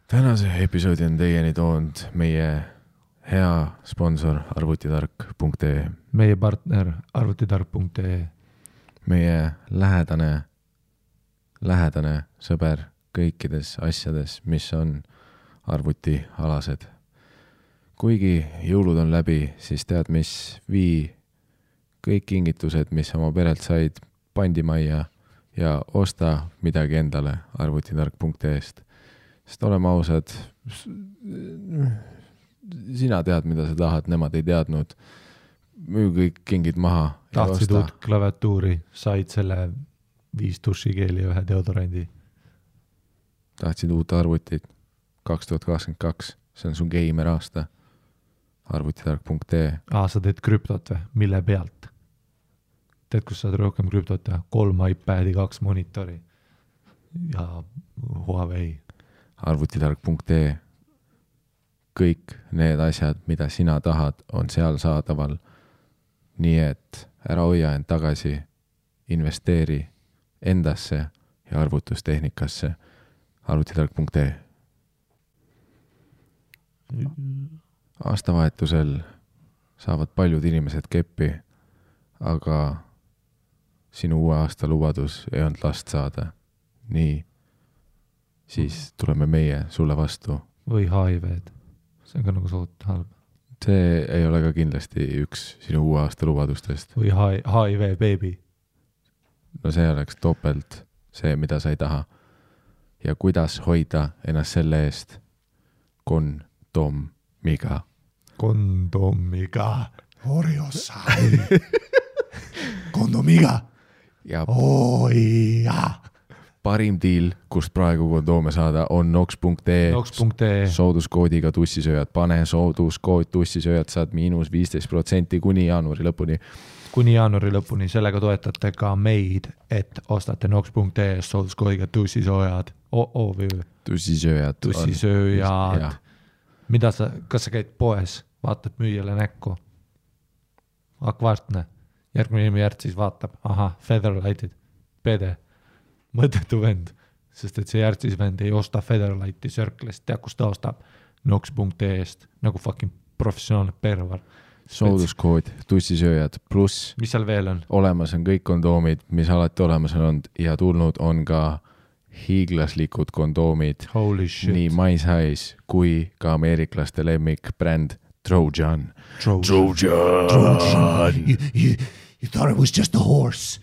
Tänase episoodi on teieni toonud meie hea sponsor arvutitark.ee, meie partner arvutitark.ee, meie lähedane sõber kõikides asjades, mis on arvutialased. Kuigi jõulud on läbi, siis tead mis, vii kõik kingitused, mis oma perelt said, pandimajja ja osta midagi endale arvutitark.ee-st. Sest oleme ausad, sina tead, mida sa tahad, nemad ei teadnud. Müü kõik kingid maha. Tahtsid uut klaviatuuri, said selle 5 dušikeeli ja 1 deodorandi. Tahtsid uut arvutit 2022, see on sun geimer aasta. Arvutitark.ee. Sa teed krüptot või? Mille pealt? Teed, kus saad rohkem krüptot või? 3 iPadi, 2 monitori ja Huawei. Arvutitark.ee. Kõik need asjad, mida sina tahad, on seal saadaval. Nii et ära hoia end tagasi, investeeri endasse ja arvutustehnikasse. Arvutitark.ee. Aastavahetusel saavad paljud inimesed keppi, aga sinu uue aasta lubadus ei olnud last saada. Nii, siis tuleme meie sulle vastu. Või HIV-d. See on ka nagu suht halb. See ei ole ka kindlasti üks sinu uue aasta lubadustest. Või HIV baby. No see oleks topelt see, mida sa ei taha. Ja kuidas hoida ennast selle eest? Kondomiga. Oriossa. Kondomiga. Ja Oi, jaa. parim diil, kust praegu kondoome saada, on nox.ee. Sooduskoodiga tussisööjad. Pane sooduskood tussisööjad, saad -15% kuni jaanuari lõpuni. Kuni jaanuari lõpuni. Sellega toetate ka meid, et ostate nox.ee sooduskoodiga tussisööjad. Tussisööjad. Mida kas sa käid poes, vaatad müüjale näkku? Akvaartne. Järgmine järg siis vaatab. Aha, Featherlightid. Pede. Mõttetu vend, sest et see järgsis vend ei osta Featherlighti Circle'ist, tea kus ta ostab nox.ee-st, nagu fucking professionaalne pervar. Sooduskood, tussisööjad, pluss mis seal veel on? Olemas on kõik kondoomid, mis alati olemas on olnud ja tulnud on ka hiiglaslikud kondoomid. Holy shit. Nii My Size kui ka ameeriklaste lemmik bränd Trojan. You thought it was just a horse.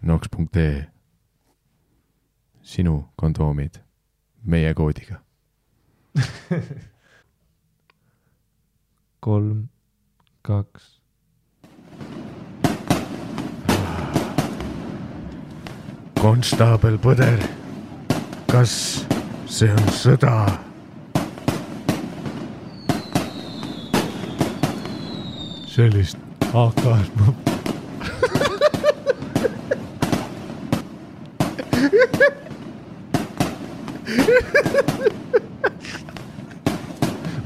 Nox.ee. Sinu kondoomid meie koodiga. 3, 2. Konstaabel Põder, kas see on sõda? Sellist AK-d ma...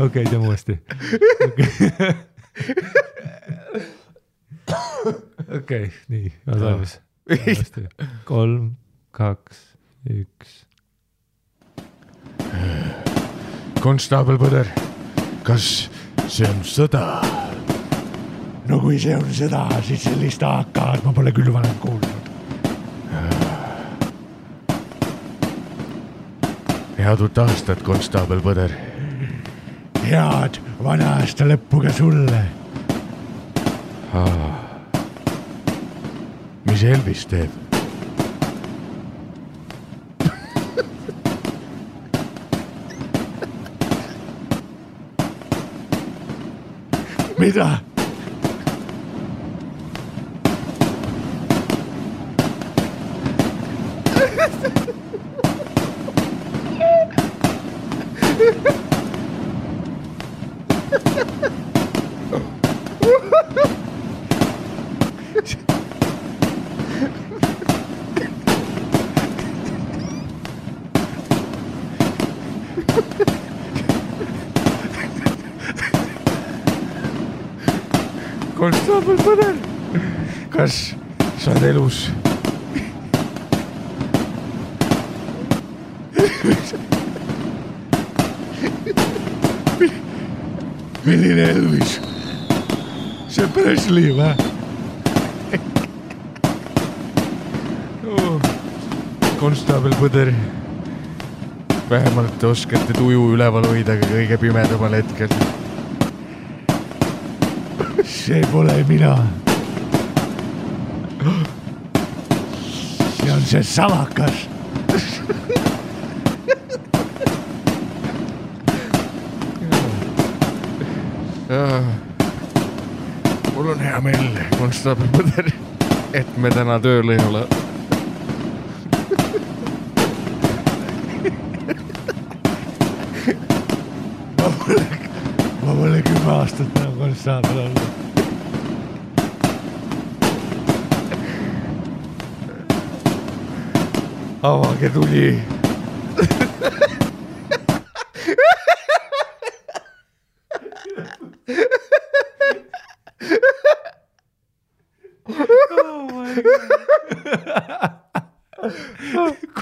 Okei, teeme uuesti. Okei, nii. Valmis. 3, 2, 1. Konstaabel Põder, kas see on sõda? No kui see on sõda, siis sellist AK-d ma pole küll varem kuulnud. Head uut aastat, Konstaabel Põder. Head vana aasta lõppu ka sulle. Mis Elvis teeb? Mida? Konstaabel Põder, kas sa oled elus? Milline Elvis? See Presley või? Konstaabel Põder. Vähemalt oskate tuju üleval hoida ka kõige pimedamal hetkel. See pole mina. See on see salakas. Mul on hea meel, konstaabel Põder, et me täna tööl ei ole. Ma pole 10 aastat enam konstaabel olnud. Avage tuli.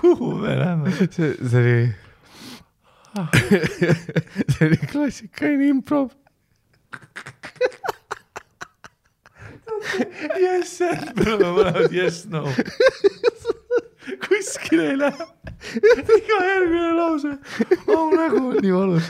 Kuhu me läheme? See oli klassikaline improv. Yes, me oleme mõlemad yes, no. Kuskil ei lähe. Iga järgmine lause. Nägu on nii valus.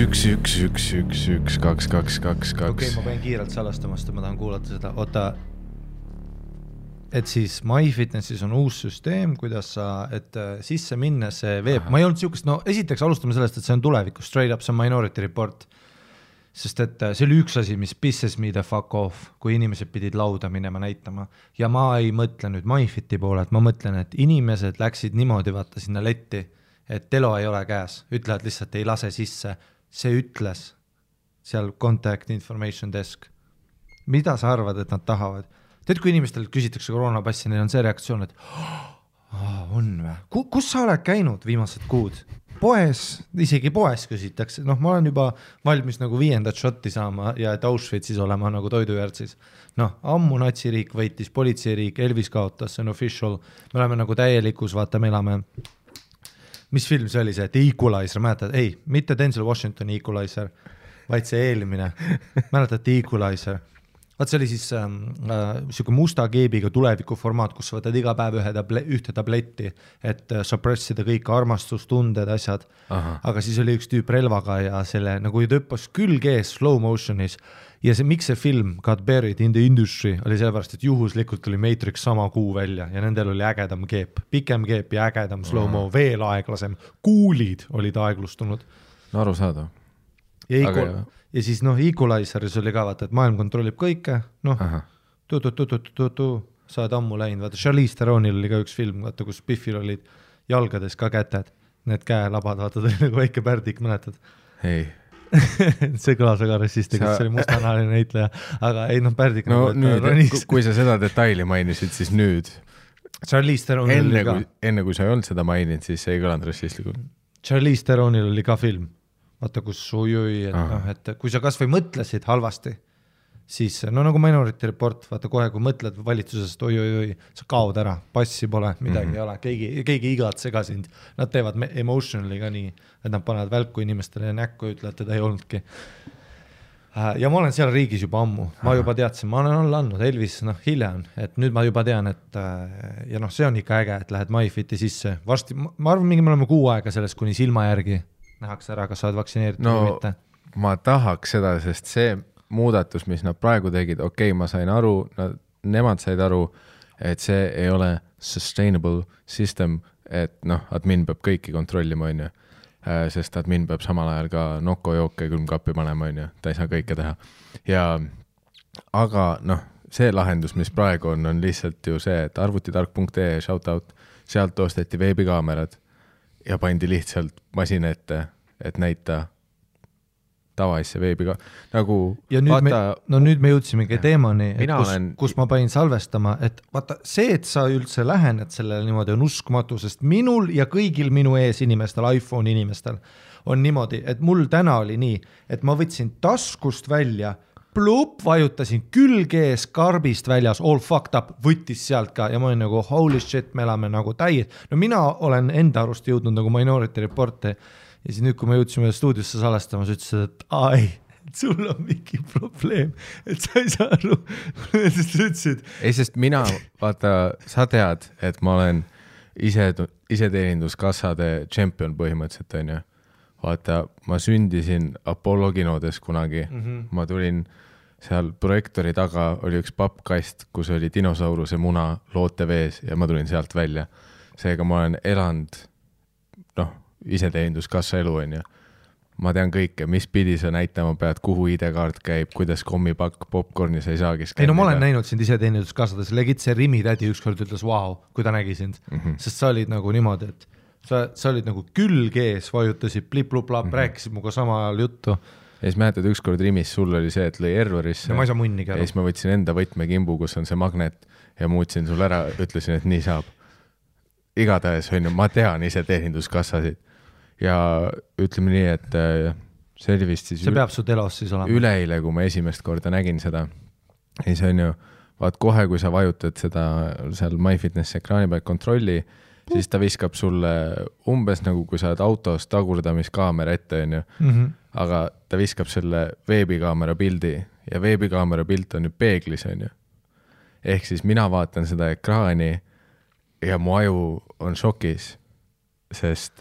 Üks, 2. Okei, ma pean kiirelt salastama, sest ma tahan kuulata seda. Oota, et siis MyFitnessis on uus süsteem, kuidas sa, et sisse minna see veeb. Ma ei olnud siukest, no esiteks alustame sellest, et see on tulevikus, straight up, see on Minority Report. Sest et see oli üks asi, mis pisses me the fuck off, kui inimesed pidid lauda minema näitama. Ja ma ei mõtle nüüd MyFiti poole, et ma mõtlen, et inimesed läksid niimoodi vaata sinna letti, et telo ei ole käes, ütlevad lihtsalt ei lase sisse. See ütles seal contact information desk. Mida sa arvad, et nad tahavad? Tead, kui inimestel küsitakse koroonapassi, neil on see reaktsioon, et on või? Kus sa oled käinud viimased kuud? Poes, isegi poes küsitakse. Noh, ma olen juba valmis nagu 5. shotti saama ja et Auschwitzis olema nagu toidujärtsis. Noh, ammu natsiriik võitis, politseiriik, Elvis kaotas, see on official. Me oleme nagu täielikus, vaata, me elame. Mis film see oli see, et Equalizer, mäletad? Ei, mitte Denzel Washington Equalizer, vaid see eelmine. Mäletad Equalizer? Vaat see oli siis siuke musta keebiga tuleviku formaat, kus sa võtad iga päev ühte tabletti, et suppressida kõik armastustunded, asjad. Aga siis oli üks tüüp relvaga ja selle nagu tõppas külge ees slow motionis. Ja see, miks see film got buried in the industry oli sellepärast, et juhuslikult tuli Matrix sama kuu välja ja nendel oli ägedam keep, pikem keep ja ägedam slow-mo, veel aeglasem, kuulid olid aeglustunud. No aru saada. Ja siis noh, Equalizeris oli ka vaata, et maailm kontrollib kõike, noh, saad ammu läinud, vaata Charlize Theronil oli ka üks film, vaata, kus Biffil olid jalgades ka käted, need käelabad, vaata, ta oli nagu väike pärdik, mäletad? Ei. See kõlas väga rassistiga, see oli mustanahaline näitleja, aga ei noh, pärdik no nüüd, kui sa seda detaili mainisid, siis nüüd Charlize Theronil oli ka enne kui sa ei olnud seda maininud, siis see ei kõlanud rassistlikult. Charlize Theronil oli ka film, vaata kus et kui sa kas või mõtlesid halvasti, siis no nagu Minority Report, vaata kohe kui mõtled valitsusest oi, sa kaod ära, passi pole, midagi ei ole, keegi igatse ka sind, nad teevad emotionally ka nii, et nad panevad välku inimestele näkku ja ütlevad, teda ei olnudki. Ja ma olen seal riigis juba ammu, ma juba teadsin, ma olen alla andnud, Elvis hiljem, et nüüd ma juba tean, et ja noh, see on ikka äge, et lähed MyFiti sisse, varsti, ma arvan, mingi me oleme 6 aega sellest kuni silma järgi, nähakse ära, kas sa oled vaktsineeritud No või mitte. ma tahaks seda, sest see muudatus, mis nad praegu tegid, okei, ma sain aru, nemad said aru, et see ei ole sustainable system, et noh, admin peab kõiki kontrollima, on ju. Sest admin peab samal ajal ka nokko jooke külmkappi panema, on ju, ta ei saa kõike teha. Aga noh, see lahendus, mis praegu on lihtsalt ju see, et arvutitark.ee shoutout, sealt osteti veebikaamerad ja pandi lihtsalt masina ette, et näita tavaisse veebiga, nagu ja nüüd me jõudsimegi teemani, kus ma panin salvestama, et vaata see, et sa üldse lähened sellele niimoodi on uskumatu, sest minul ja kõigil minu ees inimestel, iPhone inimestel on niimoodi, et mul täna oli nii, et ma võtsin taskust välja, vajutasin külge ees karbist väljas, all fucked up, võttis sealt ka ja ma olin nagu holy shit, me elame nagu täies. No mina olen enda arust jõudnud nagu Minority Reporti ja siis nüüd, kui me jõudsime stuudiosse salestama, sa ütlesid, et ai, sul on mingi probleem, et sa ei saa aru. Ei, sest mina, vaata, sa tead, et ma olen iseteeninduskassade champion põhimõtteliselt, on ju. Vaata, ma sündisin Apollo kinodes kunagi, ma tulin seal projektori taga, oli üks pappkast, kus oli dinosauruse muna loote vees ja ma tulin sealt välja. Seega ma olen elanud, iseteeninduskassa elu, on ju. Ma tean kõike, mis pidi sa näitama pead, kuhu ID-kaart käib, kuidas kommipakk popcorni sa ei saagi skannida. Ei no ma olen näinud sind iseteeninduskassades, legit see Rimi tädi ükskord ütles, wow, kui ta nägi sind, sest sa olid nagu niimoodi, et sa olid nagu külge ees, vajutasid plip-lup-lap, rääkisid muga sama ajal juttu. Ja siis mäletad, ükskord Rimis sul oli see, et lõi errorisse. Ja ma ei saa munnigi aru. Ja siis ma võtsin enda võtmekimbu, kus on see magnet ja muutsin sul ära, ütlesin, et nii saab. Igatahes, ma tean iseteeninduskassasid. Ja ütleme nii, et see oli vist siis... See peab su telos siis olema. Üleile, kui ma esimest korda nägin seda. Ja see on ju, vaat kohe, kui sa vajutad seda seal MyFitness ekraani peal kontrolli, siis ta viskab sulle umbes nagu, kui sa oled autos tagurdamiskaamera ette, on ju. Aga ta viskab selle veebikaamera pildi ja veebikaamera pilt on ju peeglis, on ju. Ehk siis mina vaatan seda ekraani ja mu aju on šokis, sest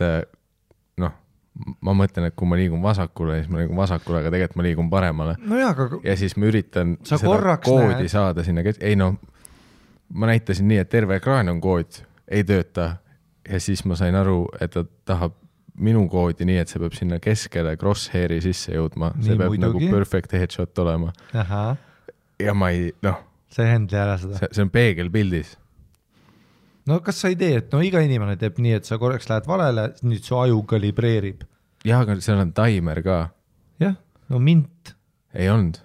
ma mõtlen, et kui ma liigun vasakule, siis ma liigun vasakule, aga tegelikult ma liigun paremale. No jah, aga... Ja siis ma üritan seda koodi saada sinna. Ei ma näitasin nii, et terve ekraan on kood, ei tööta. Ja siis ma sain aru, et ta tahab minu koodi nii, et see peab sinna keskele crosshairi sisse jõudma. See peab nagu perfect headshot olema. Aha. Ja ma ei, see händli ära seda. See on peegelpildis. No kas sa ei tee, et iga inimene teeb nii, et sa korraks lähed valele, nüüd su aju kalibreerib. Jah, aga seal on timer ka. Jah, no mint. Ei olnud.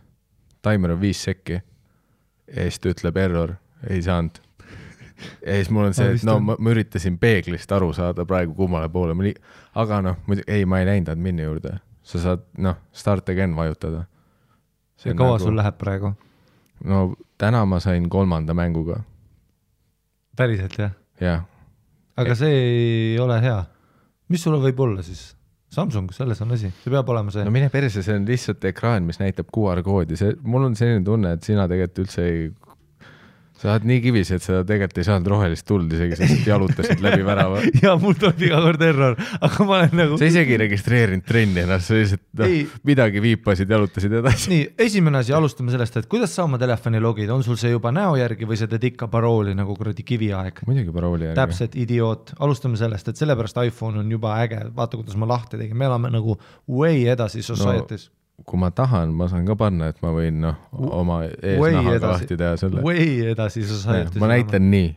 Timer on 5 sekki. Ja siis ta ütleb error, ei saanud. Ja siis mul on see, et ma üritasin peeglist aru saada praegu kummale poole. Aga ma ei läinud admini juurde. Sa saad, start again vajutada. Ja kaua sul läheb praegu? No täna ma sain 3. mänguga. Päriselt, jah? Jah. Aga see ei ole hea. Mis sulle võib olla siis? Samsung, selles on asi. See peab olema see. No mine perse, see on lihtsalt ekraan, mis näitab QR-koodi. Mul on selline tunne, et sina tegelikult üldse ei... Sa oled nii kivis, et sa tegelikult ei saanud rohelist tuld isegi, sest jalutasid läbi värava. Ja mul tuleb iga kord error, aga ma olen nagu... Sa isegi registreerinud trenni ennast, sa lihtsalt midagi viipasid, jalutasid edasi. Nii, esimene asi, alustame sellest, et kuidas sa oma telefoni logid? On sul see juba näo järgi või sa teed ikka parooli nagu kuradi kiviaeg? Muidugi parooli järgi. Täpselt, idioot. Alustame sellest, et sellepärast iPhone on juba äge. Vaata, kuidas ma lahti tegin. Me elame nagu way edasi societies. Kui ma tahan, ma saan ka panna, et ma võin oma eesnahaga lahti teha selle. Way edasi societies. Ma näitan nii.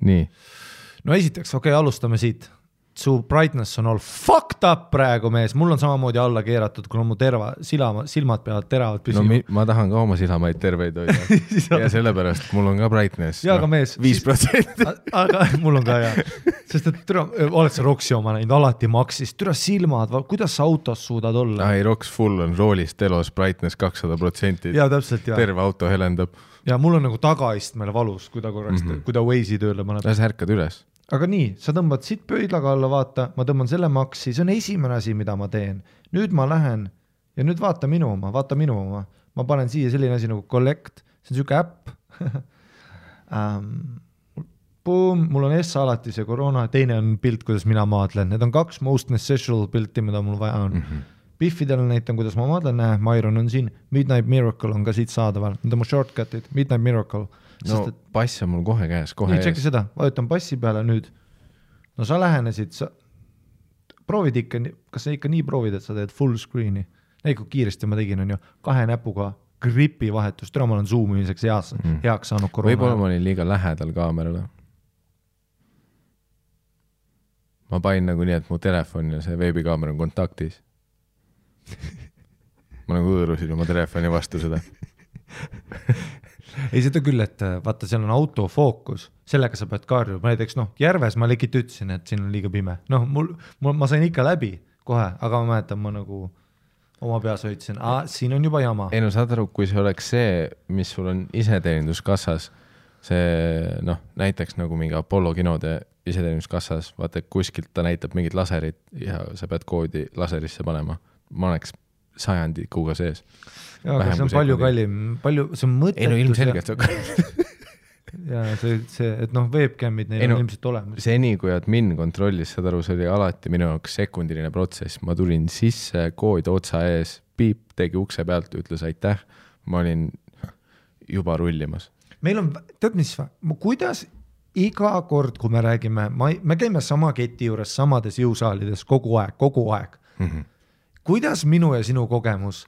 Nii. No esiteks, alustame siit. Su brightness on all fucked up praegu, mees. Mul on samamoodi alla keeratud, kuna mu silmad peavad teravad püsima. No ma tahan ka oma silamaid terveid hoida. Ja sellepärast mul on ka brightness. Ja aga mees. 5%. Aga mul on ka jah. Sest et oled sa Roksi oma näinud, alati maksis. Türa silmad, kuidas sa autos suudad olla? Ei, Roks full on roolist telos brightness 200%. Ja täpselt, jah. Terve auto helendab. Ja mul on nagu tagaistmele valus, kui ta korraks, kui ta Waze'i tööle paneb. Sa ärkad üles. Aga nii, sa tõmbad siit pöidlaga alla, vaata, ma tõmban selle maksi, see on esimene asi, mida ma teen. Nüüd ma lähen ja nüüd vaata minu oma. Ma panen siia selline asi nagu Collect, see on siuke äpp. Boom, mul on Essa alati see koroona, teine on pilt, kuidas mina maadlen. Need on 2 most necessary pilti, mida mul vaja on. Biffidel näitan, kuidas ma maadlen, Myron on siin, Midnight Miracle on ka siit saadaval, need on mu shortcutid, Midnight Miracle. No pass on mul kohe käes, kohe ees. Tšekki seda, vajutan passi peale nüüd. No sa lähenesid, sa proovid ikka, kas sa ikka nii proovid, et sa teed full screen'i? Kui kiiresti ma tegin, on ju, 2 näpuga gripi vahetus, täna ma olen zoomimiseks heaks saanud koroona. Võib-olla ma olin liiga lähedal kaamerale. Ma panin nagu nii, et mu telefon ja see veebikaamera on kontaktis. Ma nagu õõrusin oma telefoni vastu seda. Ei, seda küll, et vaata, seal on autofookus, sellega sa pead kaarjuma, näiteks järves ma legit ütlesin, et siin on liiga pime. Ma sain ikka läbi kohe, aga ma mäletan, ma nagu oma peas hoidsin, siin on juba jama. Ei no saad aru, kui see oleks see, mis sul on iseteeninduskassas, see näiteks nagu mingi Apollo kinode iseteeninduskassas, vaata, kuskilt ta näitab mingit laserit ja sa pead koodi laserisse panema. Ma oleks sajandikuga sees. Jaa, aga see on palju kallim, see on mõttetus. Ei no ilmselgelt see on kallim. Ja see, et webcamid neil on ilmselt olemas. Seni, kui admin kontrollis, saad aru, see oli alati minu jaoks sekundiline protsess. Ma tulin sisse, kood otsa ees, piip, tegi ukse pealt, ütles aitäh. Ma olin juba rullimas. Meil on, tead mis, kuidas iga kord, kui me räägime, me käime sama keti juures, samades jõusaalides kogu aeg. Kuidas minu ja sinu kogemus,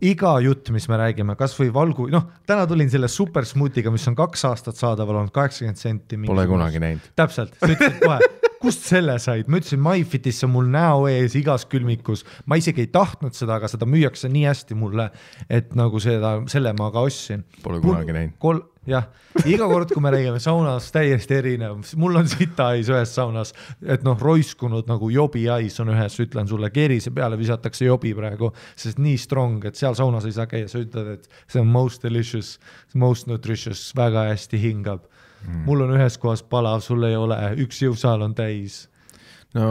iga jutt, mis me räägime, kas või valgu, täna tulin selle super smoothiga, mis on 2 aastat saadaval olnud 80 senti. Pole kunagi näinud. Täpselt, sa ütlesid kohe, kust selle said? Ma ütlesin, MyFitis on mul näo ees igas külmikus. Ma isegi ei tahtnud seda, aga seda müüakse nii hästi mulle, et nagu selle ma ka ostsin. Pole kunagi näinud. Jah, iga kord, kui me räägime saunas täiesti erinev, mul on sita ais ühes saunas, et roiskunud nagu jobi ais on ühes, ütlen sulle, keerise peale visatakse jobi praegu, sest nii strong, et seal saunas ei saa käia, sa ütled, et see on most delicious, most nutritious, väga hästi hingab. Mul on ühes kohas palav, sul ei ole, üks jõusaal on täis. No,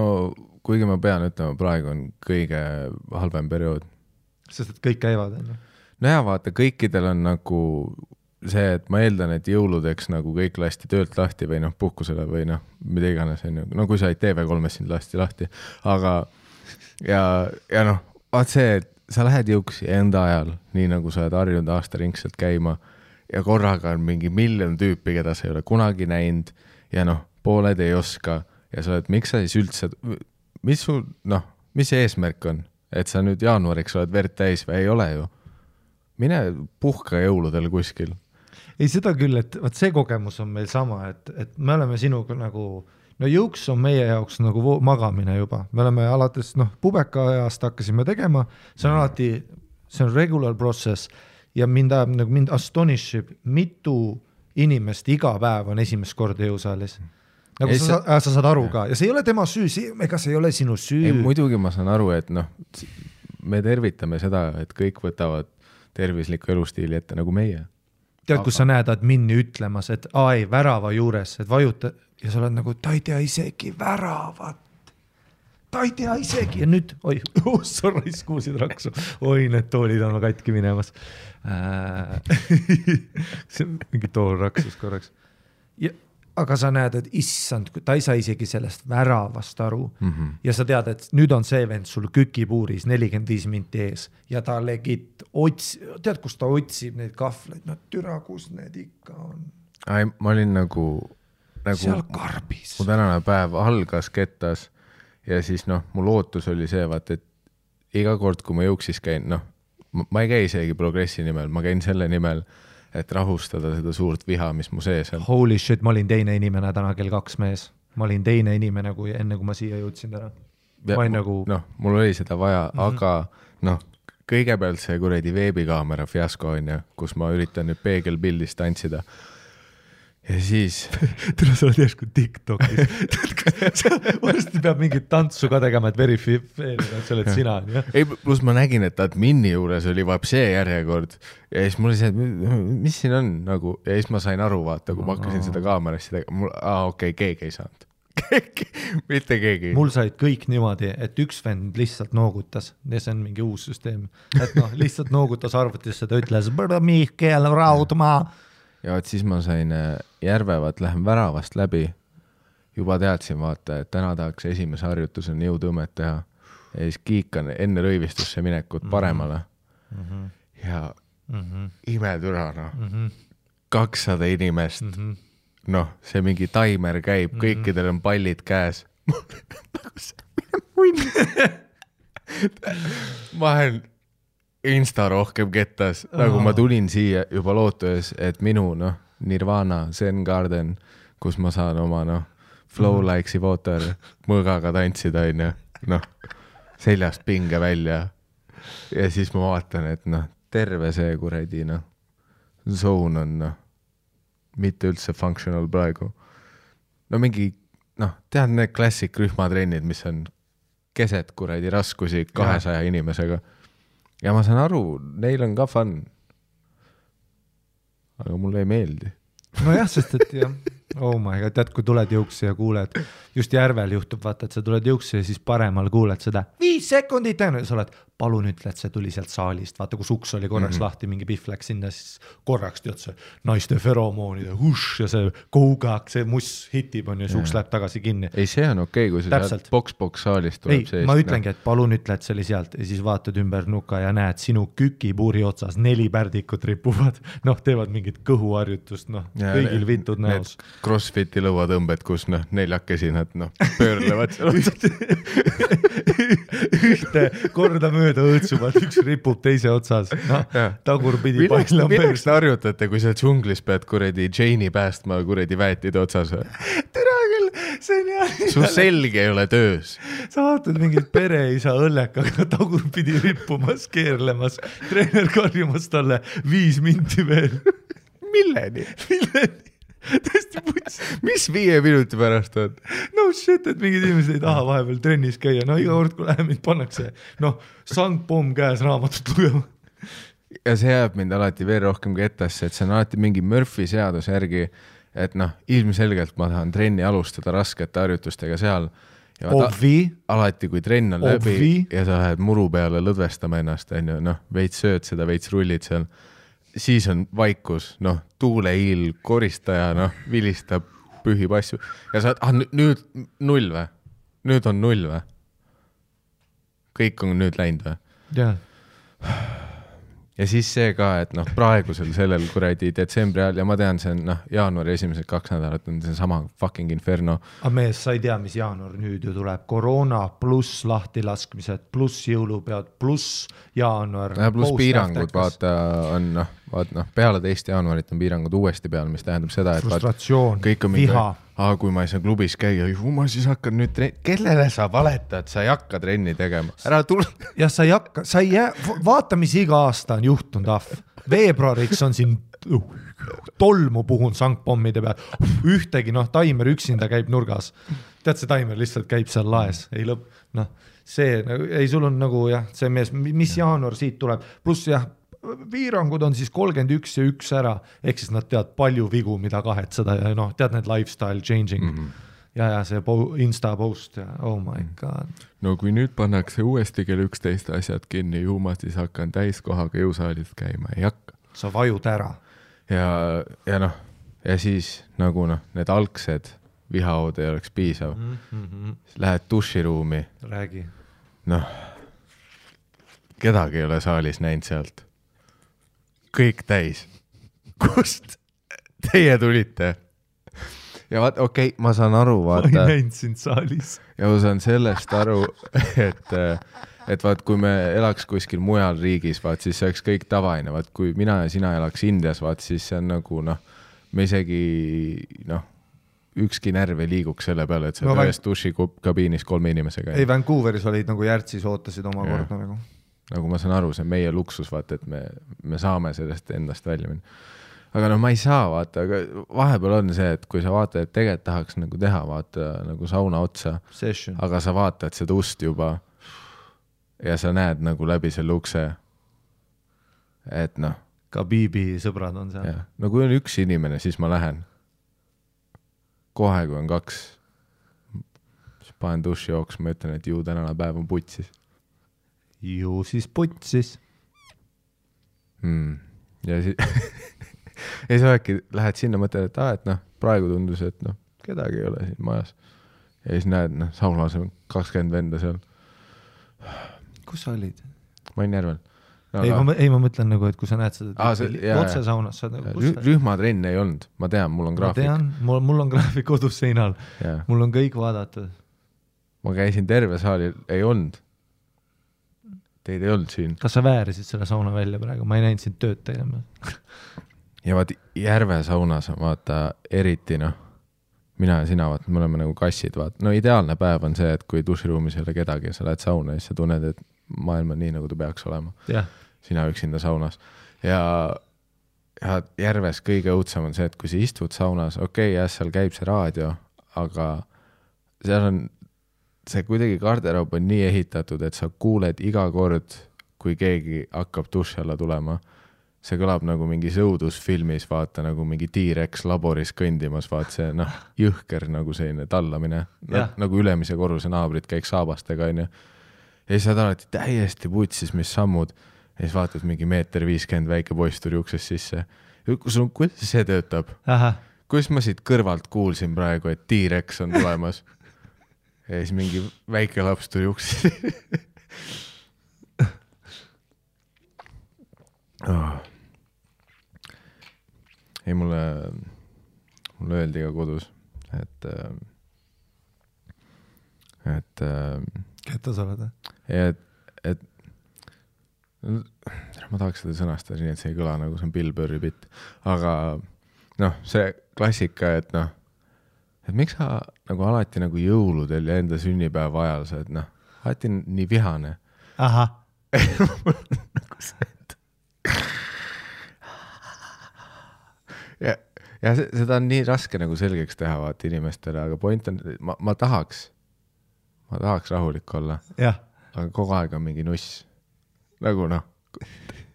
kuigi ma pean ütlema, praegu on kõige halvem periood. Sest et kõik käivad, on ju? No ja vaata, kõikidel on nagu see, et ma eeldan, et jõuludeks nagu kõik lasti töölt lahti või puhkusele või mida iganes on ju. No kui sa ei TV3 sind lahti. Aga ja vaat see, et sa lähed jõuksi enda ajal, nii nagu sa oled harjunud aastaringselt käima ja korraga on mingi miljon tüüpi, keda sa ei ole kunagi näinud ja pooled ei oska ja sa oled, miks sa siis üldse, mis see eesmärk on, et sa nüüd jaanuariks oled verd täis või ei ole ju? Mine puhka jõuludel kuskil. Ei seda küll, et see kogemus on meil sama, et me oleme sinuga nagu, jõuks on meie jaoks nagu magamine juba. Me oleme alates, pubeka ajast hakkasime tegema, see on alati, see on regular process ja mind astonishib, mitu inimest iga päev on esimest korda jõusaalis. Nagu sa saad aru ka ja see ei ole tema süü, ega see ei ole sinu süü. Ei, muidugi ma saan aru, et me tervitame seda, et kõik võtavad tervisliku elustiili ette nagu meie. Tead, kus sa näed admini ütlemas, et värava juures, et vajuta ja sa oled nagu, ta ei tea isegi väravat. Ta ei tea isegi ja nüüd, sorry, kuulsid raksu. Need toolid on katki minemas. See on mingi tool raksus korraks. Aga sa näed, et issand, ta ei saa isegi sellest väravast aru ja sa tead, et nüüd on see vend sul kükipuuris 45 minti ees ja ta legit tead, kus ta otsib neid kahvleid, türa, kus need ikka on. Ma olin nagu seal karbis. Mu tänane päev algas kettas ja siis mu lootus oli see, vaat, et iga kord, kui ma jõuksis käin, ma ei käi isegi progressi nimel, ma käin selle nimel, et rahustada seda suurt viha, mis mu sees on. Holy shit, ma olin teine inimene täna kell 2 mees. Ma olin teine inimene, enne kui ma siia jõudsin täna. Mul oli seda vaja, aga kõigepealt see kuredi veebikaamera fiasko on ja, kus ma üritan nüüd peegelpildist tantsida. Ja siis tule sa oled järsku TikTokis. Varsti peab mingit tantsu ka tegema, et verifeerida, et sa oled sina. Ei, plus ma nägin, et admini juures oli see järjekord ja siis mul oli see, et mis siin on nagu, ja siis ma sain aru, vaata, kui ma hakkasin seda kaamerassi tegema, okei, keegi ei saanud. Mitte keegi. Mul said kõik niimoodi, et üks vend lihtsalt noogutas ja see on mingi uus süsteem. Et lihtsalt noogutas arvutisse, ta ütles, Mihkel Raudmaa. Ja et siis ma sain Järvevat lähen väravast läbi, juba teadsin vaata, et täna tahaks esimese harjutusena jõutõmmet teha ja siis kiikan enne rõivistusse minekut paremale ja imetüra, noh. 200 inimest, noh, see mingi taimer käib, kõikidel on pallid käes. Ma olen insta rohkem kettas, nagu ma tulin siia juba lootues, et minu, noh, Nirvana, Zen Garden, kus ma saan oma, noh, flow likes'i water mõõgaga tantsida, noh, seljast pinge välja. Ja siis ma vaatan, et noh, terve see kuradi, noh, zone on, noh, mitte üldse functional praegu. No mingi, noh, tead need klassik rühmatrennid, mis on keset kuradi raskusi 200 inimesega. Ja ma saan aru, neil on ka fun. Aga mulle ei meeldi. No jah, sest et jah, oh my god, tead, kui tuled jõuksi ja kuuled, just Järvel juhtub, vaata, et sa tuled jõuksi ja siis paremal kuuled seda 5 sekundit, ja sa oled, palun ütle, et see tuli sealt saalist, vaata, kui suks oli korraks lahti, mingi pihv läks sinna, siis korraks tead see naiste feromoonide hush ja see kougak, see muss hitib on ja suks läheb tagasi kinni. Ei, see on okei, kui see sealt boks saalist tuleb seest. Ma ütlengi, et palun ütle, et see oli sealt ja siis vaatad ümber nuka ja näed sinu kükipuuri otsas 4 pärdikut ripuvad, noh, teevad mingit kõhuharjutust, noh, kõigil vintud näos. Crossfiti lõuatõmbed, kus noh, 4 nad noh, pöörlevad ühte korda mööda õõtsuvad, üks ripub teise otsas, noh, tagurpidi paisla on milleks te harjutate, kui sa džunglis pead kuredi Jane'i päästma kuredi väetide otsas? Tere küll, see on jah. Su selg ei ole töös. Sa vaatad mingit pereisa õllekaga tagurpidi rippumas, keerlemas, treener karjumas talle 5 minti veel. Milleni? Tõesti puts. Mis 5 minuti pärast on? No shit, et mingid inimesed ei taha vahepeal trennis käia. No iga kord, kui läheb, mind pannakse, noh, sangpomm käes raamatut lugema. Ja see jääb mind alati veel rohkem kettasse, et see on alati mingi Murphy seaduse järgi, et noh, ilmselgelt ma tahan trenni alustada raskete harjutustega seal. Ja alati, kui trenn on läbi ja sa lähed muru peale lõdvestama ennast, noh, veits sööd seda, veits rullid seal, siis on vaikus, noh, tuuleiil koristaja, noh, vilistab, pühib asju. Ja sa nüüd 0 või? Nüüd on 0 või? Kõik on nüüd läinud või? Jah. Ja siis see ka, et noh, praegusel sellel kuradi detsembri ajal, ja ma tean, see on noh, jaanuari esimesed 2 nädalat on see sama fucking inferno. Aga mees, sa ei tea, mis jaanuar nüüd ju tuleb. Koroona pluss lahtilaskmised, pluss jõulupead, pluss jaanuar. Pluss piirangud, vaata, on noh, peale 2. jaanuarit on piirangud uuesti peal, mis tähendab seda, et frustratsioon, kõik on viha. Kui ma ei saa klubis käia, ma siis hakkan nüüd kellele sa valetad, sa ei hakka trenni tegema. Ära tule. Ja sa ei hakka, sa ei jää, vaata, mis iga aasta on juhtunud, veebruariks on siin tolmu puhun sangpommide peal, ühtegi, noh, taimer üksinda käib nurgas. Tead, see taimer lihtsalt käib seal laes, ei lõpp, noh, see, ei, sul on nagu jah, see mees, mis jaanuar siit tuleb, pluss jah, piirangud on siis 31 ja 1 ära, ehk siis nad tead palju vigu, mida kahetseda ja noh, tead need lifestyle changing ja see Insta post ja oh my god. No kui nüüd pannakse uuesti kell 11 asjad kinni, ju ma siis hakkan täiskohaga jõusaalist käima, ei hakka. Sa vajud ära. Ja noh, ja siis nagu noh, need algsed vihaod ei oleks piisav. Lähed duširuumi. Räägi. Noh, kedagi ei ole saalis näinud sealt. Kõik täis. Kust teie tulite? Ja vaat, okei, ma saan aru, vaata. Ma ei näinud sind saalis. Ja ma saan sellest aru, et vaat, kui me elaks kuskil mujal riigis, vaat, siis see oleks kõik tavaine. Vaat, kui mina ja sina elaks Indias, vaat, siis see on nagu, noh, me isegi, noh, ükski närv ei liiguks selle peale, et sa ühes dušikabiinis 3 inimesega. Ei, Vancouveris olid nagu Järtsis ootasid oma korda nagu. Nagu ma saan aru, see on meie luksus, vaata, et me saame sellest endast välja minna. Aga noh, ma ei saa, vaata, aga vahepeal on see, et kui sa vaatad, et tegelikult tahaks nagu teha, vaata, nagu sauna otsa, session. Aga sa vaatad seda ust juba ja sa näed nagu läbi selle ukse, et noh. Ka Biibi sõbrad on seal. No kui on 1 inimene, siis ma lähen. Kohe, kui on 2, siis panen duši jooks, ma ütlen, et ju tänane päev on putsis. Ju siis putsis. Ja siis ja sa äkki lähed sinna, mõtled, et noh, praegu tundus, et noh, kedagi ei ole siin majas. Ja siis näed, noh, saunas on 20 venda seal. Kus sa olid? Ma olin Järvel. No, ma mõtlen nagu, et kui sa näed seda otse saunas, sa nagu rühmatrenn ei olnud, ma tean, mul on graafik. Ma tean, mul on graafik kodus seinal, mul on kõik vaadatud. Ma käisin terve saali, ei olnud. Teid ei olnud siin. Kas sa väärisid selle sauna välja praegu? Ma ei näinud sind tööd tegema. Ja vaat Järve saunas, vaata, eriti noh, mina ja sina, vaata, me oleme nagu kassid, vaata. No ideaalne päev on see, et kui duširuumis ei ole kedagi ja sa lähed sauna ja siis sa tunned, et maailm on nii, nagu ta peaks olema. Sina üksinda saunas. Ja Järves kõige õudsam on see, et kui sa istud saunas, jah, seal käib see raadio, aga seal on see kuidagi garderoob on nii ehitatud, et sa kuuled iga kord, kui keegi hakkab duši alla tulema. See kõlab nagu mingis õudusfilmis, vaata nagu mingi T-Rex laboris kõndimas, vaata see jõhker nagu selline tallamine. Nagu ülemise korruse naabrid käiks saabastega, on ju. Ja siis saad alati täiesti putsis, mis sammud. Ja siis vaatad mingi 1.50 m väike poiss tuli uksest sisse. Kuidas see töötab? Kuidas ma siit kõrvalt kuulsin praegu, et T-Rex on tulemas? Ja siis mingi väike laps tuli uksest. Ei, mulle öeldi ka kodus, et Ketta sa oled? Et ma tahaks seda sõnastada nii, et see ei kõla nagu see on Bill Burri bitt. Aga noh, see klassika, et noh, et miks sa nagu alati nagu jõuludel ja enda sünnipäeva ajal sa, et noh, alati nii vihane. Aha. Nagu see, et ja seda on nii raske nagu selgeks teha vaata inimestele, aga point on, ma tahaks rahulik olla, aga kogu aeg on mingi nuss. Nagu noh,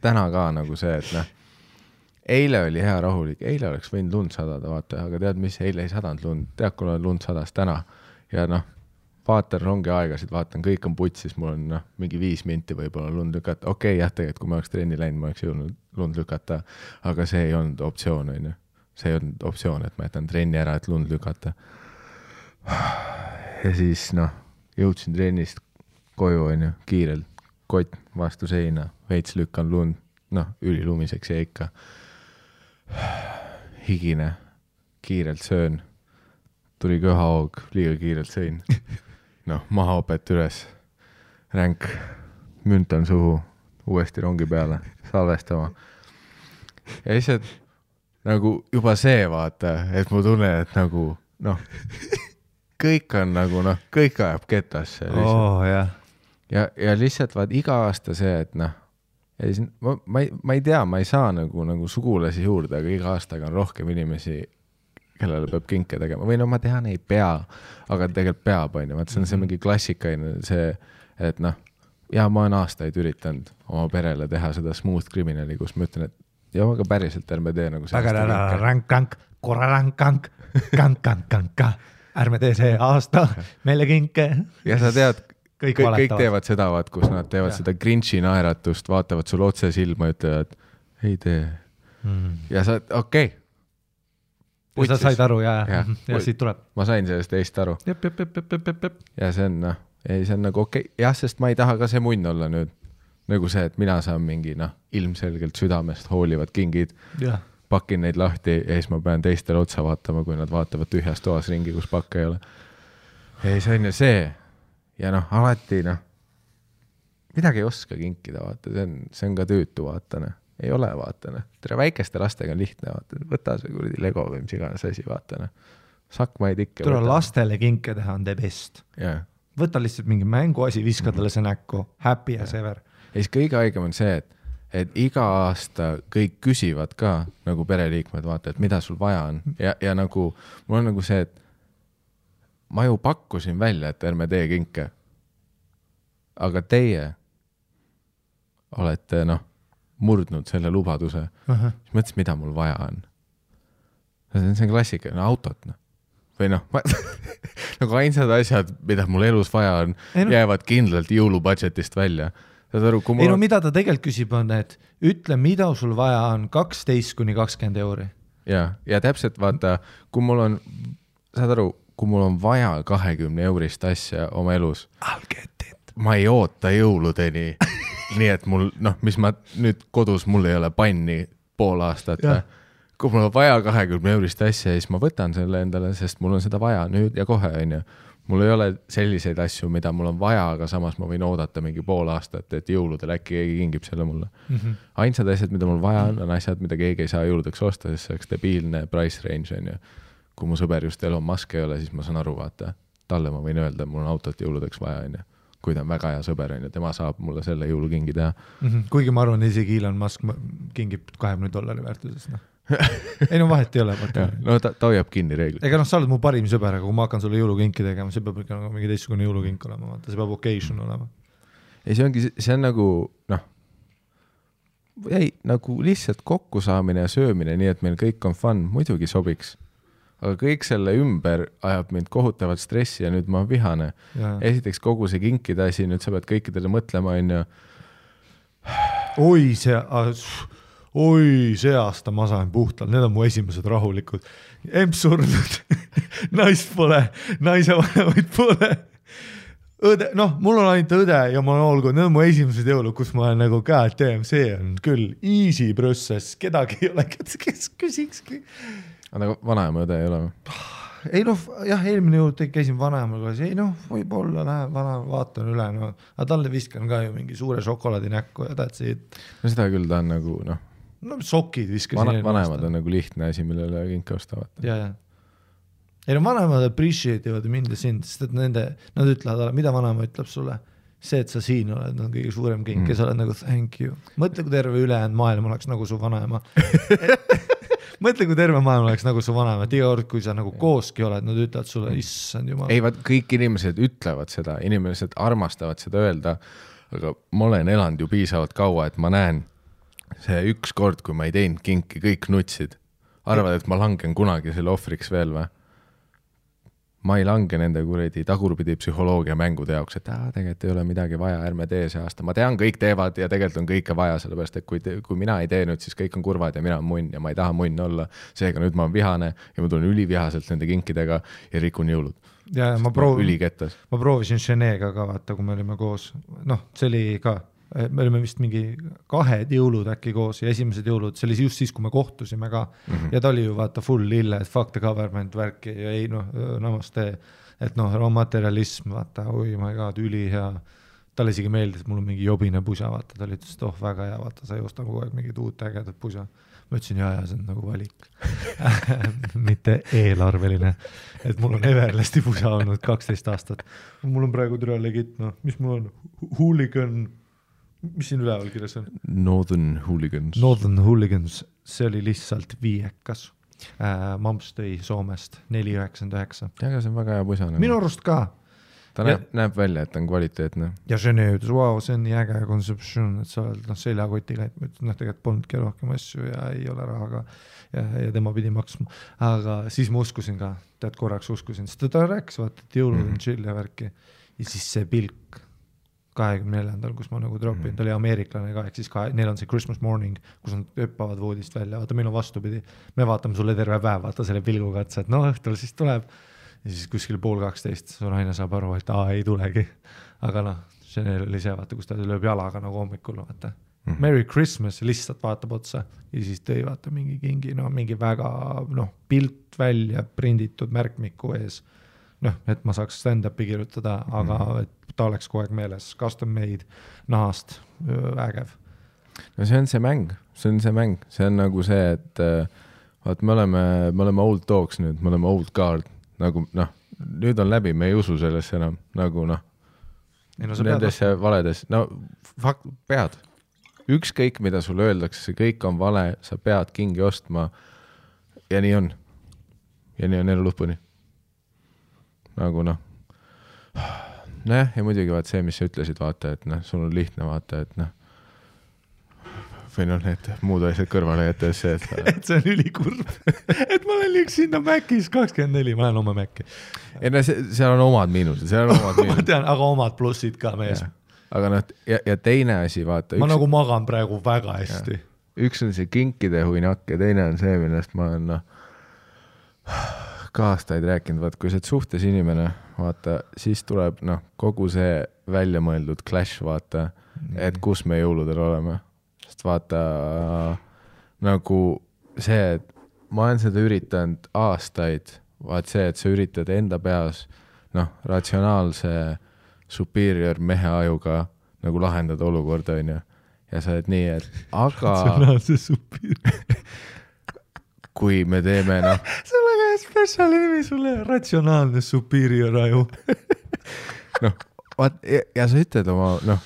täna ka nagu see, et noh, eile oli hea rahulik, eile oleks võinud lund sadada, vaata, aga tead, mis eile ei sadanud lund, tead, kui on lund sadas täna ja noh, vaatan rongi aegasid, vaatan, kõik on putsis, mul on noh, mingi 5 minti võib-olla lund lükata, jah, tegelikult, kui ma oleks trenni läinud, ma oleks jõudnud lund lükata, aga see ei olnud optsioon, on ju. See ei olnud optsioon, et ma jätan trenni ära, et lund lükata. Ja siis noh, jõudsin trennist koju, on ju, kiirelt, kott vastu seina, veits lükkan lund, noh, ülilumiseks ja ikka. Higine, kiirelt söön, tuli köhahoog, liiga kiirelt sõin. Noh, mahaopet üles, ränk, müntan suhu, uuesti rongi peale, salvestama. Ja lihtsalt nagu juba see vaata, et mu tunnen, et nagu noh, kõik on nagu noh, kõik ajab ketasse. Ja lihtsalt vaat iga aasta see, et noh, ma ei tea, ma ei saa nagu sugulasi juurde, aga iga aastaga on rohkem inimesi, kellele peab kinke tegema. Või no ma tean, ei pea, aga tegelikult peab, on ju. Vaat see on see mingi klassikaine, see, et noh, ja ma olen aastaid üritanud oma perele teha seda smooth criminali, kus ma ütlen, et ja aga päriselt ärme tee nagu rank-rank, korra-rank-rank, kank-kank-kank, ärme tee see aasta meile kinke. Ja sa tead, kõik teevad seda, vaat, kus nad teevad seda Grinchi naeratust, vaatavad sul otse silma ja ütlevad, ei tee. Ja sa, okei. Ja sa said aru ja siit tuleb. Ma sain sellest teist aru. Ja see on, noh, ei, see on nagu okei. Jah, sest ma ei taha ka see munn olla nüüd. Nagu see, et mina saan mingi, noh, ilmselgelt südamest hoolivad kingid, pakin neid lahti ja siis ma pean teistele otsa vaatama, kui nad vaatavad tühjas toas ringi, kus pakka ei ole. Ei, see on ju see. Ja noh, alati, noh, midagi ei oska kinkida, vaata, see on ka tüütu, vaatane. Ei ole, vaatane. Tere väikeste lastega on lihtne, vaatane. Võta see kuradi Lego või mis iganes asi, vaatane. Sakmaid ikka. Tule lastele kinke teha on the best. Võta lihtsalt mingi mänguasi, viska talle see näkku. Happy as ever. Ja siis kõige haigem on see, et iga aasta kõik küsivad ka nagu pereliikmed, vaata, et mida sul vaja on. Ja nagu, mul on nagu see, et ma ju pakkusin välja, et ärme tee kinke. Aga teie olete, noh, murdnud selle lubaduse. Siis mõtlesin, mida mul vaja on. See on klassika, autot, noh. Või noh, nagu ainsad asjad, mida mul elus vaja on, jäävad kindlalt jõulubudgetist välja. saad aru, kui ei no mida ta tegelikult küsib on, et ütle, mida sul vaja on 12–20 euri. Ja täpselt vaata, kui mul on, saad aru, kui mul on vaja 20 eurist asja oma elus, ma ei oota jõuludeni, nii et mul, noh, mis ma nüüd kodus, mul ei ole panni pool aastat, kui mul on vaja 20 eurist asja, siis ma võtan selle endale, sest mul on seda vaja nüüd ja kohe, on ju. Mul ei ole selliseid asju, mida mul on vaja, aga samas ma võin oodata mingi pool aastat, et jõuludel äkki keegi kingib selle mulle. Ainsad asjad, mida mul vaja on asjad, mida keegi ei saa jõuludeks osta, sest see oleks debiilne price range, on ju. Kui mu sõber just Elon Musk ei ole, siis ma saan aru, vaata, talle ma võin öelda, mul on autot jõuludeks vaja, on ju. Kui ta on väga hea sõber, on ju, tema saab mulle selle jõulukingi teha. Kuigi ma arvan, isegi Elon Musk kingib $20 väärtuses, noh. Ei no vahet ei ole. No ta hoiab kinni reeglid. Ega noh, sa oled mu parim sõber, aga kui ma hakkan sulle jõulukinki tegema, see peab ikka nagu mingi teistsugune jõulukink olema, vaata, see peab occasion olema. Ei, see on nagu, noh, nagu lihtsalt kokkusaamine ja söömine, nii et meil kõik on fun, muidugi sobiks. Aga kõik selle ümber ajab mind kohutavalt stressi ja nüüd ma vihane. Esiteks kogu see kinkide asi, nüüd sa pead kõikidele mõtlema, on ju. Oi, see aasta ma sain puhtalt, need on mu esimesed rahulikud. Emps surnud, naist pole, naise vanemaid pole. Õde, noh, mul on ainult õde ja ma olen olgu, need on mu esimesed jõulud, kus ma olen nagu KTM, see on küll easy process, kedagi ei ole, kes küsikski. Aga vanaema õde ei ole? Ei noh, jah, eelmine jõud käisin vanaemaga, ei noh, võib-olla läheb vanaema, vaatan üle, no, aga talle viskan ka ju mingi suure šokolaadi näkku ja tähtsid. No seda küll ta on nagu, noh. No sokid viskasin. Vanemad on nagu lihtne asi, millele kinke ostavad. Ja. Ei no vanemad appreciate ivad mind ja sind, sest et nad ütlevad, mida vanaema ütleb sulle? See, et sa siin oled, on kõige suurem kink ja sa oled nagu thank you. Mõtle, kui terve ülejäänud maailm oleks nagu su vanaema. Mõtle, kui terve maailm oleks nagu su vanaema. Iga kord, kui sa nagu kooski oled, nad ütlevad sulle, issand jumal. Ei, kõik inimesed ütlevad seda, inimesed armastavad seda öelda, aga ma olen elanud ju piisavalt kaua, et ma näen see üks kord, kui ma ei teinud kinki, kõik nutsid. Arvad, et ma langen kunagi selle ohvriks veel või? Ma ei lange nende kuredi tagurpidi psühholoogia mängude jaoks, et tegelikult ei ole midagi vaja, ärme tee see aasta. Ma tean, kõik teevad ja tegelikult on kõike vaja, sellepärast, et kui mina ei tee nüüd, siis kõik on kurvad ja mina on munn ja ma ei taha munn olla. Seega nüüd ma olen vihane ja ma tulen ülivihaselt nende kinkidega ja rikun jõulud. Ja ma proovisin Cheneega ka vaata, kui me olime koos. Noh, see oli ka me olime vist mingi 2 jõulud äkki koos ja esimesed jõulud, see oli just siis, kui me kohtusime ka ja ta oli ju vaata full lille, et fuck the government värki ja ei noh, namaste, et noh, materialism, vaata, oi my god, üli hea. Talle isegi meeldis, et mul on mingi jobine pusa, vaata, ta oli ütles, et väga hea, vaata, sa ei osta kogu aeg mingid uut ägedat pusa. Ma ütlesin, jaa, see on nagu valik. Mitte eelarveline, et mul on Everlasti pusa olnud 12 aastat. Mul on praegu türa legit, noh, mis mul on? Hooligan. Mis siin üleval kirjas on? Northern Hooligans, see oli lihtsalt viiekas. Mamps tõi Soomest 4,99. Aga see on väga hea pusa. Minu arust ka. Ta näeb välja, et on kvaliteetne. Ja see ütles, wow, see on nii äge kontseptsioon, et sa oled seljakotiga, et tegelikult polnudki rohkem asju ja ei ole rahaga ja tema pidi maksma. Aga siis ma uskusin ka, tead korraks uskusin, sest ta rääkis, vaata, et jõulud on chill ja värki. Ja siis see pilk 24. kus ma nagu dropin, ta oli ameeriklane ka, ehk siis neil on see Christmas morning, kus nad öppavad voodist välja, vaata meil on vastupidi, me vaatame sulle terve päev, vaata selle pilguga, et no õhtul siis tuleb ja siis kuskil 11:30 su naine saab aru, et ei tulegi, aga noh, see oli see, vaata, kus ta lööb jalaga nagu hommikul, vaata Merry Christmas, lihtsalt vaatab otsa ja siis tõi vaata mingi kingi, no mingi väga pilt välja prinditud märkmiku ees, noh, et ma saaks stand-upi kirjutada, aga et ta oleks kogu aeg meeles, custom made, nahast, ägev. No see on see mäng, see on nagu see, et vaat me oleme old dogs nüüd, me oleme old guard, nagu noh, nüüd on läbi, me ei usu sellesse enam, nagu noh, nendesse valedes, no fakt, pead, ükskõik mida sulle öeldakse, see kõik on vale, sa pead kingi ostma ja nii on elu lõpuni. Nagu noh, ja muidugi vaat see, mis sa ütlesid, vaata, et noh, sul on lihtne vaata, et noh, või noh, need muud asjad kõrvale jättes see, et see on ülikurb, et ma olen liiks sinna Mäkis 24, ma lähen oma Mäkki. Ei no seal on omad miinused, ma tean, aga omad plussid ka mees. aga noh, ja teine asi, vaata. Ma nagu magan praegu väga hästi. Üks on see kinkide huinak ja teine on see, millest ma olen ka aastaid rääkinud, vaat kui sa oled suhtes inimene, vaata, siis tuleb kogu see välja mõeldud clash, vaata, et kus me jõuludel oleme. Sest vaata, nagu see, et ma olen seda üritanud aastaid, vaat see, et sa üritad enda peas, ratsionaalse superior mehe ajuga nagu lahendada olukorda, on ju. Ja sa oled nii, et aga ratsionaalse superior. Kui me teeme, see on väga special nimi sulle, ratsionaalne superior aju. vaat, ja sa ütled oma,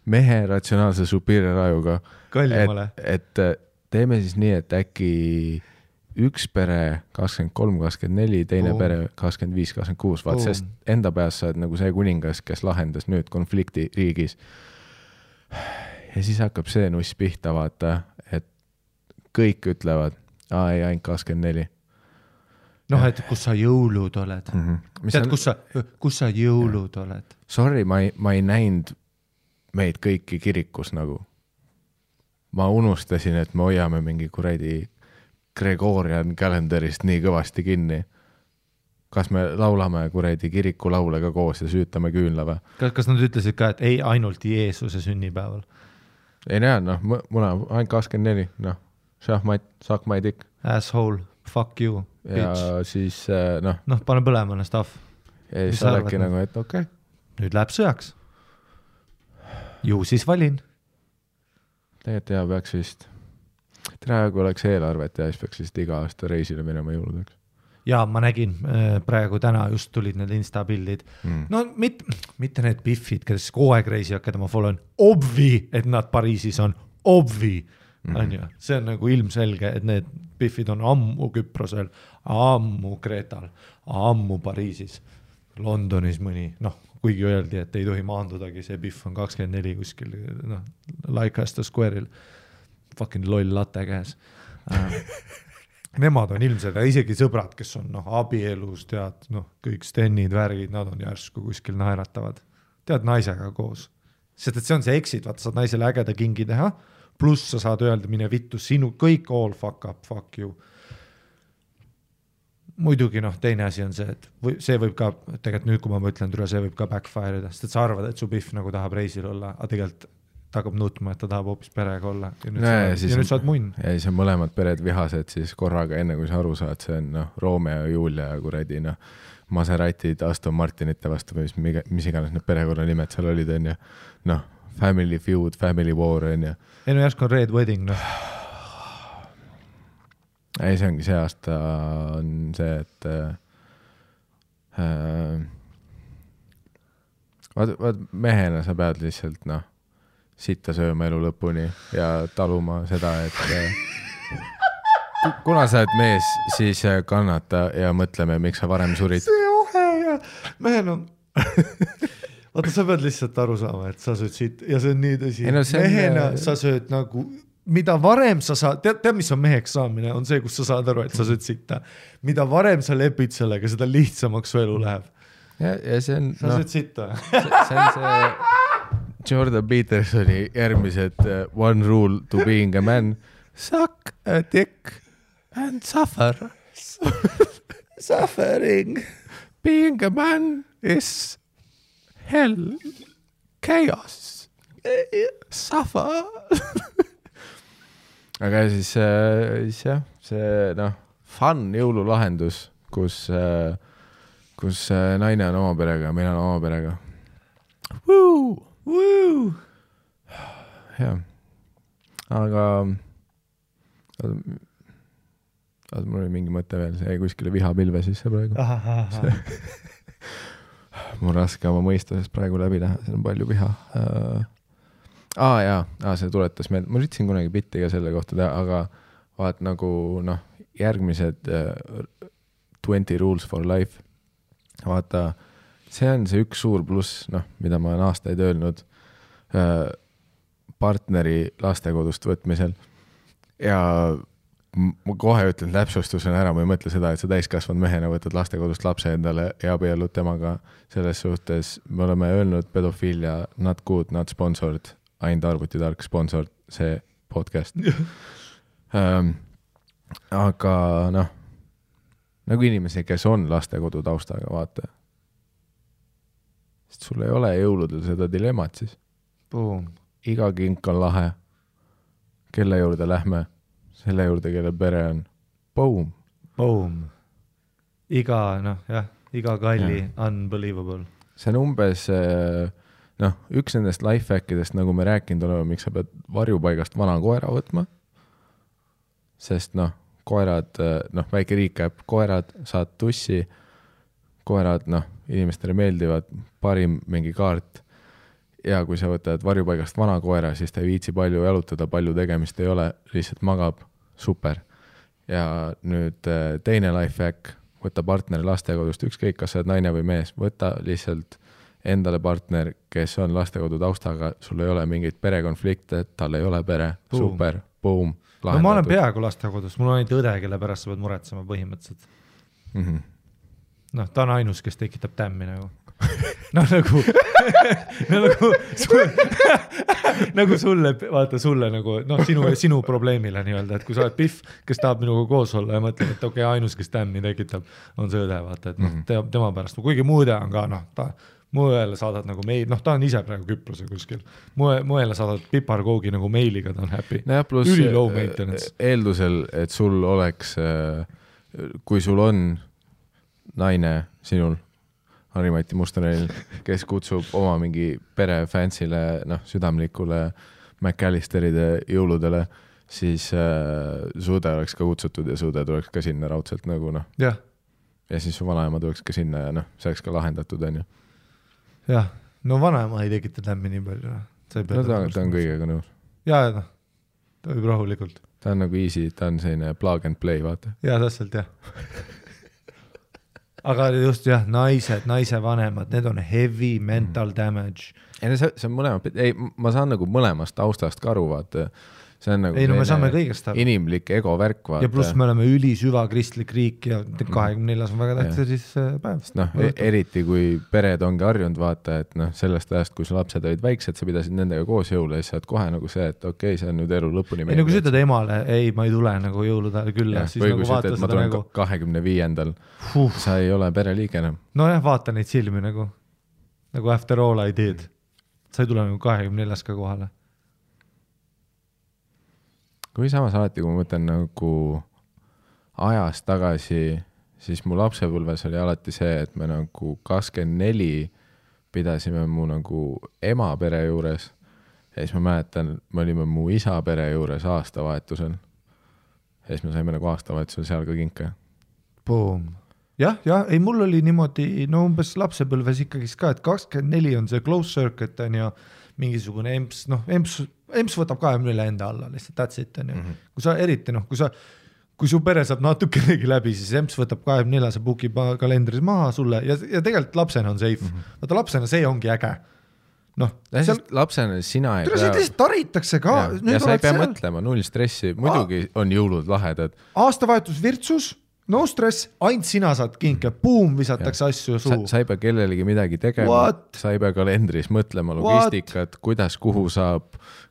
mehe ratsionaalse superior ajuga, kallimale. et teeme siis nii, et äkki üks pere 23-24, teine pere 25-26, vaat sest enda peas sa oled nagu see kuningas, kes lahendas nüüd konflikti riigis. Ja siis hakkab see nuss pihta, vaata, et kõik ütlevad, ei, ainult 24. Et kus sa jõulud oled. Tead, kus sa jõulud oled? Sorry, ma ei näinud meid kõiki kirikus nagu. Ma unustasin, et me hoiame mingi kuradi Gregorian kalendarist nii kõvasti kinni. Kas me laulame kuradi kiriku laule ka koos ja süütame küünla või? Kas nad ütlesid ka, et ei ainult Jeesuse sünnipäeval? Ei näe, muna ainult 24, šahmat, saak ma ei tikk. Asshole, fuck you, bitch. Ja siis, pane põlemane stuff. Ja siis sa oledki nagu, et okei. Nüüd läheb sõjaks. Ju siis valin. Tegelikult peaks vist. Praegu oleks eelarvet ja siis peaks vist iga aasta reisile minema jõuludeks. Ja ma nägin, praegu täna just tulid need Insta-pildid. Mitte need biffid, kes kogu aeg reisivad, keda ma followen. Obvi, et nad Pariisis on. Obvi. See on nagu ilmselge, et need biffid on ammu Küprosel, ammu Kreetal, ammu Pariisis, Londonis mõni, kuigi öeldi, et ei tohi maandudagi, see biff on 24 kuskil, Leicester Square'il, fucking loll latte käes. Nemad on ilmselt, isegi sõbrad, kes on abielus, tead, kõik stennid, värgid, nad on järsku kuskil naeratavad. Tead, naisega koos. Sest et see on see exit, vaata, saad naisele ägeda kingi teha, pluss sa saad öelda, mine vittu, sinu kõik all fuck up, fuck you. Muidugi teine asi on see, et see võib ka, tegelikult nüüd, kui ma mõtlen türa, see võib ka backfire'ida, sest et sa arvad, et su biff nagu tahab reisil olla, aga tegelikult ta hakkab nutma, et ta tahab hoopis perega olla. Ja nüüd saad munn. Ja siis on mõlemad pered vihased siis korraga, enne kui sa aru saad, see on Romeo ja Julia ja kuradi, Maseratid, Aston Martinite vastu, mis iganes need perekonna nimed seal olid, on ju. Family Feud, Family War, on ju. Ei, järsku on Red Wedding, Ei, see ongi see aasta on see, et vaat mehena sa pead lihtsalt, sitta sööma elu lõpuni ja taluma seda, et kuna sa oled mees, siis kannata ja mõtleme, miks sa varem surid. See ohe ja mehen on... Vaata, sa pead lihtsalt aru saama, et sa sööd siit ja see on nii tõsi. Mehena sa sööd nagu, mida varem sa saad, tead, mis on meheks saamine, on see, kus sa saad aru, et sa sööd sitta. Mida varem sa lepid sellega, seda lihtsamaks su elu läheb. Ja see on... Sa sööd sitta. See on see Jordan Petersoni järgmised one rule to being a man. Suck a dick and suffer. Suffering. Being a man is... hell, chaos, suffer. Aga siis jah, see fun jõululahendus, kus naine on oma perega ja mina on oma perega. Woo! Jah. Aga mul oli mingi mõte veel, see kuskile vihapilve sisse praegu. Mul raske oma mõistusest praegu läbi näha, see on palju viha. See tuletas meelde, ma üritasin kunagi bitti ka selle kohta teha, aga vaat nagu järgmised 20 rules for life. Vaata, see on see üks suur pluss, mida ma olen aastaid öelnud partneri lastekodust võtmisel. Ja ma kohe ütlen täpsustusena ära, ma ei mõtle seda, et sa täiskasvanud mehena võtad lastekodust lapse endale ja abiellud temaga. Selles suhtes me oleme öelnud pedofiilia not good, not sponsored, ainult arvutitark sponsored see podcast. Aga noh, nagu inimesi, kes on lastekodu taustaga, vaata. Sest sul ei ole jõuludel seda dilemmat siis. Boom. Iga kink on lahe. Kelle juurde lähme? Selle juurde, kelle pere on. Boom. Boom. Iga kalli unbelievable. See on umbes, noh, üks nendest lifehackidest, nagu me rääkinud oleme, miks sa pead varjupaigast vana koera võtma. Sest noh, koerad, noh, väike recap, koerad saad tussi, koerad, noh, inimestele meeldivad, parim mingi kaart. Ja kui sa võtad varjupaigast vana koera, siis ta ei viitsi palju jalutada, palju tegemist ei ole, lihtsalt magab, super. Ja nüüd teine lifehack, võta partneri lastekodust, ükskõik, kas sa oled naine või mees, võta lihtsalt endale partner, kes on lastekodu taustaga, sul ei ole mingeid perekonflikte, tal ei ole pere, boom. Super, boom, lahendatud. No ma olen peaaegu lastekodus, mul on ainult õde, kelle pärast sa pead muretsema põhimõtteliselt. Mm-hmm. Noh, ta on ainus, kes tekitab tämmi nagu. No nagu sulle, vaata sulle nagu, noh, sinu probleemile nii-öelda, et kui sa oled Pihv, kes tahab minuga koos olla ja mõtled, et okei, ainus, kes tämmi tekitab, on see õde, vaata, et noh, tema pärast, kuigi muu õde on ka, noh, mu õele saadad nagu meil, noh, ta on ise praegu Küprose kuskil, mu õele saadad piparkoogi nagu meiliga, ta on happy. No plus üli low maintenance. Eeldusel, et sul oleks, kui sul on naine sinul, Harimati Mustoneil, kes kutsub oma mingi pere fansile, noh, südamlikule McAllisteride jõuludele, siis suude oleks ka kutsutud ja suude tuleks ka sinna raudselt nagu, noh. Jah. Ja siis su vanaema tuleks ka sinna ja noh, see oleks ka lahendatud, on ju. Jah, no vanaema ei tekita tämmi nii palju. No ta on kõigega nõus. Ja, noh, ta võib rahulikult. Ta on nagu easy, ta on selline plug and play, vaata. Ja, täpselt, jah. Aga just jah, naise vanemad, need on heavy mental damage. Ei, see on mõlemad, ma saan nagu mõlemast taustast ka aru, vaata. See on nagu me saame kõigest aru. Inimlik ego värk, vaata. Ja pluss me oleme süva kristlik riik ja 24 on väga tähtsa siis päev. Noh, eriti kui pered ongi harjunud, vaata, et noh, sellest ajast, kui su lapsed olid väiksed, sa pidasid nendega koos jõule ja siis saad kohe nagu see, et okei, see on nüüd elu lõpuni. Ei, nagu sa ütled emale, ei, ma ei tule nagu jõulude külla. Või kui sa ütled, ma tulen 25. Sa ei ole pereliige enam. No jah, vaata neid silmi nagu after all I did. Sa ei tule nagu 24 ka kohale. Kui samas alati, kui ma mõtlen nagu ajas tagasi, siis mu lapsepõlves oli alati see, et me nagu 24 pidasime mu nagu ema pere juures ja siis ma mäletan, me olime mu isa pere juures aastavahetusel ja siis me saime nagu aastavahetusel seal ka kinke. Boom. Jah, ei mul oli niimoodi, no umbes lapsepõlves ikkagi ka, et 24 on see close circuit on ja mingisugune emps, noh, emps võtab 24 enda alla, lihtsalt that's it on ju. Kui sa eriti, noh, kui su pere saab natukenegi läbi, siis emps võtab 24, see bookib kalendris maha sulle ja tegelikult lapsena on safe. Vaata lapsena see ongi äge. Noh, lapsena sina ei pea... Lihtsalt taritakse ka. Ja sa ei pea mõtlema, null stressi, muidugi on jõulud lahedad. Aastavahetus virtsus, no stress, ainult sina saad kinke, boom, visatakse asju suu. Sa ei pea kellelegi midagi tegema, sa ei pea kalendris mõtlema logistikat, kuidas, kuhu saab,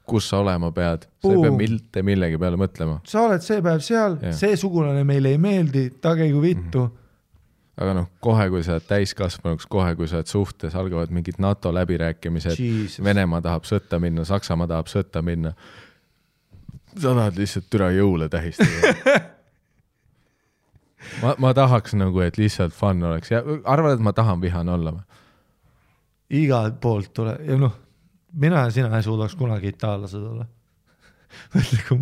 kus sa olema pead, sa ei pea millegi peale mõtlema. Sa oled see päev seal, see sugulane meile ei meeldi, tageigu vittu. Aga noh, kohe kui sa oled täiskasvanuks, kohe kui sa oled suhtes, algavad mingid NATO läbirääkimised, Venemaa tahab sõtta minna, Saksamaa tahab sõtta minna. Sa tahad lihtsalt türa jõule tähistada. Ma tahaks nagu, et lihtsalt fun oleks. Ja arvad, et ma tahan vihane olla? Igalt poolt tule. Ja noh, mina ja sina ei suudaks kunagi itaallased olla. Mõtle, kui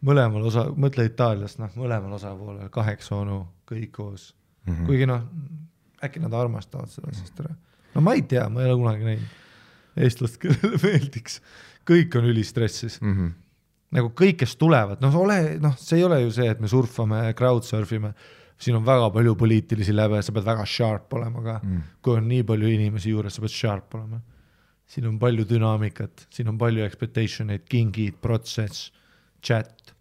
mõlemal osa, mõtle Itaaliast, noh, mõlemal osapoolel 8 onu, kõik koos. Kuigi noh, äkki nad armastavad seda sest ära. No ma ei tea, ma ei ole kunagi näinud eestlast, kellele meeldiks. Kõik on ülistressis. Nagu kõik, kes tulevad, see ei ole ju see, et me surfame, crowdsurfime, siin on väga palju poliitilisi läbe, sa pead väga sharp olema ka, kui on nii palju inimesi juures, sa pead sharp olema. Siin on palju dünaamikat, siin on palju expectationeid, kingid, protsess, chat,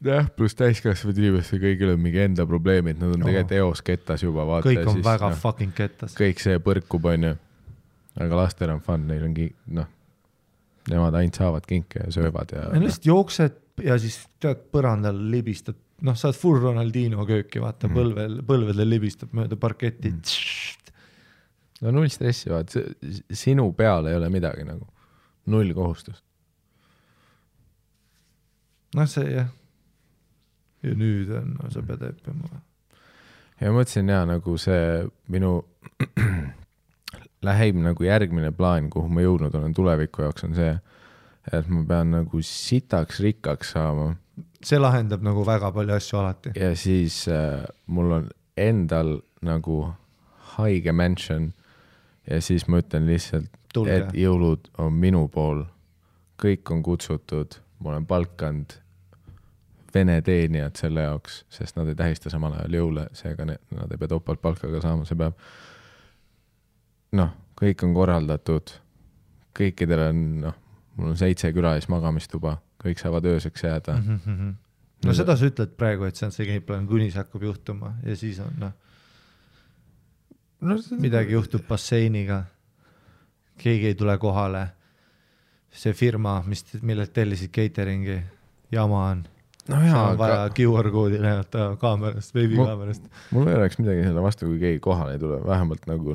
jah, pluss täiskasvanud inimestel kõigil on mingi enda probleemid, nad on tegelikult eos kettas juba, vaata. Kõik on väga fucking kettas. Kõik see põrkub, on ju. Aga lastel on fun, neil on nemad ainult saavad kinke ja söövad ja... lihtsalt jooksed ja siis tead põrandal libistad, saad full Ronaldino kööki, vaata, põlvedel libistab mööda parketti. No null stressi, vaata, sinu peal ei ole midagi nagu, null kohustust. See jah. Ja nüüd on, sa pead õppima. Ja mõtlesin nagu see minu läheb nagu järgmine plaan, kuhu ma jõudnud olen tuleviku jaoks, on see, et ma pean nagu sitaks rikkaks saama. See lahendab nagu väga palju asju alati. Ja siis mul on endal nagu haige mansion ja siis ma ütlen lihtsalt, et jõulud on minu pool. Kõik on kutsutud, ma olen palkanud vene teenijad selle jaoks, sest nad ei tähista samal ajal jõule, seega nad ei pea topalt palkaga saama, see peab kõik on korraldatud, kõikidel on, mul on 7 külalis magamistuba, kõik saavad ööseks jääda. No seda sa ütled praegu, et see on see gameplan, kuni see hakkab juhtuma ja siis on, midagi juhtub basseiniga, keegi ei tule kohale, see firma, millelt tellisid cateringi, jama on. See on vaja QR-koodi näidata kaamerast, veebikaamerast. Mul ei oleks midagi selle vastu, kui keegi kohale ei tule, vähemalt nagu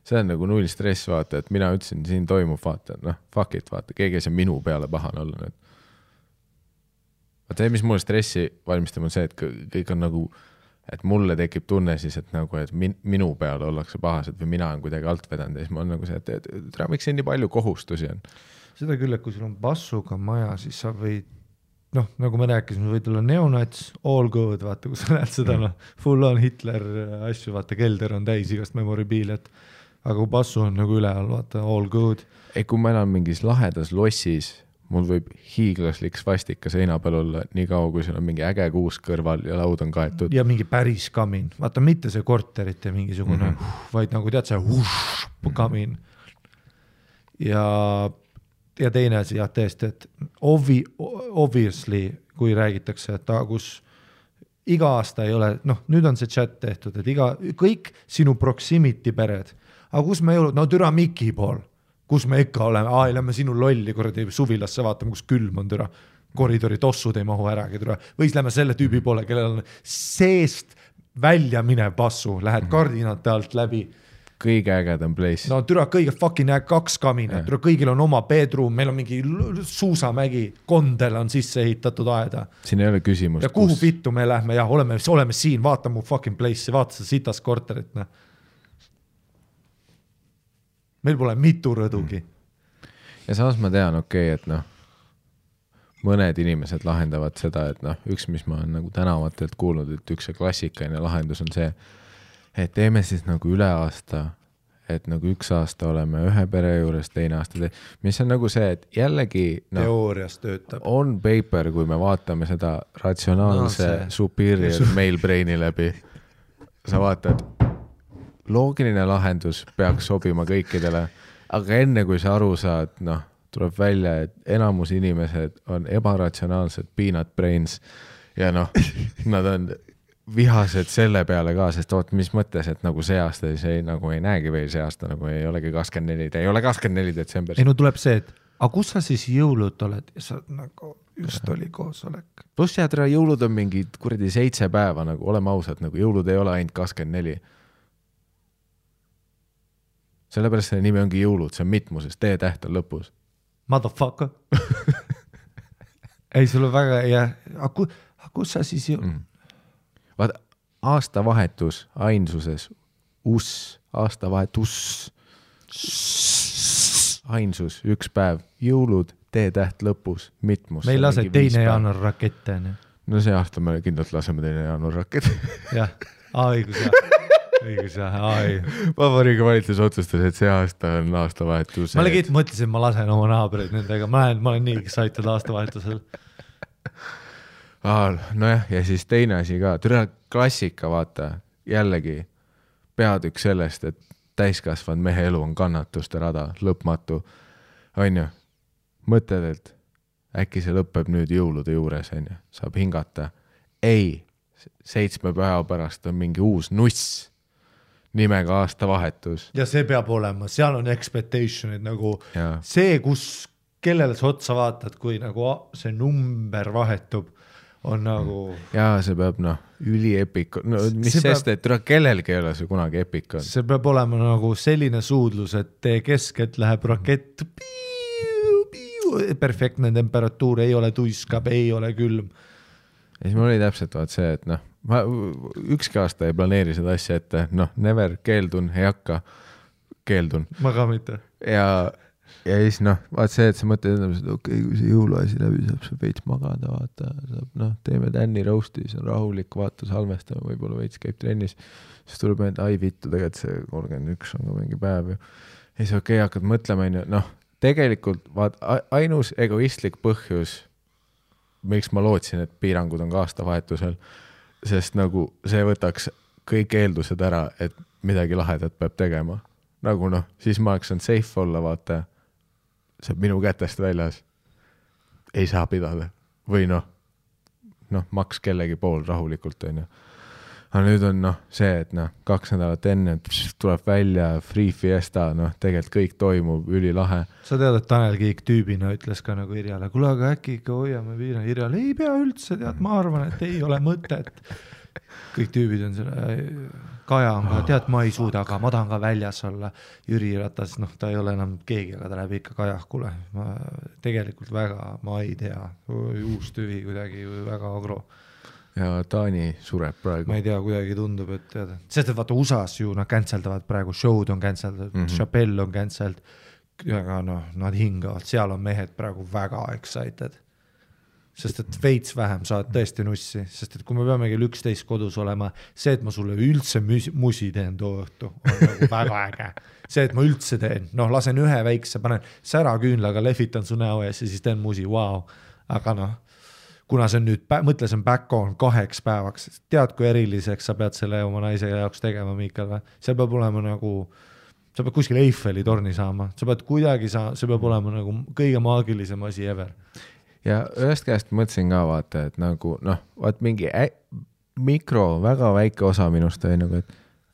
see on nagu null stress, vaata, et mina ütlesin, siin toimub, vaata, fuck it, vaata, keegi ei saa minu peale pahane olla nüüd. Vaata, see, mis mulle stressi valmistab, on see, et kõik on nagu, et mulle tekib tunne siis, et nagu, et minu peale ollakse pahased või mina on kuidagi alt vedanud ja siis ma on nagu see, et miks siin nii palju kohustusi on. Seda küll, et kui sul on bassuga maja, siis sa võid, nagu me rääkisime, võid olla neonats, all good, vaata, kui sa näed seda, full on Hitler asju, vaata, kelder on täis igast memoribiiliat, aga kui bassu on nagu üle all, vaata, all good. Kui ma elan mingis lahedas lossis, mul võib hiiglaslik svastika seina peal olla nii kaua, kui seal on mingi äge kuus kõrval ja laud on kaetud. Ja mingi päris kamin, vaata, mitte see korterite mingisugune, vaid nagu tead see kamin. Ja teine asi, jah, tõesti, et obviously, kui räägitakse, et kus iga aasta ei ole, nüüd on see chat tehtud, et kõik sinu proximity pered, aga kus me jõulud, türa Miki pool, kus me ikka oleme, lähme sinu lolli kordi suvilasse vaatame, kus külm on türa, koridori tossud ei mahu äragi türa, või siis lähme selle tüübi poole, kellel on seest välja minev passu, lähed kardinate alt läbi. Kõige ägedam place. Türa kõige fucking 2 kaminat, türa kõigil on oma bedroom, meil on mingi suusamägi, kondel on sisse ehitatud aeda. Siin ei ole küsimust. Ja kuhu vittu me lähme, jah, oleme siin, vaata mu fucking place'i, vaata seda sitas korterit. Meil pole mitu rõdugi. Ja samas ma tean, et mõned inimesed lahendavad seda, et üks, mis ma olen nagu tänavatelt kuulnud, et üks klassikaline lahendus on see, et teeme siis nagu üle aasta, et nagu 1 aasta oleme ühe pere juures, teine aasta mis on nagu see, et jällegi teoorias töötab. On paper, kui me vaatame seda ratsionaalse superior male braini läbi. Sa vaatad, loogiline lahendus peaks sobima kõikidele, aga enne kui sa aru saad, tuleb välja, et enamus inimesed on ebaratsionaalsed peanut brains ja nad on vihased selle peale ka, sest mis mõttes, et nagu see aasta see nagu ei näegi veel see aasta, nagu ei olegi 24, ei ole 24 detsember. Tuleb see, et aga kus sa siis jõulud oled? Ja sa nagu just oli koosolek. Pluss jäädra jõulud on mingi 7 päeva, nagu oleme ausad, nagu jõulud ei ole ainult 24. Sellepärast selle nimi ongi jõulud, see on mitmuses, T-täht on lõpus. Motherfucker. Ei, sul on väga, aga kus sa siis jõulud? Vaata, aastavahetus ainsuses, aastavahetus, ainsus, 1 päev, jõulud, T-täht lõpus, mitmus. Meil lase 2. jaanuar rakette. No see aasta me kindlalt laseme 2. jaanuar rakette. Jah, õigus, Vabariigi valitsus otsustas, et see aasta on aastavahetus. Ma mõtlesin, ma lasen oma naabreid nendega, ma olen nii excited aastavahetusel. Nojah, ja siis teine asi ka, türa klassika, vaata, jällegi peatükk sellest, et täiskasvanud mehe elu on kannatuste rada, lõpmatu, on ju, mõtled, äkki see lõpeb nüüd jõulude juures, on ju, saab hingata. Ei, 7 päeva pärast on mingi uus nuss nimega aastavahetus. Ja see peab olema, seal on expectationid nagu ja. See, kellele sa otsa vaatad, kui nagu see number vahetub, on nagu... Jaa, see peab üliepik, mis sest, et kellelgi ei ole see kunagi epik on. See peab olema nagu selline suudlus, et tee keskelt läheb rakett, perfektne temperatuur, ei ole tuiskab, ei ole külm. Ja siis mul oli täpselt see, et ma ükski aasta ei planeeri seda asja ette, never, keeldun, ei hakka, keeldun. Ma ka mitte. Ja siis vaat see, et sa mõtled, et okei, kui see jõuluasi läbi saab, sa veits magada, vaata, saab, teeme Danny roasti, see on rahulik, vaata, salmestame, võib-olla veits käib trennis, siis tuleb enda, ai vittu, tegelikult see 31 on ka mingi päev. Ja siis okei, hakkad mõtlema, tegelikult vaat ainus egoistlik põhjus, miks ma lootsin, et piirangud on ka aastavahetusel, sest nagu see võtaks kõik eeldused ära, et midagi lahedat peab tegema. Nagu siis ma oleks on safe olla, vaata, see minu kätest väljas ei saa pidada. Või maks kellegi pool rahulikult, on ju. Aga nüüd on see, et 2 nädalat enne tuleb välja free fiesta, tegelikult kõik toimub ülilahe. Sa tead, et Tanel Kiik tüübina ütles ka nagu Irjale, kuule, aga äkki ikka hoiame piirang. Irjale ei pea üldse, tead, ma arvan, et ei ole mõtet. Kõik tüübid on selle, Kaja on ka, tead, ma ei suuda, aga ma tahan ka väljas olla. Jüri Ratas, ta ei ole enam keegi, aga ta läheb ikka Kajakule. Ma tegelikult väga, ma ei tea, uus tüvi kuidagi väga agro. Ja Taani sureb praegu. Ma ei tea, kuidagi tundub, et teada. Sest et vaata USAs ju nad canceldavad praegu, show'd on cancelled, Chappelle on cancelled, aga nad hingavad, seal on mehed praegu väga excited. Sest et veits vähem saad tõesti nussi, sest et kui me peame kell 11 kodus olema, see, et ma sulle üldse musi teen too õhtu, on nagu väga äge. See, et ma üldse teen, lasen ühe väikse, panen sära küünlaga, lehvitan su näo ees ja siis teen musi, wow. Aga kuna see on nüüd, mõtle, see on back on 2 päevaks, tead, kui eriliseks sa pead selle oma naise jaoks tegema, Miikal, või? See peab olema nagu, sa pead kuskil Eiffeli torni saama, sa pead kuidagi see peab olema nagu kõige maagilisem asi ever. Ja ühest käest mõtlesin ka vaata, et nagu, vaat mingi väga väike osa minust oli nagu, et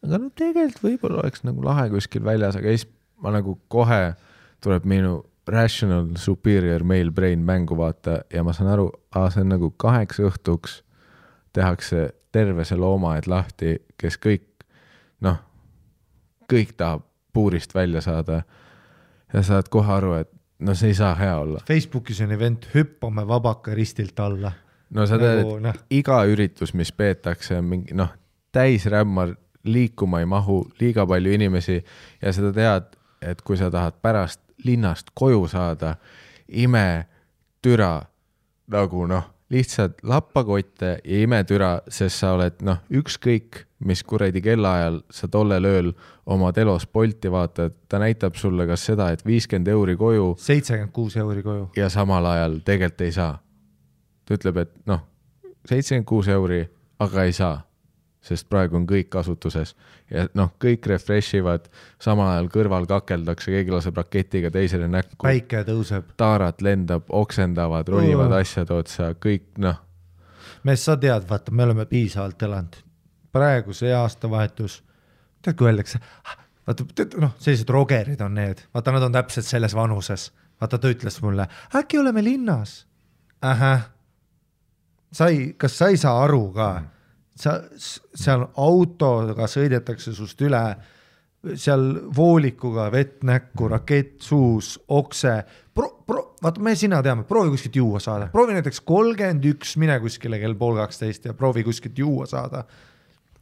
aga tegelikult võib-olla oleks nagu lahe kuskil väljas, aga siis ma nagu kohe tuleb minu rational superior male brain mängu vaata ja ma saan aru, see on nagu 8 õhtuks tehakse terve see loomaed lahti, kes kõik, kõik tahab puurist välja saada ja saad kohe aru, et see ei saa hea olla. Facebookis on event, hüppame vabaka ristilt alla. Sa tead, iga üritus, mis peetakse, on mingi, täisrämmar, liikuma ei mahu, liiga palju inimesi ja seda tead, et kui sa tahad pärast linnast koju saada, ime türa, nagu lihtsalt lappakotte ja ime türa, sest sa oled ükskõik, mis kuradi kellaajal sa tollel ööl oma telos Bolti vaatad, ta näitab sulle kas seda, et 50 € koju 76 € koju ja samal ajal tegelikult ei saa. Ta ütleb, et 76 €, aga ei saa, sest praegu on kõik kasutuses ja kõik refreshivad, samal ajal kõrval kakeldakse, keegi laseb raketiga teisele näkku. Päike tõuseb. Taarat lendab, oksendavad, ronivad asjad otsa, kõik Mees, sa tead, vaata, me oleme piisavalt elanud. Praegu see aastavahetus, tead, kui öeldakse, vaata, sellised rogerid on need, vaata, nad on täpselt selles vanuses. Vaata, ta ütles mulle, äkki oleme linnas? Kas sa ei saa aru ka? Seal autoga sõidetakse sust üle, seal voolikuga vett näkku, rakett suus, okse. Vaata, me sina teame, proovi kuskilt juua saada. Proovi näiteks 31, mine kuskile kell 11:30 ja proovi kuskilt juua saada.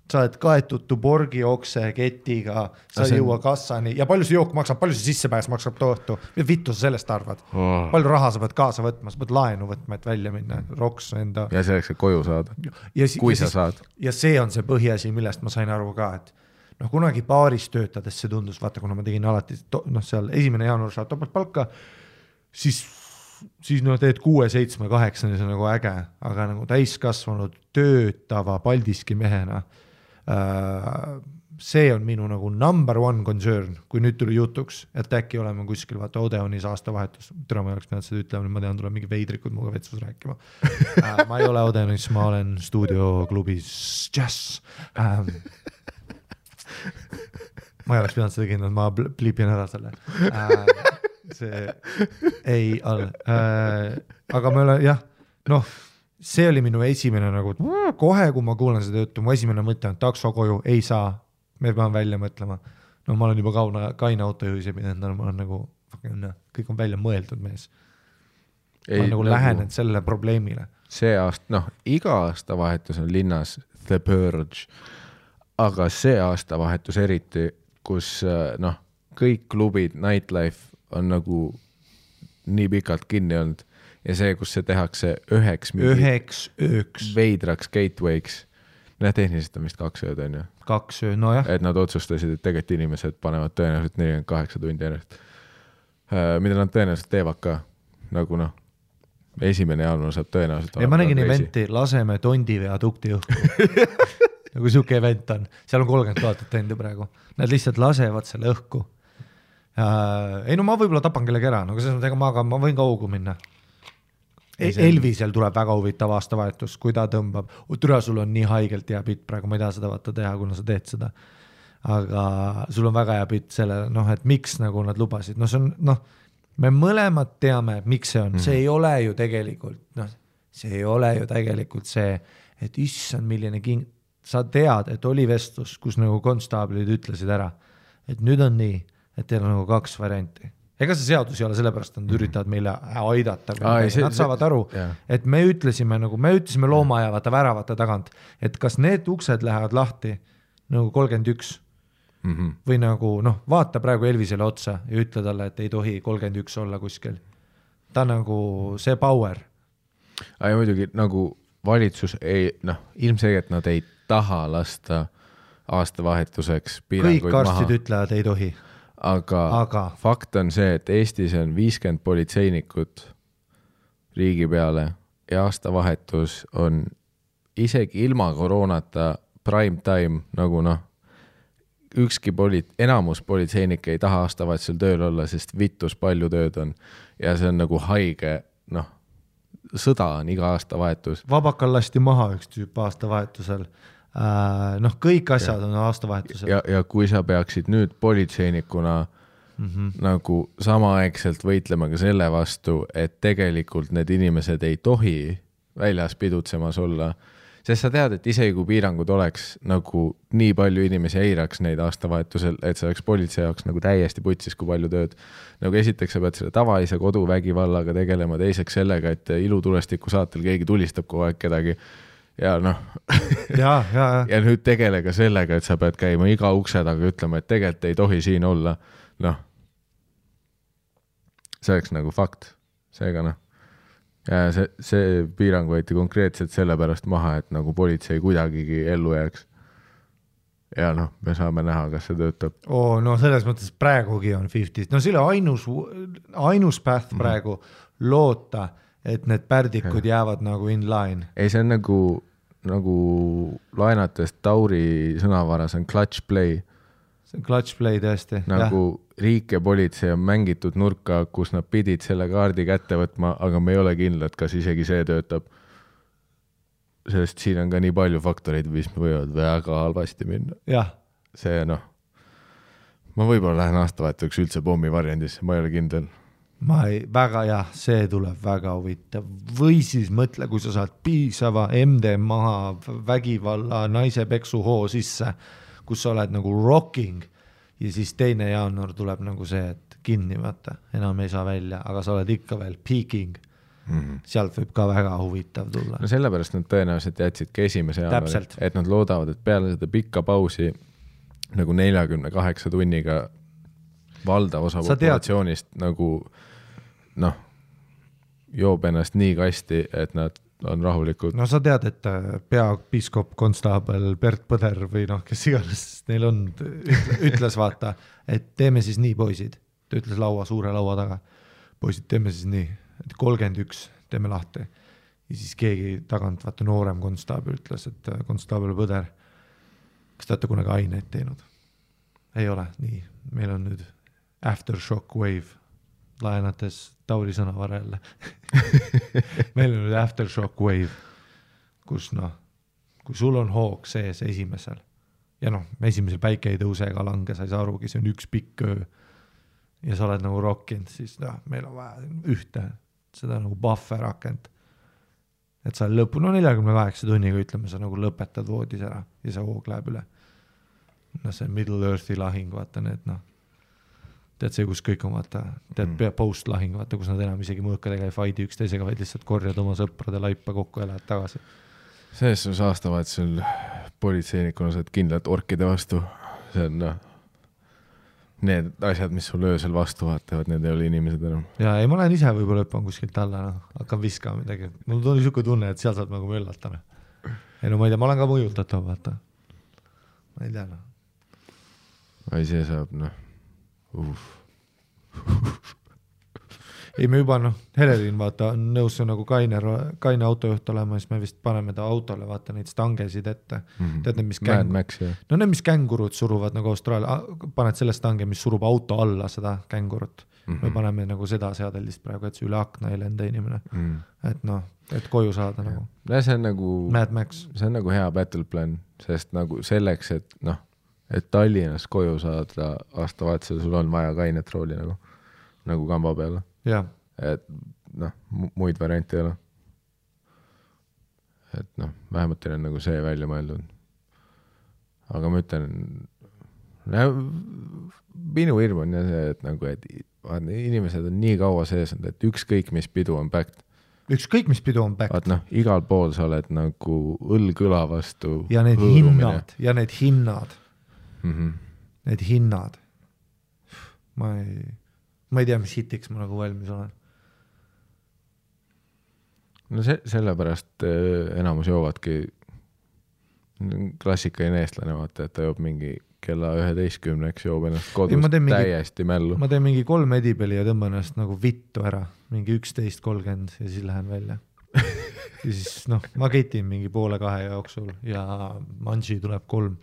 Sa oled kaetud Tuborgi okse ketiga, sa ei jõua kassani ja palju see jook maksab, palju see sissepääs maksab tohtu. Vittu sa sellest arvad? Palju raha sa pead kaasa võtma, sa pead laenu võtma, et välja minna, roks enda. Ja selleks, et koju saada, kui sa saad. Ja see on see põhiasi, millest ma sain aru ka, et kunagi baaris töötades see tundus, vaata, kuna ma tegin alati, seal 1. jaanuar saad topalt palka, siis teed 6, 7, 8, see on nagu äge, aga nagu täiskasvanud töötava Paldiski mehena see on minu nagu number one concern, kui nüüd tuli jutuks, et äkki oleme kuskil, vaata Odeonis aastavahetus, tere ma ei oleks pidanud seda ütlema, ma tean, tuleb mingi veidrikud muga vetsus rääkima. Ma ei ole Odeonis, ma olen stuudioklubis Jazz. Ma ei oleks pidanud seda kindlalt, ma pliipin ära selle. See ei ole. Aga me ole, jah, noh, see oli minu esimene nagu, kohe kui ma kuulen seda juttu, mu esimene mõte on takso koju, ei saa, me peame välja mõtlema. No ma olen juba kaine autojuhis ja pidanud, ma olen nagu, kõik on välja mõeldud mees. Ma olen nagu lähenenud selle probleemile. See aasta, noh, iga aastavahetus on linnas The Purge, aga see aastavahetus eriti, kus noh, kõik klubid, nightlife on nagu nii pikalt kinni olnud ja see, kus see tehakse üheks veidraks gateway'ks. Tehniliselt on vist 2 ööd on ju. 2 ööd, no jah. Et nad otsustasid, et tegelikult inimesed panevad tõenäoliselt 48 tundi ennast. Mida nad tõenäoliselt teevad ka. Nagu noh, 1. jaanuar saab tõenäoliselt. Ja ma nägin eventi, laseme Tondi viadukti õhku. Nagu siuke event on. Seal on 30 000 tendi praegu. Nad lihtsalt lasevad selle õhku. Ei no ma võib-olla tapan kellegi ära, no selles mõttes, ma võin ka augu minna. Elvisel tuleb väga huvitav aastavahetus, kui ta tõmbab. Türa, sul on nii haigelt hea pitt praegu, ma ei taha seda vaata teha, kuna sa teed seda. Aga sul on väga hea pitt selle, noh, et miks nagu nad lubasid. No see on, noh, me mõlemad teame, miks see on. See ei ole ju tegelikult, noh, see ei ole ju tegelikult see, et issand milline sa tead, et oli vestlus, kus nagu konstaablid ütlesid ära, et nüüd on nii, et teil on nagu 2 varianti. Ega see seadus ei ole sellepärast, et nad üritavad meile aidata. Nad saavad aru, et me ütlesime loomaaia vaata väravate tagant, et kas need uksed lähevad lahti nagu 31 või nagu, noh, vaata praegu Elvisele otsa ja ütle talle, et ei tohi 31 olla kuskil. Ta nagu see power. Ja muidugi nagu valitsus ei, noh, ilmselgelt nad ei taha lasta aastavahetuseks piiranguid kõik arstid ütlevad, ei tohi. Aga fakt on see, et Eestis on 50 politseinikut riigi peale ja aastavahetus on isegi ilma koroonata prime time, nagu noh, ükski enamus politseinik ei taha aastavahetusel tööl olla, sest vittus palju tööd on ja see on nagu haige, noh, sõda on iga aastavahetus. Vabakal lasti maha üks tüüp aastavahetusel. Noh, kõik asjad on aastavahetusel. Ja kui sa peaksid nüüd politseinikuna nagu samaaegselt võitlema ka selle vastu, et tegelikult need inimesed ei tohi väljas pidutsemas olla, sest sa tead, et isegi kui piirangud oleks nagu nii palju inimesi eiraks neid aastavahetusel, et see oleks politsei jaoks nagu täiesti putsis, kui palju tööd. Nagu esiteks sa pead selle tavalise koduvägivallaga tegelema, teiseks sellega, et ilutulestiku saatel keegi tulistab kogu aeg kedagi. Ja noh, ja nüüd tegele ka sellega, et sa pead käima iga ukse taga ütlema, et tegelikult ei tohi siin olla. Noh, see oleks nagu fakt. Seega noh, ja see piirang võeti konkreetselt sellepärast maha, et nagu politsei kuidagigi ellu jääks. Ja noh, me saame näha, kas see töötab. No selles mõttes praegugi on 50. No selle ainus path praegu loota, et need pärdikud jäävad nagu in line. Ei, see on nagu laenates Tauri sõnavaras on clutch play. See on clutch play tõesti. Nagu riik ja politsei on mängitud nurka, kus nad pidid selle kaardi kätte võtma, aga me ei ole kindlad, kas isegi see töötab. Sest siin on ka nii palju faktoreid, mis võivad väga halvasti minna. Jah. See noh, ma võib-olla lähen aastavahetuseks üldse pommi variandisse, ma ei ole kindel. Väga jah, see tuleb väga huvitav. Või siis mõtle, kui sa saad piisava MD maha vägivalla naise peksu hoo sisse, kus sa oled nagu rocking ja siis 2. jaanuar tuleb nagu see, et kinni vaata, enam ei saa välja, aga sa oled ikka veel peaking. Sealt võib ka väga huvitav tulla. No sellepärast nad tõenäoliselt jätsidki 1. jaanuari, et nad loodavad, et peale seda pikka pausi nagu 48 tunniga valdav osa populatsioonist nagu noh, joob ennast nii kasti, et nad on rahulikud. No sa tead, et peapiiskop konstaabel Bert Põder või noh, kes iganes neil on, ütles vaata, et teeme siis nii, poisid. Ta ütles suure laua taga. Poisid, teeme siis nii, et 31 teeme lahti. Ja siis keegi tagant, vaata noorem konstaabel ütles, et konstaabel Põder, kas te olete kunagi aineid teinud? Ei ole, nii. Meil on nüüd Aftershock Wave, laenates Tauri sõna varelle. Meil on nüüd Aftershock Wave, kus kui sul on hoog sees esimesel ja esimesel päike ei tõuse ega lange, sa ei saa arugi, see on üks pikk öö ja sa oled nagu rockinud, siis meil on vaja ühte, seda nagu buffer rakent. Et sa lõpu, 48 tunniga ütleme, sa nagu lõpetad voodis ära ja see hoog läheb üle. See Middle Earthi lahing, vaata need, tead see, kus kõik on, vaata, tead post lahing, vaata, kus nad enam isegi mõõkadega ei fighti üksteisega, vaid lihtsalt korjad oma sõprade laipa kokku ja lähed tagasi. Selles sul saastavad sul politseinikuna saad kindlalt orkide vastu. See on need asjad, mis sul öösel vastu vaatavad, need ei ole inimesed enam. Ja ei, ma lähen ise võib-olla õppan kuskilt alla, hakkan viskama midagi. Mul tuli niisugune tunne, et seal saad nagu möllata. Ei ma ei tea, ma olen ka mõjutatav, vaata. Ma ei tea, Ai, see saab, Ei, me juba, Helerin, vaata, on nõus nagu kaine autojuht olema, siis me vist paneme ta autole, vaata, neid stangesid ette. Tead, mis need, mis kängurud suruvad nagu Austraalia, paned selle stange, mis surub auto alla seda kängurut. Me paneme nagu seda seadelist praegu, et see üle akna ei lenda inimene. Et et koju saada nagu. See on nagu Mad Max. See on nagu hea battle plan, sest nagu selleks, et Tallinnas koju saada aastavahetusel, sul on vaja kainet rooli nagu kamba peale. Ja. Et muid variante ei ole. Et vähemalt teil on nagu see välja mõeldud. Aga ma ütlen, minu hirm on see, et nagu, et inimesed on nii kaua sees, et ükskõik mis pidu on backed. Ükskõik mis pidu on backed. Igal pool sa oled nagu õlgõla vastu. Ja need hinnad. Need hinnad. Ma ei tea, mis hitiks ma nagu valmis olen. Sellepärast enamus joovadki klassikaline eestlane, vaata, et ta joob mingi kella 11-eks joob ennast kodus täiesti mällu. Ma teen mingi 3 edipeli ja tõmban ennast nagu vittu ära, mingi 11:30 ja siis lähen välja. Ja siis ma ketin mingi 1:30 jooksul ja manži tuleb 3.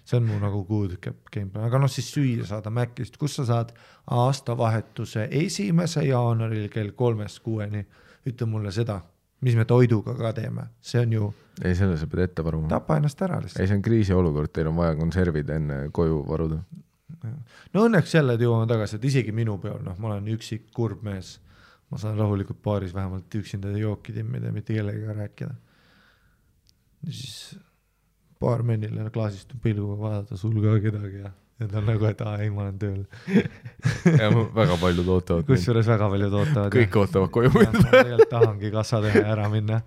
See on mu nagu good game. Aga siis süüa saada Mäkkist, kus sa saad aastavahetuse 1. jaanuaril kell 3-6. Ütle mulle seda, mis me toiduga ka teeme. See on ju... Ei, selle sa pead ette varuma. Tapa ennast ära lihtsalt. Ei, see on kriisiolukord, teil on vaja konservid enne koju varuda. Õnneks jälle jõuame tagasi, et isegi minu peal, ma olen üksik kurb mees. Ma saan rahulikult baaris vähemalt üksinda jooki timmida ja mitte kellega rääkida. Ja siis... paar mennile klaasist pilguga vaadata sul ka kedagi ja ta on nagu, et ei, ma olen tööl. Ja väga paljud ootavad. Kusjuures väga paljud ootavad. Kõik ootavad koju minna. Tegelikult tahangi kassa teha ära minna.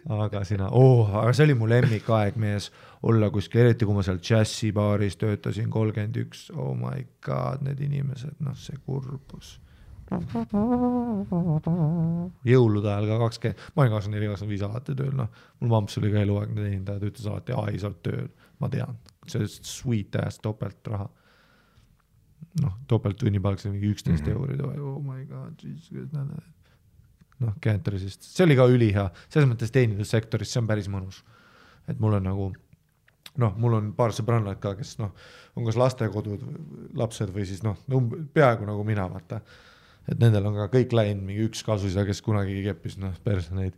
Aga aga see oli mu lemmikaeg mees olla kuskil, eriti kui ma seal Jazzi baaris töötasin 31. Oh my god, need inimesed, see kurbus. Jõulude ajal ka 20, ma olin 24-25 alati tööl, mul mamps oli ka eluaegne teenindaja, ta ütles alati, ei sa oled tööl, ma tean, see sweet ass topelt raha. Topelt tunnipalk, see mingi 11 eurid, oh my god, Cantorisist, see oli ka ülihea, selles mõttes teenindussektoris, see on päris mõnus, et mul on nagu, mul on paar sõbrannad ka, kes on kas lastekodud, lapsed või siis peaaegu nagu mina, vaata. Et nendel on ka kõik läinud mingi üks kasusida, kes kunagi keppis, perse neid,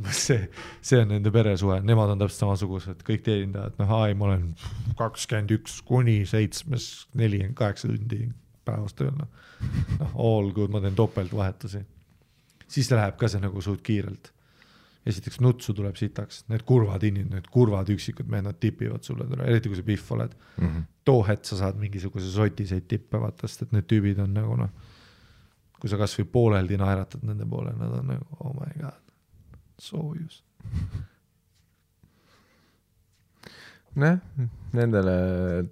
see on nende peresuhe, nemad on täpselt samasugused, kõik teenindajad, ma olen 21 kuni 7, 48 tundi päevast tööl, all good, ma teen topelt vahetusi. Siis läheb ka see nagu suht kiirelt. Esiteks nutsu tuleb sitaks, need kurvad inimesed, need kurvad üksikud mehed, nad tipivad sulle, eriti kui sa pihv oled. Too het sa saad mingisuguse sotiseid tippe vaatast, et need tüübid on nagu kui sa kas või pooleldi naeratad nende poole, nad on nagu, oh my god, soojus. Nendele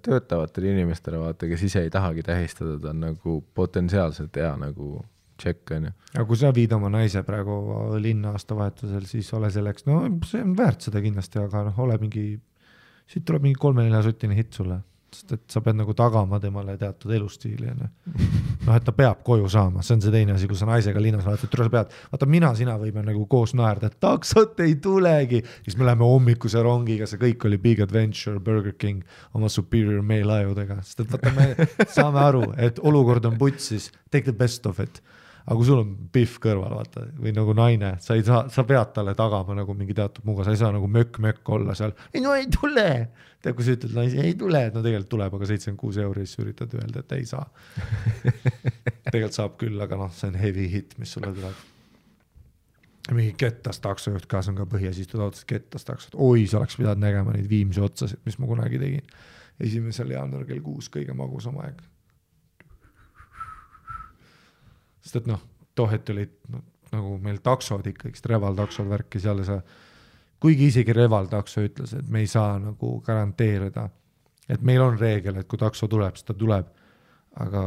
töötavatele inimestele vaata, kes ise ei tahagi tähistada, ta on nagu potentsiaalselt hea nagu check on ju. Aga kui sa viid oma naise praegu linna aastavahetusel, siis ole selleks, see on väärt seda kindlasti, aga ole mingi, siit tuleb mingi 3-4 sotine hit sulle. sest et sa pead nagu tagama temale teatud elustiili, noh, et ta peab koju saama, see on see teine asi, kui sa naisega linnas vaatad, et sa pead, vaata sina võime nagu koos naerda, et taksot ei tulegi, siis me läheme hommikuse rongiga, see kõik oli Big Adventure, Burger King oma Superior Mail ajudega, sest et vaata, me saame aru, et olukord on putsis, take the best of it. Aga kui sul on pihv kõrval, vaata, või nagu naine, sa pead talle tagama nagu mingi teatud muuga, sa ei saa nagu mökk olla seal, ei tule. Tead, kui sa ütled, naisi ei tule, et no tegelikult tuleb, aga 76 €, siis üritad öelda, et ei saa. Tegelikult saab küll, aga noh, see on heavy hit, mis sulle tuleb. Mingi kettas taksojuht ka, see on ka Põhja-Istud autos kettas taksot. Oi, sa oleks pidanud nägema neid Viimsi otsasid, mis ma kunagi tegin. 1. jaanuar kell 6 kõige magusam aeg. Sest et noh, tohet olid nagu meil taksod ikkagi, Reval taksod värki seal ja sa, kuigi isegi Reval takso ütles, et me ei saa nagu garanteerida, et meil on reegel, et kui takso tuleb, siis ta tuleb, aga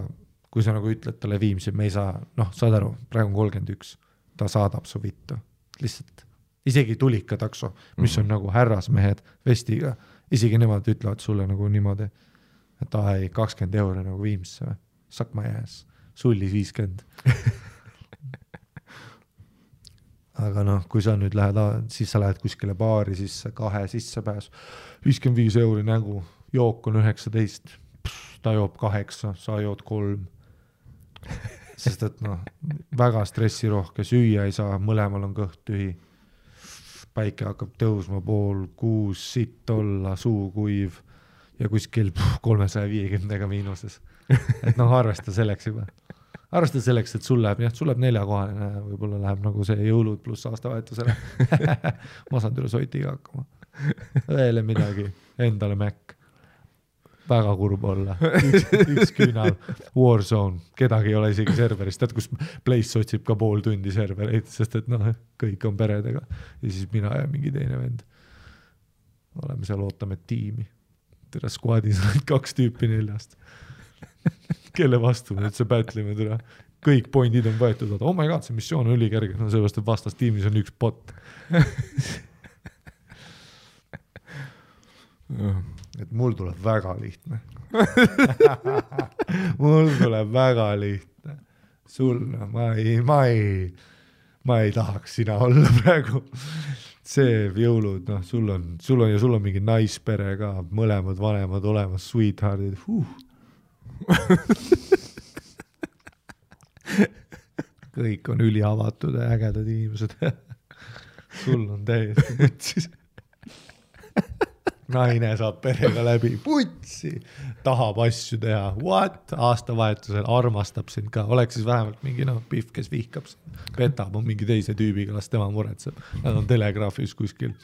kui sa nagu ütled talle Viimsi, me ei saa, noh, saad aru, praegu on 31, ta saadab su vittu, lihtsalt, isegi tulika takso, mis on nagu härrasmehed vestiga, isegi nemad ütlevad sulle nagu niimoodi, et ai, 20 € nagu Viimsse, suck my ass. Sullis 50. Aga noh, kui sa nüüd lähed, siis sa lähed kuskile baari sisse, 2 sissepääs, 55 € nägu, jook on 19, ta joob 8, sa jood 3. Sest et noh, väga stressirohke, süüa ei saa, mõlemal on kõht tühi. Päike hakkab tõusma 5:30, sitt olla, suu kuiv ja kuskil 350 miinuses. Et noh, arvesta selleks juba. Arvesta selleks, et sul läheb 4-kohaline, võib-olla läheb nagu see jõulud pluss aastavahetusele. Ma saan tule soitiga hakkama. Veel midagi, endale Mac. Väga kurb olla. Üks küünal, Warzone, kedagi ei ole isegi serverist, tead, kus Place otsib ka pool tundi servereid, sest et noh, kõik on peredega. Ja siis mina ja mingi teine vend. Oleme seal, ootame tiimi. Tere squadis on 2 tüüpi 4. Kelle vastu me üldse pätlime tule. Kõik pointid on võetud, oh my god, see missioon on ülikerge, no sellepärast, et vastas tiimis on 1 bot. Et mul tuleb väga lihtne. Mul tuleb väga lihtne. Sul, ma ei tahaks sina olla praegu. See jõulud, noh, sul on mingi naispere ka, mõlemad vanemad olemas, sweetheartid. Kõik on üliavatud ja ägedad inimesed. Sul on täiesti putsis. Naine saab perega läbi, putsi, tahab asju teha, what? Aastavahetusel armastab sind ka, oleks siis vähemalt mingi pihv, kes vihkab sind, petab on mingi teise tüübiga, las tema muretseb. Nad on telegraafis kuskil,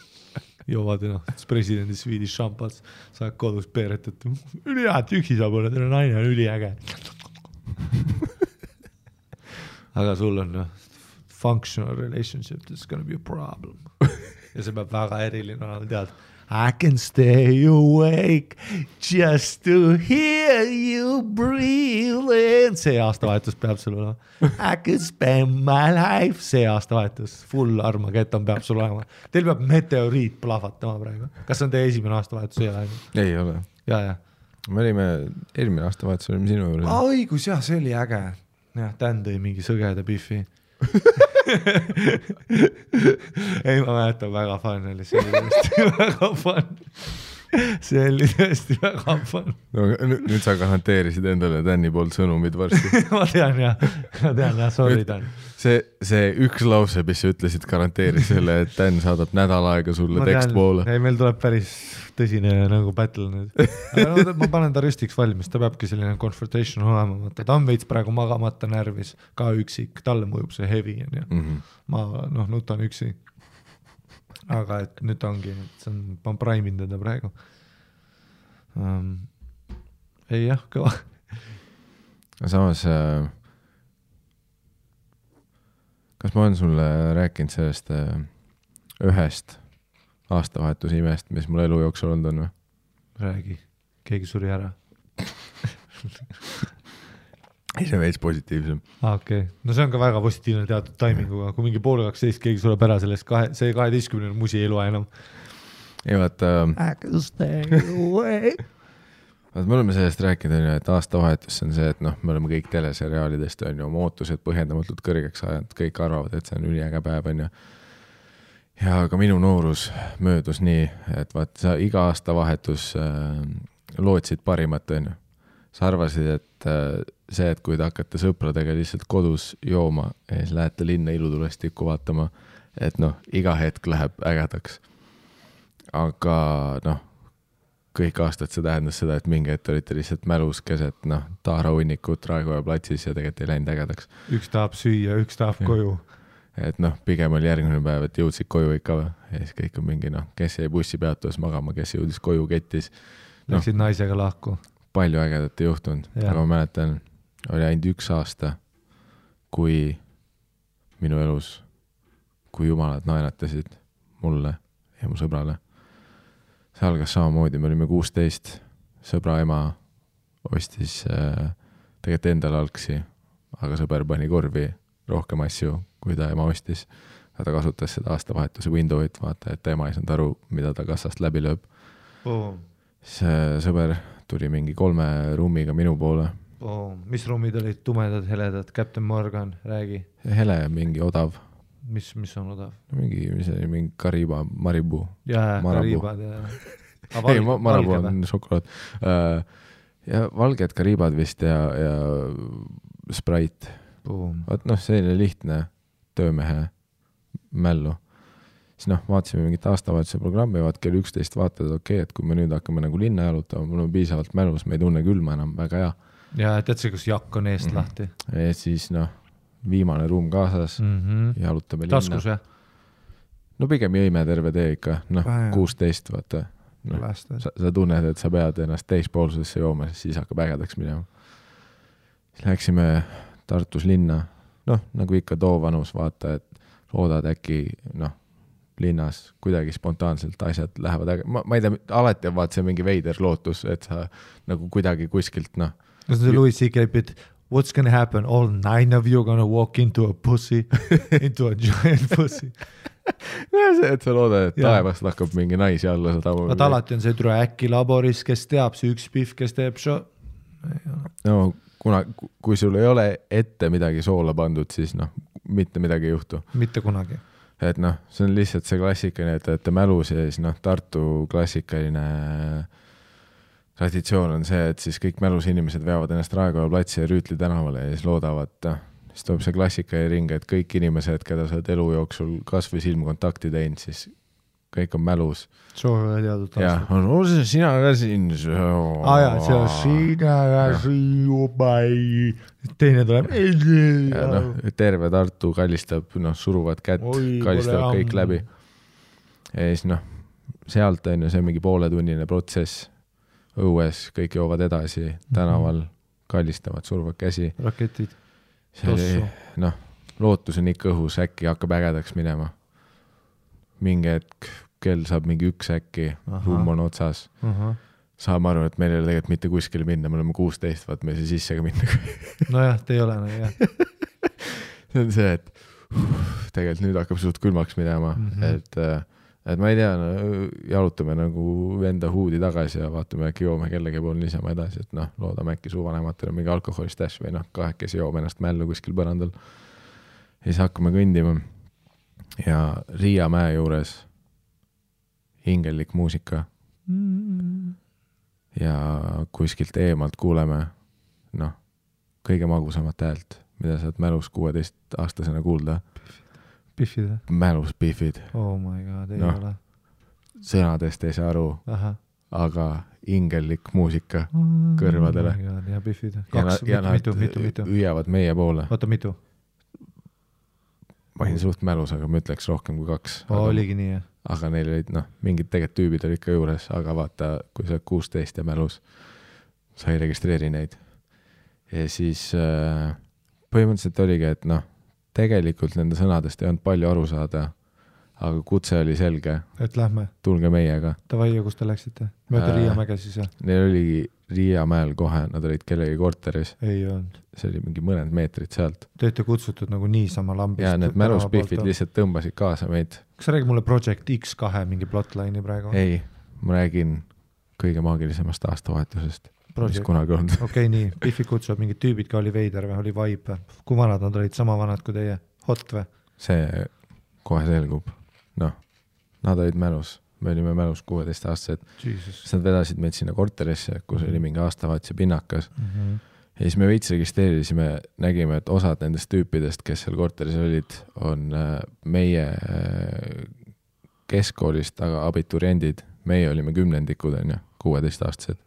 joovad presidendi Swedish šampats, saad kodus peeret, et ülihead üksi saab olla, teile naine on üliäge. Aga sul on functional relationship, this is gonna be a problem. Ja see peab väga eriline olema, tead, I can stay awake just to hear you breathe. See aastavahetus peab sul olema. I could spend my life. See aastavahetus. Full Armageddon peab sul olema. Teil peab meteoriit plahvatama praegu. Kas on teie esimene aastavahetus? Ei ole. Ja. Me olime, eelmine aastavahetus olime sinu juurde. Õigus, jah, see oli äge. Ja, tän tõi mingi sõgeda biffi. Ei, ma mäletan, väga fun oli, see oli tõesti väga fun. See oli tõesti väga fun. No, nüüd sa garanteerisid endale Tänni poolt sõnumid varsti. Ma tean, sorry Tän. See üks lause, mis sa ütlesid, garanteeris selle, et Tän saadab nädal aega sulle tekstpoole. Ei, meil tuleb päris tõsine nagu battle nüüd. Aga ma panen ta rüstiks valmis, ta peabki selline confrontation olema. Ta on veits praegu magamata närvis, ka üksik, talle mõjub see heavy. Ma nutan üksi. Aga et nüüd ongi, ma praimin teda praegu. Ei jah, kõva. Samas, kas ma olen sulle rääkinud sellest ühest aastavahetus imest, mis mul elu jooksul olnud on või? Räägi, keegi suri ära. Ei, see on veits positiivsem. Okay. No see on ka väga positiivne teatud taiminguga, kui mingi poole 12 keegi sureb ära sellest, see 12 musi ei loe enam. Ei vaata, I can stay away. me oleme sellest rääkinud, et aastavahetus on see, et noh, me oleme kõik teleseriaalidest on ju oma ootused põhjendamatult kõrgeks ajanud, kõik arvavad, et see on üliäge päev on ju. Ja ka minu noorus möödus nii, et vaat sa iga aastavahetus lootsid parimat on ju. Sa arvasid, et see, et kui te hakkate sõpradega lihtsalt kodus jooma ja siis lähete linna ilutulestikku vaatama, et noh, iga hetk läheb ägedaks. Aga noh, kõik aastad see tähendas seda, et mingi hetk olite lihtsalt mälus keset, noh, Taara hunnikut Raekoja platsis ja tegelikult ei läinud ägedaks. Üks tahab süüa, üks tahab koju. Et noh, pigem oli järgmine päev, et jõudsid koju ikka või. Ja siis kõik on mingi, noh, kes jäi bussi peatuas magama, kes jõudis koju kettis. Läksid naisega lahku. Palju ägedat ei juhtunud, aga ma mäletan, oli ainult 1 aasta, kui minu elus, kui jumalad naeratasid mulle ja mu sõbrale. See algas samamoodi, me olime 16, sõbra ema ostis tegelikult endale algsi, aga sõber pani korvi rohkem asju, kui ta ema ostis. Ja ta kasutas seda aastavahetuse window'it, vaata, et ema ei saanud aru, mida ta kassast läbi lööb. See sõber tuli mingi 3 ruumiga minu poole. Mis ruumid olid tumedad, heledad? Captain Morgan, räägi. Hele, mingi odav. Mis on odav? Mingi Kariba, Maribu. Jaa, Karibad. Ei, Marabu on šokolaad. Ja valged Karibad vist ja Sprite. Vaat noh, selline lihtne töömehe mällu. Siis noh, vaatasime mingit aastavahetuse programmi, vaat kell 11 vaatad, et kui me nüüd hakkame nagu linna jalutama, mul on piisavalt mälus, me ei tunne külma enam, väga hea. Ja tead see, kus jakk on eest lahti? Ja siis noh, viimane ruum kaasas, jalutame linna. Taskus, jah? No pigem jõime terve tee ikka, noh, 16, vaata. No, sa tunned, et sa pead ennast teispoolsusesse jooma, siis hakkab ägedaks minema. Siis läksime Tartus linna, noh, nagu ikka too vanus, vaata, et loodad äkki, noh, linnas kuidagi spontaanselt asjad lähevad äge. Ma ei tea, alati on vaat see mingi veider lootus, et sa nagu kuidagi kuskilt, noh. Kas see Louis C.K. bit, what's gonna happen? All 9 of you gonna walk into a pussy, into a giant pussy. See, et sa loodad, et taevast hakkab mingi naisi alla sadama. Vaat alati on see türa äkki laboris, kes teab, see üks pihv, kes teeb show. No, kui sul ei ole ette midagi soola pandud, siis noh, mitte midagi ei juhtu. Mitte kunagi. Et noh, see on lihtsalt see klassikaline, et mälus ja siis noh, Tartu klassikaline traditsioon on see, et siis kõik mälus inimesed veavad ennast Raekoja platsi ja Rüütli tänavale ja siis loodavad, siis tuleb see klassikaline ring, et kõik inimesed, keda sa oled elu jooksul kas või silmkontakti teinud, siis kõik on mälus. Soovivad teadnud aastat. Ja, on see sina ka siin. Aja, see on sina ka siin juba ei. Teine tuleb. Ja, no, terve Tartu kallistab, noh, suruvad kätt, kallistavad kõik läbi. Ja siis noh, sealt on ju see mingi pooletunnine protsess. Õues kõik joovad edasi, tänaval kallistavad, suruvad käsi. Raketid. See, noh, lootus on ikka õhus, äkki hakkab ägedaks minema. Mingi hetk, kell saab mingi 1 äkki, ruum on otsas. Saame aru, et meil ei ole tegelikult mitte kuskile minna, me oleme 16, vaat me ei saa sisse ka minna. Nojah, te ei ole, no jah. See on see, et tegelikult nüüd hakkab suht külmaks minema, et ma ei tea, jalutame nagu enda huudi tagasi ja vaatame äkki joome kellegi pool niisama edasi, et noh, loodame äkki suvanematele mingi alkoholistash või noh, kahekesi joome ennast mällu kuskil põrandal. Ja siis hakkame kõndima. Ja Riia mäe juures hingellik muusika ja kuskilt eemalt kuuleme noh, kõige magusamat häält, mida saad mälus 16-aastasena kuulda. Biffid? Mälus biffid. Oh my god, ei ole. Sõnadest ei saa aru, aga hingellik muusika kõrvadele. Oh my god, ja biffid. Ja nad hüüavad meie poole. Oota, mitu? Ma olin suht mälus, aga ma ütleks rohkem kui 2. Oligi nii, jah. Aga neil olid, noh, mingid tegelikult tüübid olid ka juures, aga vaata, kui sa 16 ja mälus, sa ei registreeri neid. Ja siis põhimõtteliselt oligi, et noh, tegelikult nende sõnadest ei olnud palju aru saada, aga kutse oli selge. Et lähme. Tulge meiega. Tavai, kus te läksite? Mööda Riiamäge siis, jah? Neil oligi Riiamäel kohe, nad olid kellegi korteris. Ei olnud. See oli mingi mõned meetrid sealt. Te olete kutsutud nagu niisama lambist. Ja need mäluspiffid lihtsalt tõmbasid kaasa meid. Kas sa räägid mulle Project X2 mingi plotline'i praegu? Ei, ma räägin kõige maagilisemast aastavahetusest. mis kunagi olnud. Okei, nii, Biffi kutsub mingid tüübid ka oli veider või oli vibe või? Kui vanad nad olid, sama vanad kui teie? Hot või? See kohe selgub. Noh, nad olid mälus. Me olime mälus 16-aastased. Siis nad vedasid meid sinna korterisse, kus oli mingi aastavaatse pinnakas. Ja siis me veits registreerisime, nägime, et osad nendest tüüpidest, kes seal korteris olid, on meie keskkoolist, aga abituriendid. Meie olime 10-ndikud, 16-aastased.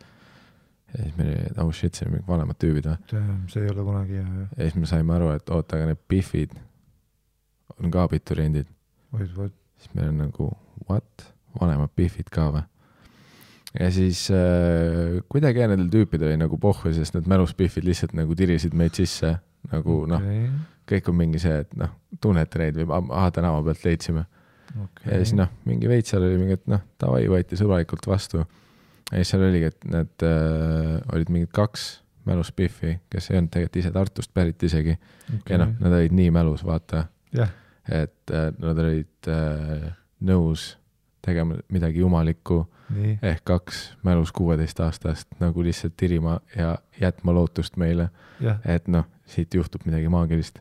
Ja siis meil oli, oh shit, see on mingi vanemad tüübid või? See ei ole kunagi hea. Ja siis me saime aru, et oota, aga need Biffid on ka abituriendid. Siis meil on nagu, what? Vanemad Biffid ka või? Ja siis kuidagi nendel tüüpidel oli nagu pohvi, sest need mälus Biffid lihtsalt nagu tirisid meid sisse. Nagu kõik on mingi see, et tunnete neid või tänava pealt leidsime. Ja siis mingi veits seal oli mingi, et tavai võeti sõbralikult vastu. Ja siis seal oligi, et need olid mingid 2 mälus Biffi, kes ei olnud tegelikult ise Tartust pärit isegi. Ja nad olid nii mälus, vaata. Et nad olid nõus tegema midagi jumalikku. Ehk 2 mälus 16-aastast nagu lihtsalt tirima ja jätma lootust meile. Et siit juhtub midagi maagilist.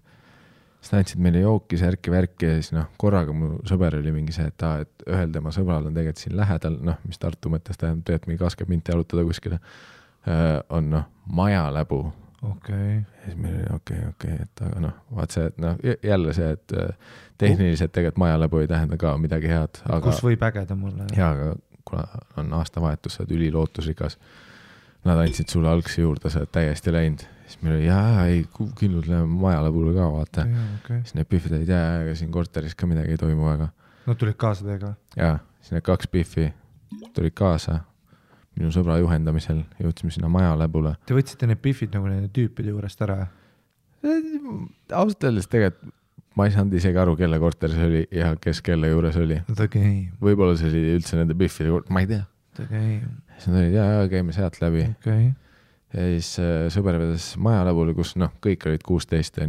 Siis näitsid meile jooki, särki ja siis korraga mu sõber oli mingi see, et ühel tema sõbral on tegelikult siin lähedal, mis Tartu mõttes tähendab, et mingi 20 minti jalutada kuskile, on maja läbu. Ja siis meil oli okei, et aga vaat see, et jälle see, et tehniliselt tegelikult maja läbu ei tähenda ka midagi head. Aga, kus võib ägeda mulle? Jaa, aga kuna on aastavahetus, sa oled ülilootusrikas, nad andsid sulle algsi juurde, sa oled täiesti läinud. Siis meil oli, ei, kindlult läheme maja läbule ka, vaata. Siis need Biffid olid, aga siin korteris ka midagi ei toimu väga. Nad tulid kaasa teiega? Jaa, siis need 2 Biffi tulid kaasa minu sõbra juhendamisel, jõudsime sinna maja läbule. Te võtsite need Biffid nagu nende tüüpide juurest ära? Ausalt öeldes tegelikult ma ei saanud isegi aru, kelle korter see oli ja kes kelle juures oli. Võib-olla see oli üldse nende Biffide juures, ma ei tea. Siis nad olid, käime sealt läbi. Ja siis sõber vedas maja läbule, kus kõik olid 16,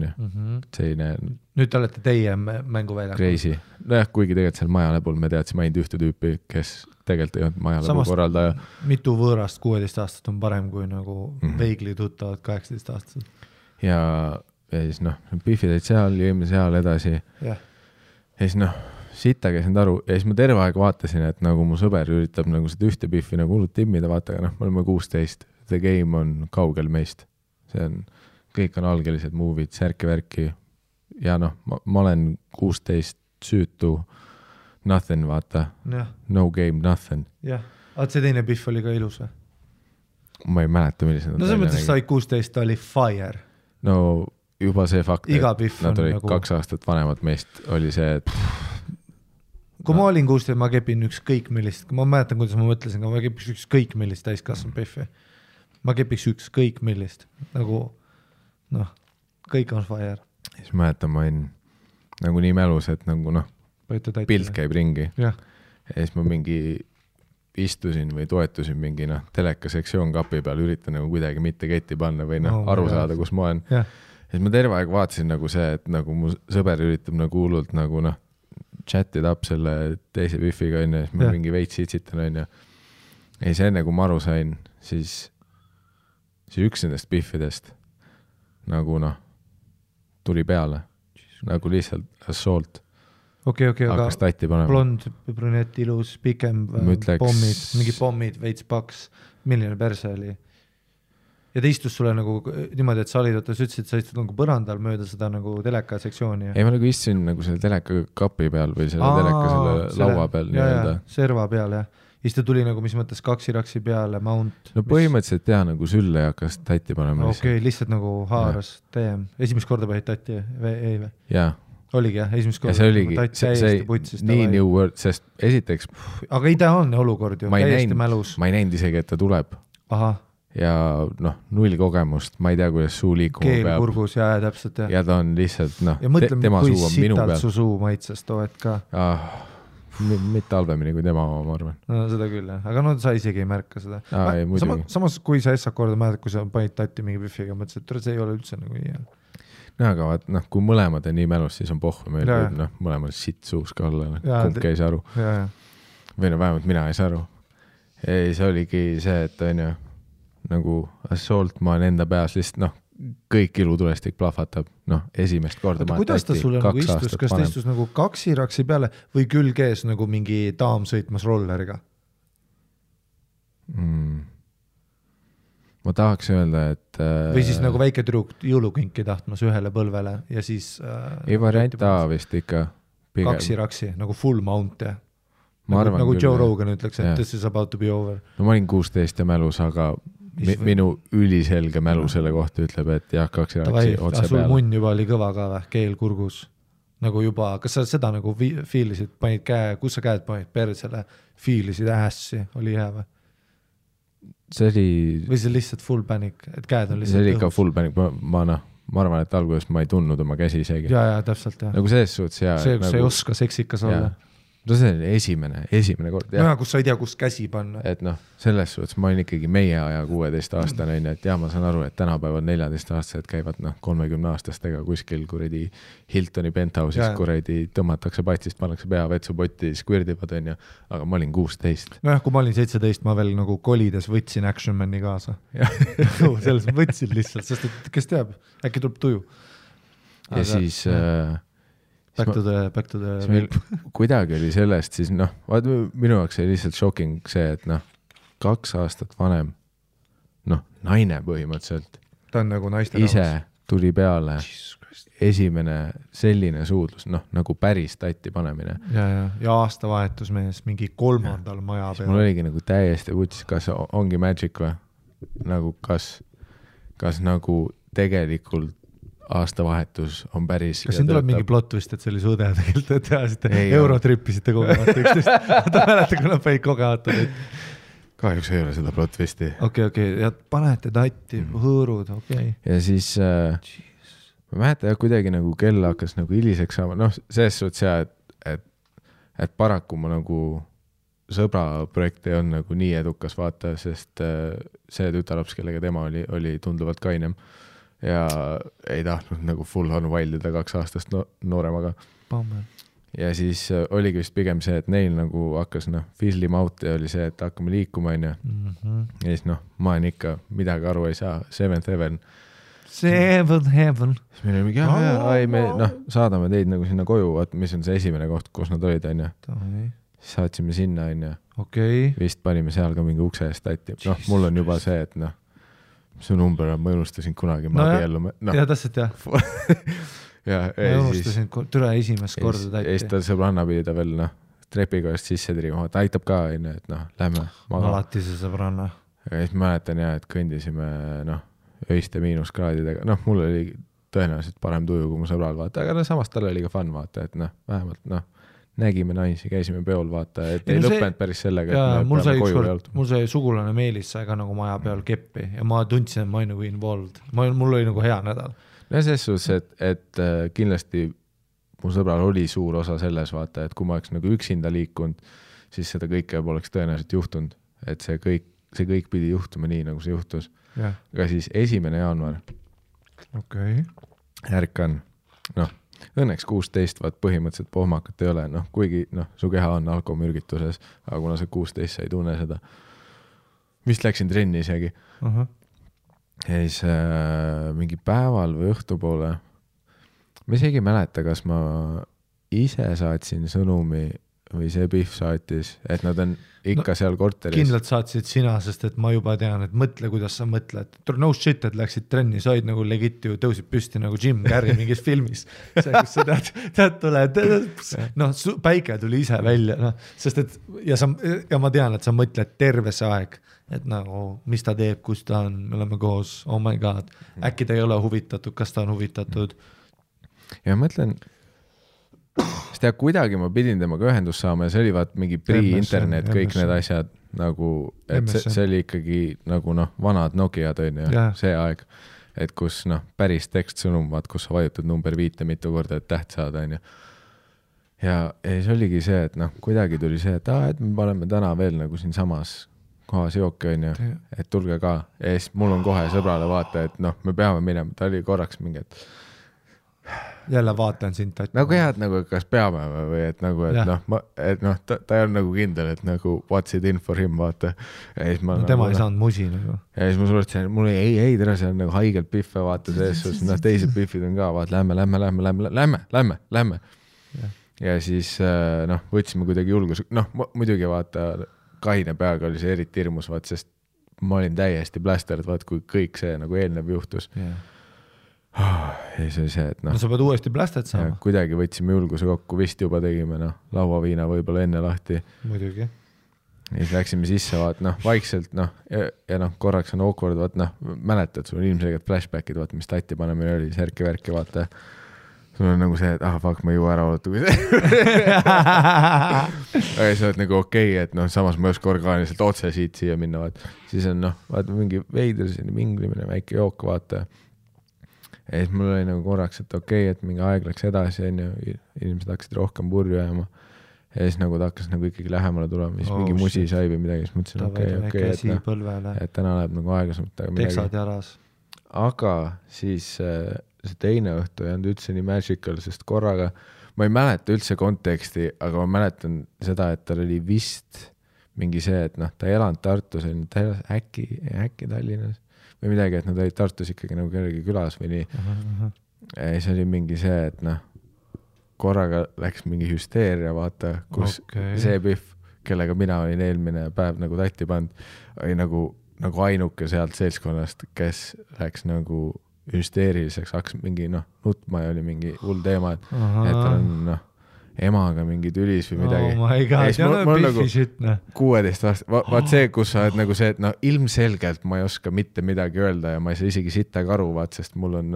selline nüüd te olete teie mänguväljakul. Crazy. Kuigi tegelikult seal maja läbul me teadsime ainult ühte tüüpi, kes tegelikult ei olnud maja läbu korraldaja. Mitu võõrast 16 aastat on parem kui nagu veigli tuttavad 18 aastased. Ja siis Biffid olid seal, jõime seal edasi. Ja siis sitta käisin aru ja siis ma terve aeg vaatasin, et nagu mu sõber üritab nagu seda ühte Biffi nagu hullult timmida, vaata, aga me oleme 16. The game on kaugel meist. See on, kõik on algelised move'id, särki-värki. Ja ma olen 16 süütu, nothing, vaata. No game, nothing. Jah, see teine Biff oli ka ilus või? Ma ei mäleta, millised. No see mõttes sai 16, ta oli fire. No juba see fakt, et nad olid nagu 2 aastat vanemad meist, oli see, et kui ma olin 16, ma kepin ükskõik millist, ma mäletan, kuidas ma mõtlesin, aga ma kepiks ükskõik millist täiskasvanud Biffi. Ma kepiks ükskõik millist, nagu kõik on fire. Siis mäletan, ma olin nagu nii mälus, et nagu pilt käib ringi. Ja siis ma mingi istusin või toetusin mingi telekasektsioon kapi peal, üritan nagu kuidagi mitte ketti panna või aru saada, kus ma olen. Ja siis ma terve aeg vaatasin nagu see, et nagu mu sõber üritab nagu hullult nagu chatid up selle teise Biffiga on ja siis ma mingi veits itsitan on ja siis enne kui ma aru sain, siis üks nendest Biffidest nagu tuli peale nagu lihtsalt assault. Hakkas tatti panema. Blond, brünett, ilus, pikem, pommid, mingi pommid, veits paks, milline perse oli. Ja ta istus sulle nagu niimoodi, et sa olid, sa ütlesid, sa istud nagu põrandal mööda seda nagu teleka sektsiooni. Ei, ma nagu istusin nagu selle teleka kapi peal või selle teleka selle laua peal. Ja, serva peal, jah. Ja siis ta tuli nagu, mis mõttes kaksiraksi peale, mount. No põhimõtteliselt jah, nagu sülle hakkas tatti panema. Lihtsalt nagu haaras TM. Esimest korda päid tatti ei või? Jaa. Oligi jah, esimest korda. Ja see oligi, see nii new word, sest esiteks... Aga ideaalne olukord ju, täiesti mälus. Ma ei näinud isegi, et ta tuleb. Aha. Ja null kogemust, ma ei tea, kuidas suu liikuma peab. Keel kurgus, jah, täpselt. Ja ta on lihtsalt, ja mõtleme, kui sitalt su suu maitses toed ka. Mitte halvemini kui tema oma, ma arvan. No seda küll, jah. Aga sa isegi ei märka seda. Samas, kui sa Essa korda mäletad, kui sa panid tatti mingi Biffiga, mõtlesid, et see ei ole üldse nagu nii. No aga vaat, kui mõlemad on nii mälus, siis on pohvu. Meil võib mõlemad sitt suus ka olla. Kumbki ei saa aru. Või vähemalt mina ei saa aru. Ei, see oligi see, et on ju, nagu assault, ma olen enda peas lihtsalt noh, kõik ilutulestik plahvatab, noh, esimest korda. Kuidas ta sulle nagu istus, kas ta istus nagu kaksiraksi peale või külg ees nagu mingi daam sõitmas rolleriga? Ma tahaks öelda, et või siis nagu väike tüdruk jõulukinki tahtmas ühele põlvele ja siis ei variant A vist ikka pigem. Kaksiraksi, nagu full mount ja nagu Joe Rogan ütleks, et this is about to be over. No ma olin 16 ja mälus, aga minu üliselge mälu selle kohta ütleb, et jah, kaksiraksi otse sul peale. munn juba oli kõva ka või, keel kurgus nagu juba, kas sa seda nagu fiilisid, panid käe, kus sa käed panid persele, fiilisid ässi, oli hea või? See oli... Või see lihtsalt full panic, et käed on lihtsalt see oli ikka full panic, ma arvan, et alguses ma ei tundnud oma käsi isegi. Ja, täpselt, jah. Nagu selles suhtes, ja... See, kus nagu... sa ei oska seksikas olla. No see oli esimene kord. No ja, kus sa ei tea, kus käsi panna. Et noh, selles suhtes ma olin ikkagi meie aja 16-aastane, et jah, ma saan aru, et tänapäeval 14-aastased käivad 30-aastastega kuskil kuredi Hiltoni penthouse'is kuredi tõmmatakse patsist, pannakse pea vetsupotti, squirdivad, aga ma olin 16. No jah, kui ma olin 17, ma veel nagu kolides võtsin Action Mani kaasa. Selles võtsin lihtsalt, sest et kes teab, äkki tuleb tuju. Ja siis... Back to the kuidagi oli sellest siis minu jaoks oli lihtsalt shocking see, et 2 aastat vanem naine põhimõtteliselt ta on nagu naiste ise tuli peale esimene selline suudlus, nagu päris tatti panemine ja aastavahetus mees mingi 3. maja peal. Mul oligi nagu täiesti vutis, kas ongi magic või nagu kas nagu tegelikult aastavahetus on päris. Kas siin tuleb mingi plot vist, et see oli su õde tegelikult, et tehasite eurotrippisite kogemata üksteist. Ta mäleta, kui nad panid kogemata. Kahjuks ei ole seda plot visti. Okei, ja panete tatti, hõõrud, okei. Ja siis ma mäletan, kuidagi nagu kell hakkas nagu hiliseks saama. Selles suhtes et paraku ma nagu sõbra projekt ei olnud nagu nii edukas vaata, sest see tütarlaps, kellega tema oli tunduvalt kainem. Ja ei tahtnud nagu full on vaildida 2 aastast nooremaga. Ja siis oligi vist pigem see, et neil nagu hakkas fizzlima out ja oli see, et hakkame liikuma ja siis ma olen ikka midagi aru ei saa. Seventh Heaven. Seventh Heaven. Siis meil oli mingi, me saadame teid nagu sinna koju, mis on see esimene koht, kus nad olid, Siis saatsime sinna, Vist panime seal ka mingi ukse eest tatti. Mul on juba see, et su number on, ma unustasin kunagi, ma abiellume. Ja täpselt jah. Ma unustasin türa esimest korda tatti. Ja siis ta sõbranna pidi ta veel trepikoest sisse trima, ta aitab ka, et lähme maga. Alati see sõbranna. Ja siis mäletan et kõndisime öiste miinuskraadidega. Mul oli tõenäoliselt parem tuju kui mu sõbral vaata, aga samas tal oli ka fun vaata, et vähemalt nägime naisi, käisime peol vaata, et ei lõppenud päris sellega, et mul sai sugulane Meelis sai ka nagu maja peal keppi ja ma tundsin, et ma olin nagu involved. Mul oli nagu hea nädal. Ja selles suhtes, et kindlasti mu sõbral oli suur osa selles vaata, et kui ma oleks nagu üksinda liikunud, siis seda kõike poleks tõenäoliselt juhtunud. Et see kõik pidi juhtuma nii, nagu see juhtus. Aga siis 1. jaanuar. Ärkan, õnneks 16, vaat põhimõtteliselt pohmakat ei ole, kuigi su keha on alkomürgituses, aga kuna see 16 sa ei tunne seda. Vist läksin trenni isegi. Ja siis mingi päeval või õhtupoole, ma isegi mäleta, kas ma ise saatsin sõnumi või see Pihv saatis, et nad on ikka seal korteris. Kindlalt saatsid sina, sest et ma juba tean, et mõtle, kuidas sa mõtled. No shit, et läksid trenni, sa olid nagu legit ju, tõusid püsti nagu Jim Carrey mingis filmis. See, kus sa tead tuled, päike tuli ise välja, sest et, ja ma tean, et sa mõtled terve see aeg, et nagu, mis ta teeb, kus ta on, me oleme koos, oh my god, äkki ta ei ole huvitatud, kas ta on huvitatud. Ja mõtlen, sest ja kuidagi ma pidin temaga ühendus saama ja see oli vaat mingi pre-internet, kõik need asjad nagu, et see oli ikkagi nagu vanad Nokia see aeg, et kus päris tekstsõnum, vaat kus sa vajutad number 5 mitu korda, et täht saada ja siis oligi see, et kuidagi tuli see, et me paneme täna veel nagu siin samas kohas jooki et tulge ka ja siis mul on kohe sõbrale vaata, et me peame minema, ta oli korraks mingi, et jälle vaatan sind tatti. nagu jah, et nagu kas peame või et nagu, et noh, ta ei olnud nagu kindel, et nagu what's it in for him, vaata. No, tema ei saanud musi nagu. Ja siis ma suletsin, mul ei, tere, see on nagu haigelt pihve, vaata sees, teised pihvid on ka, vaata, lähme. Ja siis võtsime kuidagi julgus, muidugi vaata, kaine peaga oli see eriti hirmus, vaata, sest ma olin täiesti plästerd, vaata, kui kõik see nagu eelnev juhtus. Ja see oli see, et no sa pead uuesti plästet saama. Kuidagi võtsime julguse kokku, vist juba tegime, lauaviina võib-olla enne lahti. Muidugi. Ja siis läksime sisse, vaata, vaikselt, ja korraks on awkward, vaata, mäletad, sul on ilmselgelt flashbackid, vaata, mis tatti panemine oli, särki-värki, vaata. Sul on nagu see, et fuck, ma ei jõua ära oota, kui see. Aga sa oled nagu okei, et samas ma ei oska orgaaniliselt otse siia minna, vaata. Siis on, vaata, mingi veider, minglimine, väike jook, vaata. Ja siis mul oli nagu korraks, et okei, et mingi aeg läks edasi, inimesed hakkasid rohkem purju jääma. Ja siis nagu ta hakkas nagu ikkagi lähemale tulema, siis mingi musi sai või midagi, siis mõtlesin, okei, et täna läheb nagu aeglasemalt. Teksad jalas. Aga siis see teine õhtu ei olnud üldse nii magical, sest korraga, ma ei mäleta üldse konteksti, aga ma mäletan seda, et tal oli vist mingi see, et ta ei elanud Tartus, ta elas äkki Tallinnas. Või midagi, et nad olid Tartus ikkagi nagu kellegi külas või nii. Ja siis oli mingi see, et korraga läks mingi hüsteeria, vaata, kus see pihv, kellega mina olin eelmine päev nagu tatti pand, oli nagu ainuke sealt seltskonnast, kes läks nagu hüsteeriliseks, hakkas mingi nutma ja oli mingi hull teema, et tal on emaga mingi tülis või midagi. Oh my god, ja pihvi šitne. 16 aasta, vaat see, kus sa oled nagu see, et ilmselgelt ma ei oska mitte midagi öelda ja ma ei saa isegi sittagi aru, vaat, sest mul on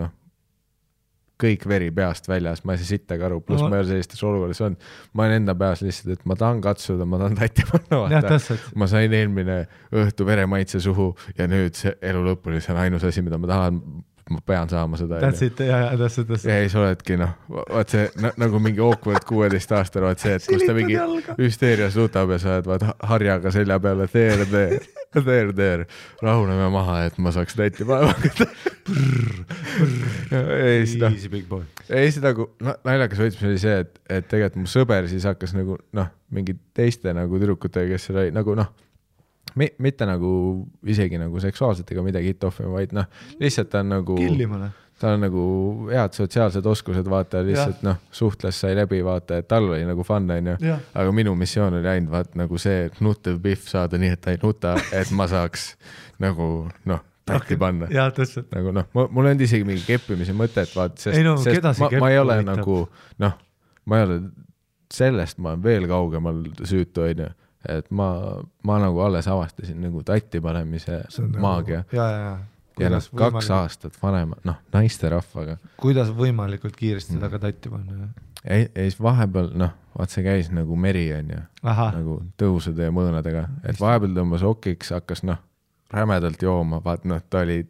kõik veri peast väljas, ma ei saa sittagi aru, pluss ma ei ole sellistes olukorras on. Ma olen enda peas lihtsalt, et ma tahan katsuda, ma tahan tatti panna, vaata. Ma sain eelmine õhtu veremaitse suhu ja nüüd see elu lõpuni, see on ainus asi, mida ma tahan, ma pean saama seda. That's it. Ja siis oledki, vaat see nagu mingi awkward 16 aastal, vaat see, et kus ta mingi hüsteerias lutab ja sa oled vaat harjaga selja peale, there, rahuneme maha, et ma saaks täiti päeva. Easy big boy. Ei, see nagu naljakas võtmis oli see, et tegelikult mu sõber siis hakkas nagu, mingi teiste nagu tüdrukutega, kes oli nagu, mitte nagu isegi nagu seksuaalselt ega midagi hit-offima, vaid lihtsalt ta on nagu killimale. Ta on nagu head sotsiaalsed oskused, vaata, lihtsalt suhtles sai läbi, vaata, et tal oli nagu fun, aga minu missioon oli ainult vaat nagu see nutev pihv saada nii, et ta ei nuta, et ma saaks nagu tatti panna. Jaa, tõsselt. Nagu mul on isegi mingi keppimise mõtet, vaat, sest ma ei ole nagu, ma ei ole sellest, ma olen veel kaugemal süütu, et ma nagu alles avastasin nagu tatti panemise maagia. Ja 2 aastat vanema, naiste rahvaga. Kuidas võimalikult kiiresti taga tatti panna? Ei, siis vahepeal, vaat see käis nagu meri on ju, nagu tõusude ja mõõnadega, et vahepeal tõmbas okiks, hakkas rämedalt jooma, vaat ta oli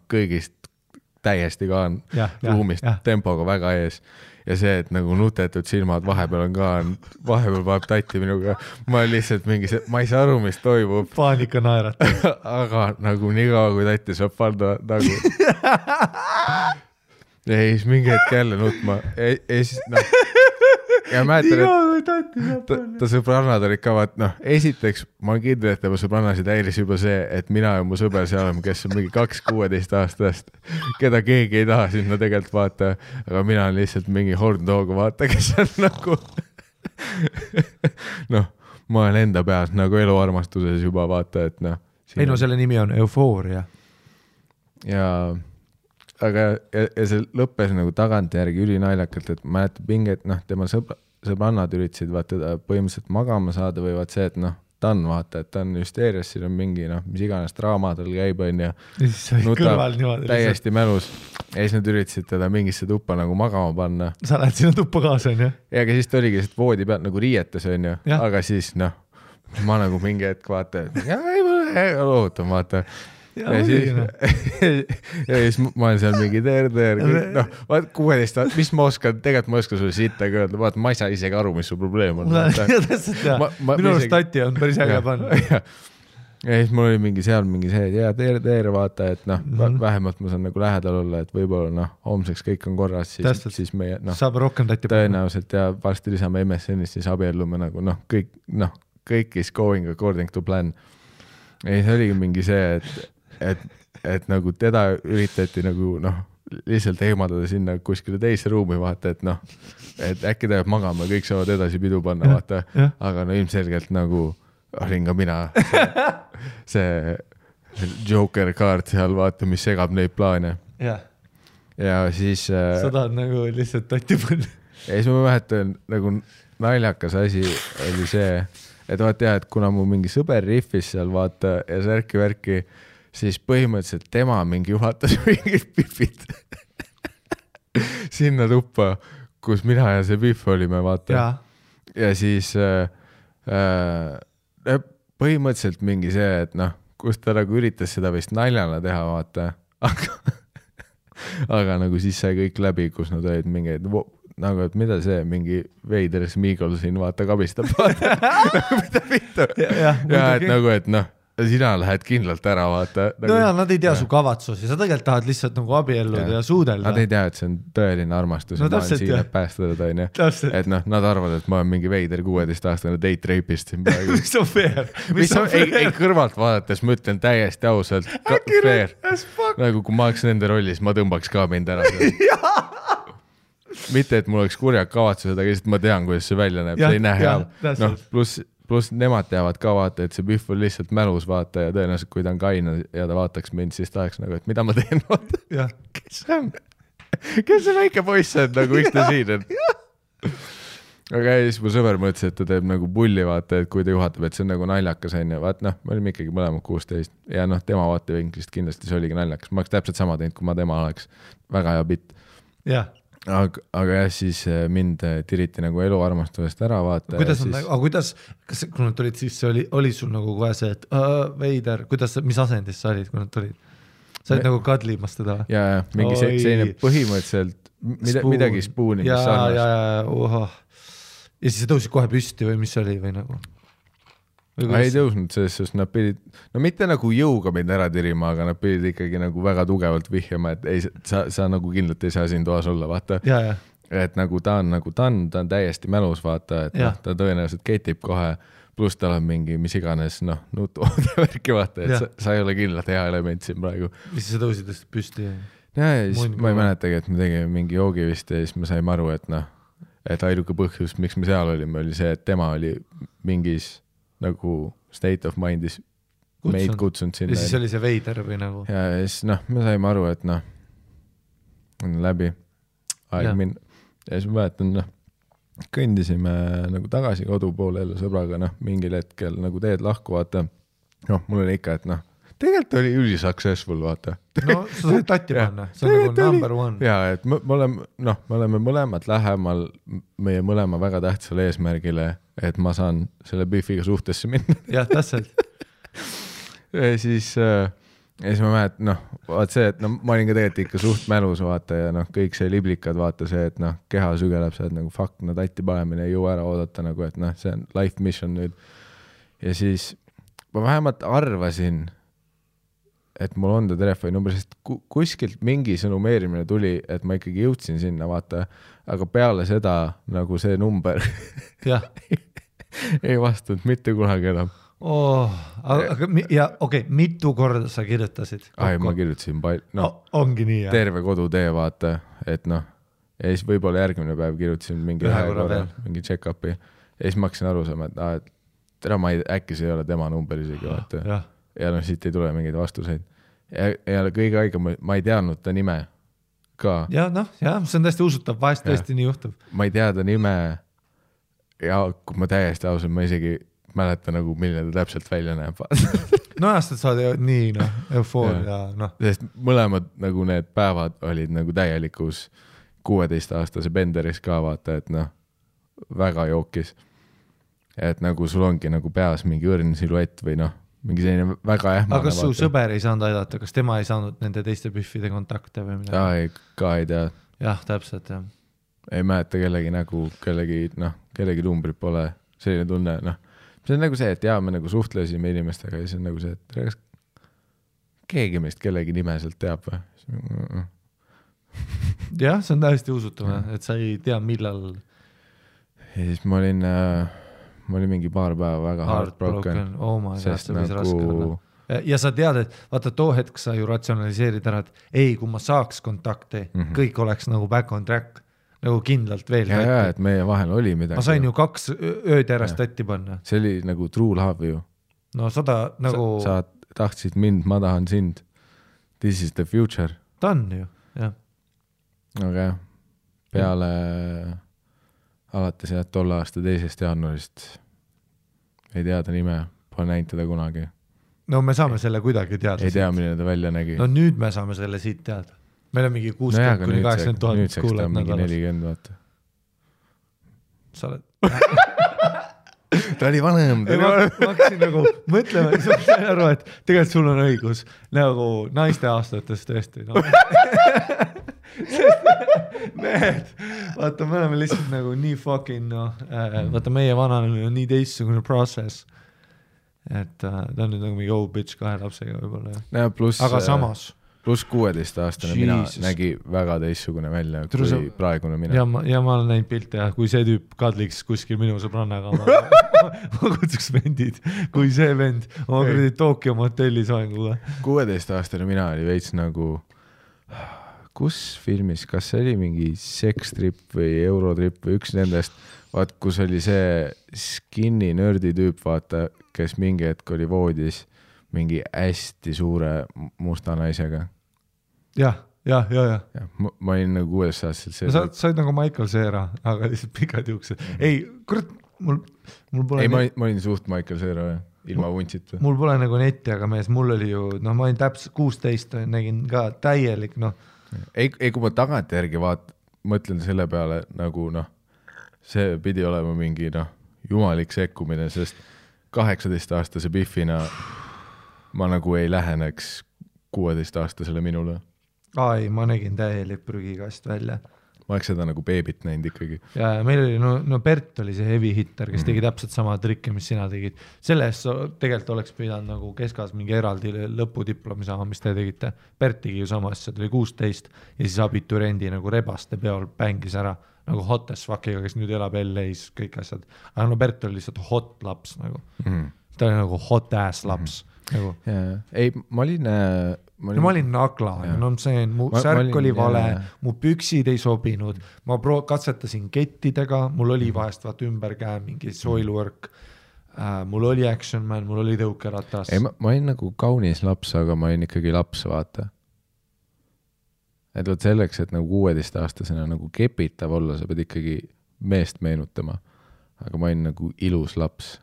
kõigist täiesti ka ruumist tempoga väga ees ja see, et nagu nutetud silmad vahepeal on ka, vahepeal vaeb tatti minuga, ma lihtsalt mingi see, ma ei saa aru, mis toimub. Paanika naeratab. Aga nagu nii kaua, kui tatti saab panna nagu. Ja siis mingi hetk jälle nutma. Ja siis, ja mäletan, et ta sõbrannad olid ka, vaat, esiteks ma olen kindel, et tema sõbrannasid häiris juba see, et mina ja mu sõber seal oleme, kes on mingi 2-16 aastast, keda keegi ei taha sinna tegelikult vaata, aga mina olen lihtsalt mingi horndooga vaata, kes on nagu ma olen enda peas nagu eluarmastuses juba vaata, et ei selle nimi on eufooria. Ja aga ja see lõppes nagu tagantjärgi ülinaljakalt, et mäletab pinget, tema sõbrannad üritasid vaata põhimõtteliselt magama saada või vaat see, et ta on vaata, et ta on hüsteerias, siin on mingi mis iganes draama tal käib on ja nutab täiesti mälus ja siis nad üritasid teda mingisse tuppa nagu magama panna. Sa lähed sinna tuppa kaasa on ju? Ja aga siis ta oligi lihtsalt voodi pealt nagu riietes on ju, aga siis ma nagu mingi hetk vaata, ei loohutan vaata. Ja siis ma olen seal mingi teer, vaat 16 aastat, mis ma oskan, tegelikult ma oskan sulle sittagi öelda, vaat ma ei saa isegi aru, mis su probleem on. Minu arust tatti on päris äge panna. ja siis mul oli mingi seal mingi see, et jaa, tere, vaata, et noh, vähemalt ma saan nagu lähedal olla, et võib-olla noh, homseks kõik on korras, siis meie noh, saab rohkem tatti tõenäoliselt ja varsti lisame MSN-ist, siis abiellume nagu noh, kõik is going according to plan. Ja siis oligi mingi see, et nagu teda üritati nagu noh, lihtsalt eemaldada sinna kuskile teise ruumi, vaata, et noh, et äkki ta jääb magama, kõik saavad edasi pidu panna, vaata, aga no ilmselgelt nagu olin ka mina see Joker kaart seal, vaata, mis segab neid plaane. Ja siis sa tahad nagu lihtsalt tatti panna. Ja siis ma mäletan, nagu naljakas asi oli see, et vaata jah, et kuna mu mingi sõber riffis seal, vaata, ja särki-värki, siis põhimõtteliselt tema mingi juhatas mingid pifid sinna tuppa, kus mina ja see pif olime, vaata. Ja siis põhimõtteliselt mingi see, et noh, kus ta nagu üritas seda vist naljana teha, vaata, aga nagu siis sai kõik läbi, kus nad olid mingeid, nagu, et mida see mingi veider Smeagol siin, vaata, kabistab, vaata, nagu mida vittu. Ja et nagu, et noh, sina lähed kindlalt ära, vaata. No ja nad ei tea su kavatsusi, sa tegelikult tahad lihtsalt nagu abielluda ja suudelda. Nad ei tea, et see on tõeline armastus, no, ma olen siin, et päästada toin, et noh, nad arvavad, et ma olen mingi veider 16-aastane date rapist siin praegu. Mis on fair? Ei, kõrvalt vaadates ma ütlen täiesti ausalt, fair. Nagu kui ma oleks nende rollis, ma tõmbaks ka mind ära. Mitte, et mul oleks kurjad kavatsused, aga lihtsalt ma tean, kuidas see välja näeb, see ei näe hea. No, pluss nemad teavad ka, vaata, et see pühv on lihtsalt mälus, vaata, ja tõenäoliselt, kui ta on kaina ja ta vaataks mind, siis ta oleks nagu, et mida ma teen, vaata. Kes see on? Kes see väike poiss on, nagu miks ta siin on? Aga siis mu sõber mõtles, et ta teeb nagu pulli, vaata, et kui ta juhatab, et see on nagu naljakas, on ja vaat noh, me olime ikkagi mõlemad 16 ja noh, tema vaatevinklist kindlasti see oligi naljakas. Ma oleks täpselt sama teinud, kui ma tema oleks. Väga hea bitt. Aga jah, siis mind tiriti nagu eluarmastusest ära, vaata. Kuidas on, aga kuidas, kui nad tulid, siis oli sul nagu kohe see, et veider, mis asendis sa olid, kui nad tulid? Sa olid nagu kadlimas teda? Ja, mingi selline põhimõtteliselt midagi spooni, mis sarnast. Ja siis sa tõusid kohe püsti või mis oli või nagu? Ei tõusnud, sest nad pidid, no mitte nagu jõuga mind ära tirima, aga nad pidid ikkagi nagu väga tugevalt vihjama, et ei, sa nagu kindlalt ei saa siin toas olla, vaata. Et nagu ta on täiesti mälus, vaata, et noh, ta tõenäoliselt ketib kohe, pluss tal on mingi, mis iganes, noh, nutu-värki, vaata, et sa ei ole kindlalt hea element siin praegu. Mis sa tõusid püsti? Ja siis ma ei mäletagi, et me tegime mingi joogi vist ja siis me saime aru, et noh, et ainuke põhjus, miks me seal olime, oli see, et tema oli mingis nagu state of mind'is meid kutsunud sinna. Ja siis oli see veider või nagu? Ja siis noh, me saime aru, et noh, on läbi aeg minna. Ja siis ma mäletan, noh, kõndisime nagu tagasi kodu poole jälle sõbraga, noh, mingil hetkel nagu teed lahku, vaata. Noh, mul oli ikka, et noh, tegelikult oli ülisuccessful, vaata. No, sa said tatti panna, see on nagu number one. Ja, et me oleme mõlemad lähemal meie mõlema väga tähtsale eesmärgile, et ma saan selle bifiga suhtesse minna. Jah, täpselt. Ja siis ma mälet, noh, vaat see, et no, ma olin ka tegelikult ikka suht mälus, vaata, ja noh, kõik see liblikad, vaata see, et noh, keha sügeleb see, et nagu fuck, no tatti panemine ei jõu ära oodata, nagu, et noh, see on life mission nüüd. Ja siis ma vähemalt arvasin, et mul on ta telefoni number, sest kuskilt mingi sõnumeerimine tuli, et ma ikkagi jõudsin sinna, vaata, aga peale seda nagu see number ei vastanud mitte kunagi enam. Okei, mitu korda sa kirjutasid? Ma kirjutasin ongi nii, jah. Terve kodutee, vaata, et noh, ja siis võib-olla järgmine päev kirjutasin mingi mingi check-upi ja siis ma hakkasin aru saama, et tere, äkki see ei ole tema number isegi, vaata. Ja noh, siit ei tule mingeid vastuseid. Ja kõige aega ma ei teadnud ta nime ka. Ja noh, see on täiesti usutav, vahest tõesti nii juhtub. Ma ei tea ta nime ja kui ma täiesti ausalt, ma isegi mäleta nagu, milline ta täpselt välja näeb. No jah, sa oled nii, noh, eufoor ja noh. Sest mõlemad nagu need päevad olid nagu täielikus 16-aastase benderis ka, vaata, et noh, väga jookis. Et nagu sul ongi nagu peas mingi õrn siluett või noh, mingi selline väga ähmane. Aga kas su sõber ei saanud aidata, kas tema ei saanud nende teiste püffide kontakte või midagi? Ka ei tea. Jah, täpselt, jah. Ei mäleta kellegi nägu, kellegi numbrit pole, selline tunne, noh. see on nagu see, et me nagu suhtlesime inimestega ja see on nagu see, et kas keegi meist kellegi nime sealt teab või? Jah, see on täiesti usutav, et sa ei tea millal. Ja siis ma olin mingi paar päeva väga heartbroken. Oh my God, see võis raske olla. Ja sa tead, et vaata too hetk sa ju ratsionaliseerid ära, et ei, kui ma saaks kontakti, kõik oleks nagu back on track, nagu kindlalt veel. Ja, et meie vahel oli midagi. Ma sain ju 2 ööd järjest tatti panna. See oli nagu true love ju. No 100 nagu... Sa tahtsid mind, ma tahan sind. This is the future. Ta on ju, jah. Aga jah, peale alates tolle aasta 2. jaanuarist ei teada nime, pole näinud teda kunagi. No me saame selle kuidagi teada. Ei tea, milline ta välja nägi. No nüüd me saame selle siit teada. Meil on mingi 60 kuni 80 000 nüüd seks ta on mingi 40, vaata. Sa oled... ta oli vanem. Ma hakkasin nagu mõtlema, sa sain aru, et tegelikult sul on õigus. Nagu naiste aastates tõesti. No. Mehed, vaata, me oleme lihtsalt nagu nii fucking, vaata meie vananemine on nii teistsugune process. Et ta on nüüd nagu mingi old bitch 2 lapsega võibolla. Ja, aga samas. Plus 16-aastane mina nägi väga teistsugune välja kui praegune mina. Ja ma olen näinud pilte, kui see tüüp kadliks kuskil minu sõbrannaga. Ma kutsuks vendid, kui see vend oma kuradi Tokyo motellis vaenguga. 16-aastane mina oli veits nagu... Kus filmis, kas see oli mingi Sextrip või Eurotrip või üks nendest, vaat kus oli see skinny nördi tüüp, vaata, kes mingi hetk oli voodis mingi hästi suure musta naisega. Ja. Ma olin nagu 6-aastaselt. Sa olid nagu Michael Cera, aga lihtsalt pikad juuksed. Ei, kurat, mul pole... Ei, ma olin suht Michael Cera, ilma vuntsit. Mul pole nagu netti, aga mees, mul oli ju, ma olin täpselt 16, nägin ka täielik, Ei, kui ma tagant järgi mõtlen selle peale nagu see pidi olema mingi jumalik sekkumine, sest 18-aastase Biffina ma nagu ei läheneks 16-aastasele minule. Ai, ma nägin täielik prügikast välja. Ma oleks seda nagu beebit näinud ikkagi. Ja meil oli, Bert oli see heavy hitter, kes tegi täpselt sama trikke, mis sina tegid. Selles tegelikult oleks pidanud nagu keskas mingi eraldi lõpudiplomi saama, mis te tegite. Bert tegi ju sama asja, ta oli 16 ja siis abiturendi nagu rebaste peol pängis ära nagu hot as fuckiga, kes nüüd elab LA-s, kõik asjad. Aga Bert oli lihtsalt hot laps nagu. Ta oli nagu hot ass laps. Nagu. Ei, ma olin nagla, mu särk oli vale, mu püksid ei sobinud, ma katsetasin kettidega, mul oli vahest ümber käe mingi soilwork, mul oli action man, mul oli tõukeratas. Ei, ma olin nagu kaunis laps, aga ma olin ikkagi laps, vaata. Et võt selleks, et nagu 16-aastasena nagu kepitav olla, sa pead ikkagi meest meenutama, aga ma olin nagu ilus laps.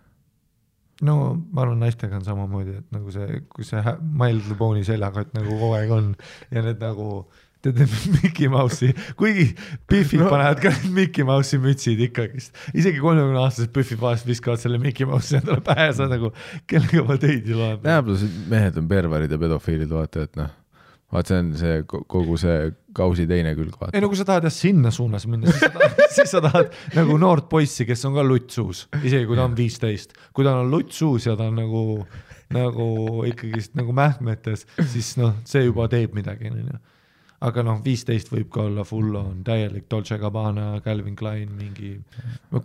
No, ma arvan, naistega on samamoodi, et nagu see, kui see My Little Pony seljakott nagu kogu aeg on ja need nagu, tead Mickey Mouse'i, kuigi Biffid panevad ka need Mickey Mouse'i mütsid ikkagist. Isegi 30-aastased Biffid vahest viskavad selle Mickey Mouse'i endale pähe, sa nagu, kellega ma teid ju loen. Plus mehed on perverid ja pedofiilid, vaata, et vaat see on see kogu see kausi teine külg, vaata. Ei, no kui sa tahad sinna suunas minna, siis sa tahad nagu noort poissi, kes on ka luttsuus, isegi kui ta on 15. Kui ta on luttsuus ja ta on nagu ikkagist nagu mähmetes, siis see juba teeb midagi. Aga 15 võib ka olla full on täielik Dolce Gabbana, Calvin Klein, mingi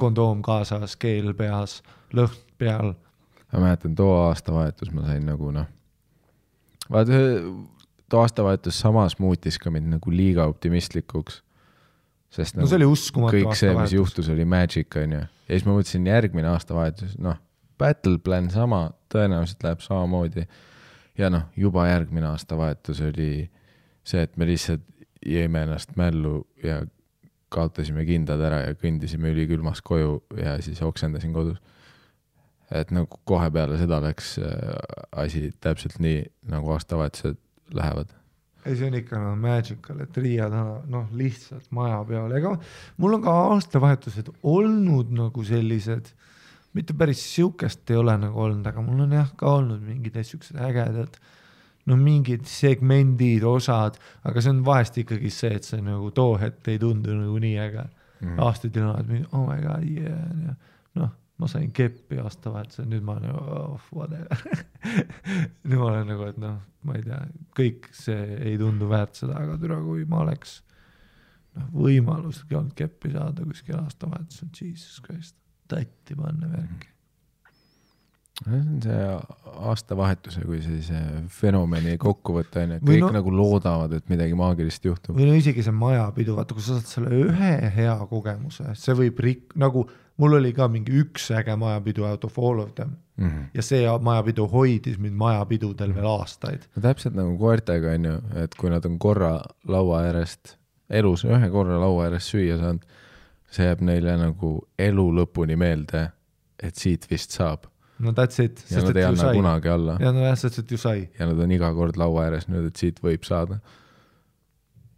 kondoom kaasas, keel peas, lõhn peal. Ma mäletan, too aastavahetus ma sain nagu vaata, too aastavahetus samas muutis ka mind nagu liiga optimistlikuks. Sest see oli uskumatu kõik see, mis juhtus, oli magic, on ju. Ja siis ma mõtlesin järgmine aastavahetus, battle plan sama, tõenäoliselt läheb samamoodi. Ja juba järgmine aastavahetus oli see, et me lihtsalt jäime ennast mällu ja kaotasime kindad ära ja kõndisime ülikülmas koju ja siis oksendasin kodus. Et nagu kohe peale seda läks asi täpselt nii, nagu aastavahetused lähevad. Ei, see on ikka magical, et Riia lihtsalt maja peal. Ega mul on ka aastavahetused olnud nagu sellised, mitte päris siukest ei ole nagu olnud, aga mul on ka olnud mingid siuksed ägedad, mingid segmendid, osad, aga see on vahest ikkagi see, et see nagu too hetk ei tundu nagu nii äge. Aastaid on mingi, oh my god, yeah. ma sain keppi aastavahetusel, nüüd ma olen whatever. Nüüd ma olen nagu, et noh, ma ei tea, kõik see ei tundu väärt seda, aga türa, kui ma oleks võimaluski olnud keppi saada kuskil aastavahetusel, Jesus Christ, tatti panna värki. See on see aastavahetuse kui sellise fenomeni kokkuvõte, et kõik nagu loodavad, et midagi maagilist juhtub. Või no isegi see majapidu, vaata, kui sa saad selle ühe hea kogemuse, see võib nagu mul oli ka mingi üks äge majapidu out of all of them ja see majapidu hoidis mind majapidudel veel aastaid. No täpselt nagu koertega on ju, et kui nad on korra laua äärest, elus ühe korra laua äärest süüa saanud, see jääb neile nagu elu lõpuni meelde, et siit vist saab. No that's it. Ja nad ei anna kunagi alla. Ja no sest, et ju sai. Ja nad on iga kord laua ääres nüüd, et siit võib saada.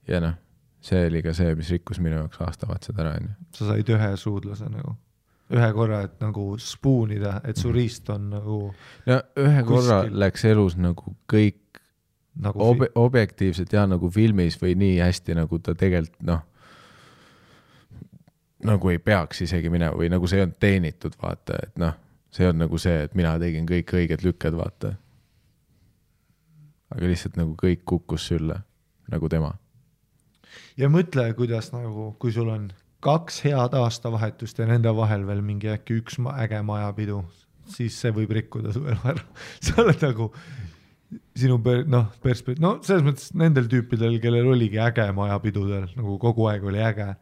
Ja noh, see oli ka see, mis rikkus minu jaoks aastavahetused ära. Sa said ühe suudlase nagu. Ühe korra, et nagu spoonida, et su riist on nagu... No ühe korra läks elus nagu kõik nagu objektiivselt ja nagu filmis või nii hästi, nagu ta tegelikult noh, nagu ei peaks isegi minema või nagu see on teenitud, vaata, et noh, see on nagu see, et mina tegin kõik õiged lükked, vaata. Aga lihtsalt nagu kõik kukkus sülle, nagu tema. Ja mõtle, kuidas nagu, kui sul on 2 head aastavahetust ja nende vahel veel mingi äkki üks äge majapidu, siis see võib rikkuda su elu ära. Sa oled nagu sinu selles mõttes nendel tüüpidel, kellel oligi äge majapidudel, nagu kogu aeg oli äge,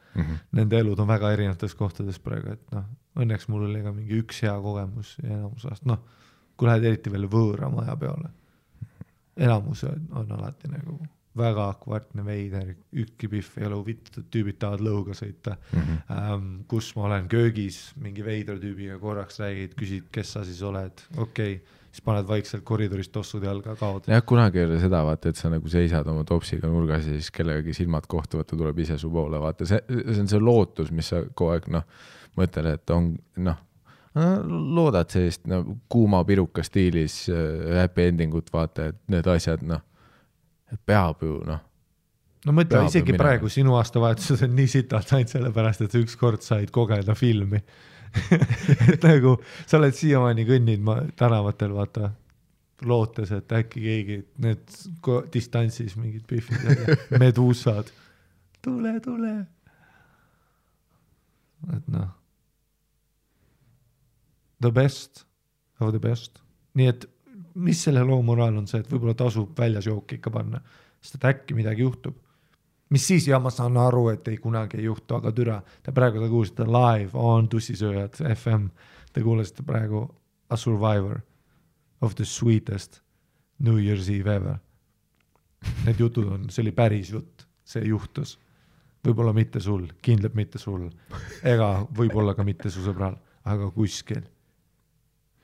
nende elud on väga erinevates kohtades praegu, et noh, õnneks mul oli ka mingi üks hea kogemus ja enamus aast, noh, kui lähed eriti veel võõra maja peale, enamus on alati nagu väga kvartne veider, ükki pihv ei ole huvitatud, tüübid tahavad lõuga sõita, kus ma olen köögis, mingi veidra tüübiga korraks räägid, küsid, kes sa siis oled, okei, siis paned vaikselt koridorist tossud jalga kaod. Jah, kunagi ei ole seda, vaata, et sa nagu seisad oma topsiga nurgas ja siis kellegagi silmad kohtuvad, ta tuleb ise su poole, vaata, see on see lootus, mis sa kogu aeg, noh, mõtled, et on, noh, loodad sellist kuuma piruka stiilis happy endingut, vaata, et need asjad, noh, et peab ju, noh. No mõtle, isegi praegu sinu aastavahetused on nii sitalt ainult sellepärast, et üks kord said kogeda filmi. Et nagu sa oled siiamaani kõnnid tänavatel, vaata, lootes, et äkki keegi need distantsis mingid pihvid, meduusad. Tule. Et noh. The best of the best. Nii et mis selle loo moraal on see, et võib-olla tasub väljas jooki ikka panna, sest et äkki midagi juhtub. Mis siis, ja ma saan aru, et ei kunagi ei juhtu, aga türa, te praegu kuulsite live on Tussisööjad FM, te kuulsite praegu A Survivor of the sweetest New Year's Eve ever. Need jutud on, see oli päris jutt, see juhtus. Võib-olla mitte sul, kindlalt mitte sul, ega võib-olla ka mitte su sõbral, aga kuskil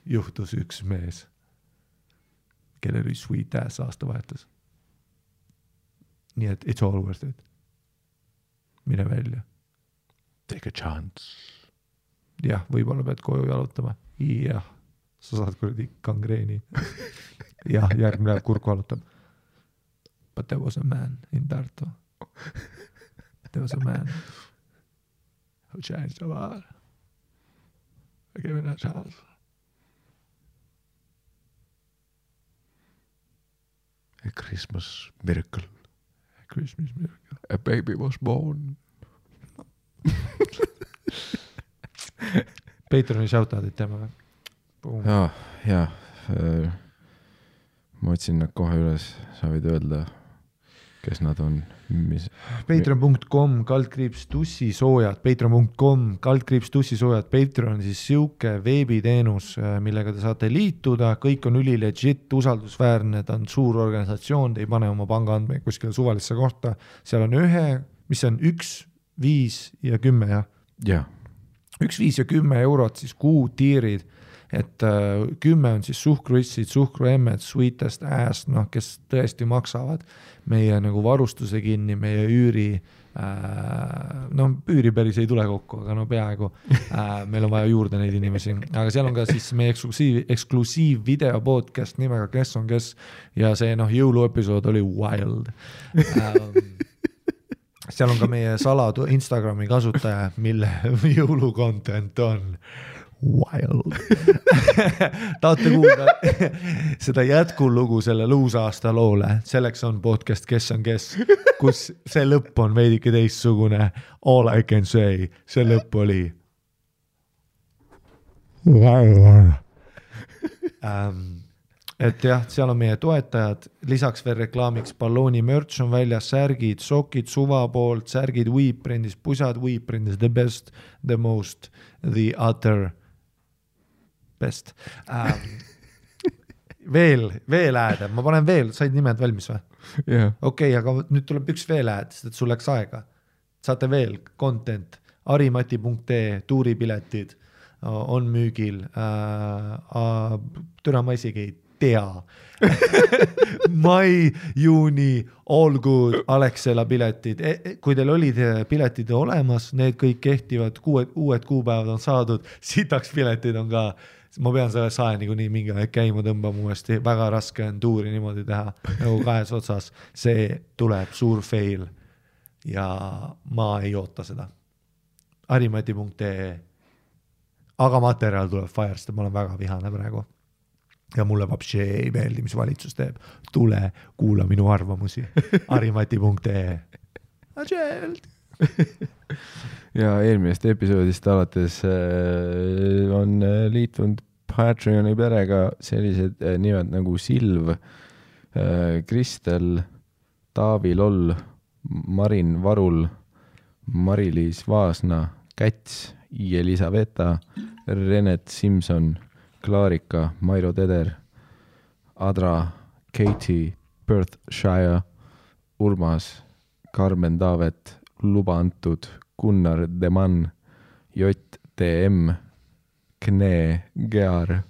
juhtus üks mees, kellel oli sweet ass aastavahetus. Nii et it's all worth it. Mine välja. Take a chance. Jah, võib-olla pead koju jalutama. Jah, sa saad kuradi kangreeni. Jah, järgmine päev kurku jalutab. But there was a man in Tartu. There was a man who changed the world. I gave it a chance. A Christmas miracle. Christmas miracle. A baby was born. Patreoni shoutout'id teeme või? Jaa. Ma otsin nad kohe üles, sa võid öelda, kes nad on. Patreon.com /tussisoojad Patreon.com /tussisoojad Patreon on siis siuke veebiteenus, millega te saate liituda, kõik on ülilegit, usaldusväärne, ta on suur organisatsioon, te ei pane oma pangaandmeid kuskile suvalisse kohta, seal on mis on 1, 5 ja 10 ja 1, 5 ja 10 eurot siis kuu tiirid, et 10 on siis suhkruissid, suhkruemmed, sweetest ass, kes tõesti maksavad meie nagu varustuse kinni, meie üüri, üüri päris ei tule kokku, aga peaaegu meil on vaja juurde neid inimesi, aga seal on ka siis meie eksklusiiv video podcast nimega Kes on kes ja see jõuluepisood oli wild. Seal on ka meie saladu Instagrami kasutaja, mille jõulukontent on wild. Tahate kuulda seda jätkulugu selle luusaasta loole, selleks on podcast Kes on kes, kus see lõpp on veidike teistsugune. All I can say, see lõpp oli et jah, seal on meie toetajad, lisaks veel reklaamiks ballooni merch on väljas, särgid, sokid suva poolt, särgid Weeprindis, pusad Weeprindis, the best, the most, the other best. Veel ääd, ma panen veel, said nimed valmis või? Yeah. Okei, aga nüüd tuleb üks veel ääd, sest et sul läks aega. Saate veel content, arimati.ee, tuuripiletid on müügil, türa ma isegi ei tea. Mai, juuni, all good, Alexela piletid. Kui teil olid piletid olemas, need kõik kehtivad, uued kuupäevad on saadud, sitaks piletid on ka. Ma pean selle sae niikuinii mingi aeg käima tõmbama uuesti, väga raske on tuuri niimoodi teha, nagu kahes otsas. See tuleb suur fail ja ma ei oota seda. Arimati.ee. Aga materjal tuleb fire, sest ma olen väga vihane praegu. Ja mulle vapsi ei meeldi, mis valitsus teeb. Tule, kuula minu arvamusi. Arimati.ee. Ja eelmisest episoodist alates on liitunud Patreoni perega sellised nimed nagu Silv, Kristel, Taavi Loll, Marin Varul, Mari-Liis Vaasna, Käts, Elisaveta, Renet Simson, Klaarika, Mairo Teder, Adra, Katie, Perthshire, Urmas, Carmen Taavet, Luba antud, Gunnar Deman, JTM, Kne, Gear,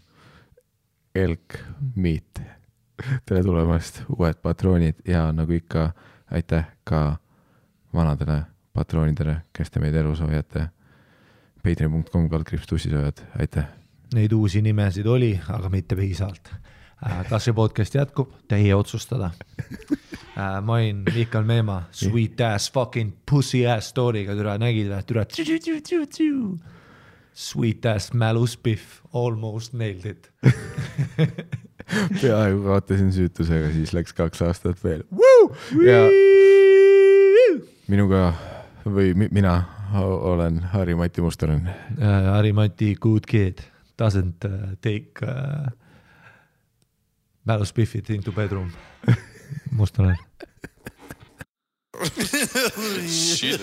Elk, Miit. Tere tulemast, uued patroonid ja nagu ikka aitäh ka vanadele patroonidele, kes te meid elus hoiate. patreon.com/tussisojad, aitäh. Neid uusi nimesid oli, aga mitte piisavalt. Kas see podcast jätkub? Teie otsustada. Ma olin Mihkel Meema, sweet ass fucking pussy ass story'ga türa nägid või türa sweet ass mäluspiff, almost nailed it. Peaaegu kaotasin süütusega, siis läks 2 aastat veel. Ja minuga või mina olen Harri-Mati Mustonen. Harri-Mati good kid doesn't take mäluspiffit into bedroom. Mustonen. Shit.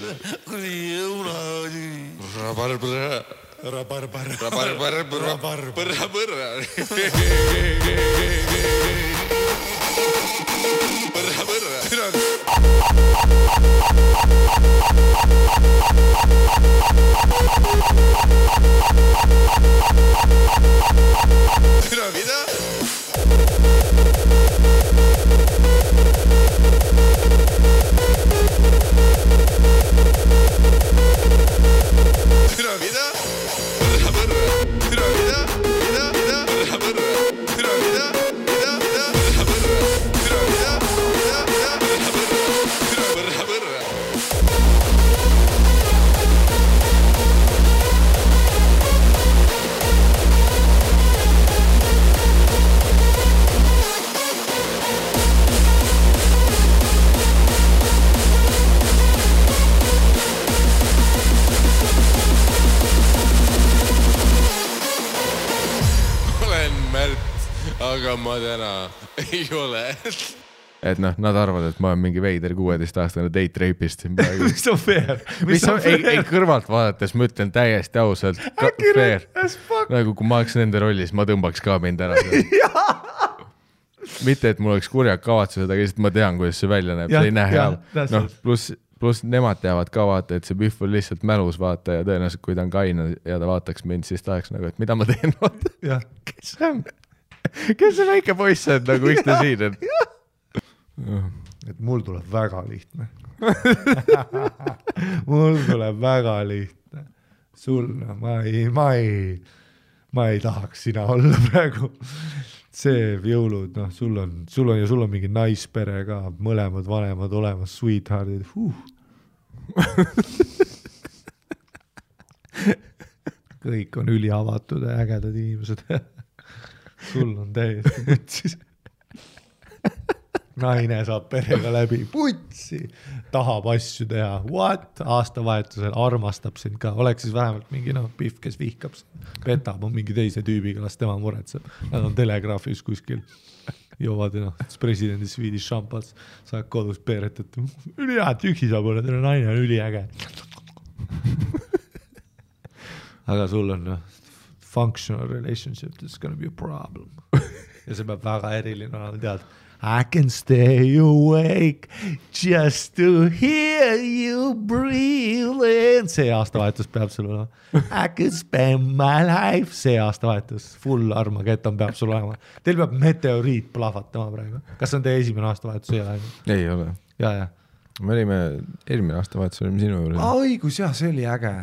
Aga ma täna ei ole. Et noh, nad arvavad, et ma olen mingi veider 16-aastane date rapist. Mis on fair? Ei kõrvalt vaadates, ma ütlen täiesti ausalt. Fair. Nagu kui ma oleks nende rollis, ma tõmbaks ka mind ära. Mitte, et mul oleks kurjad kavatsused, aga lihtsalt ma tean, kuidas see välja näeb. See ei näe hea. No, plus nemad teavad ka vaata, et see Biff on lihtsalt mälus vaata ja tõenäoliselt, kui ta on kaina ja ta vaataks mind, siis ta oleks nagu, et mida ma teen vaata. Kes see on? Kes see väike poiss on, nagu miks ta siin on? Et mul tuleb väga lihtne. Mul tuleb väga lihtne. Sul, ma ei tahaks sina olla praegu. See jõulud, noh, sul on mingi naispere ka, mõlemad vanemad olemas, sweetheartid. kõik on üliavatud ja ägedad inimesed. Sul on täiesti putsis. Naine saab perega läbi, putsi, tahab asju teha, what? Aastavahetusel armastab sind ka, oleks siis vähemalt mingi pihv, kes vihkab sind, petab on mingi teise tüübiga, las tema muretseb. Nad on telegraafis kuskil, joovad presidendi Swedish šampats, saad kodus peeretat, üli hea, üksi saab olla, teile naine on üliäge. Aga sul on functional relationship, it's gonna be a problem. Ja see peab väga eriline olema, tead, I can stay awake just to hear you breathe. See aastavahetus peab sul olema. I can spend my life. See aastavahetus, full Armageddon peab sul olema. Teil peab meteoriit plahvatama praegu. Kas on teie esimene aastavahetus? Ei ole. Ja. Me olime eelmine aastavahetus, olime sinu juurde. Õigus, jah, see oli äge.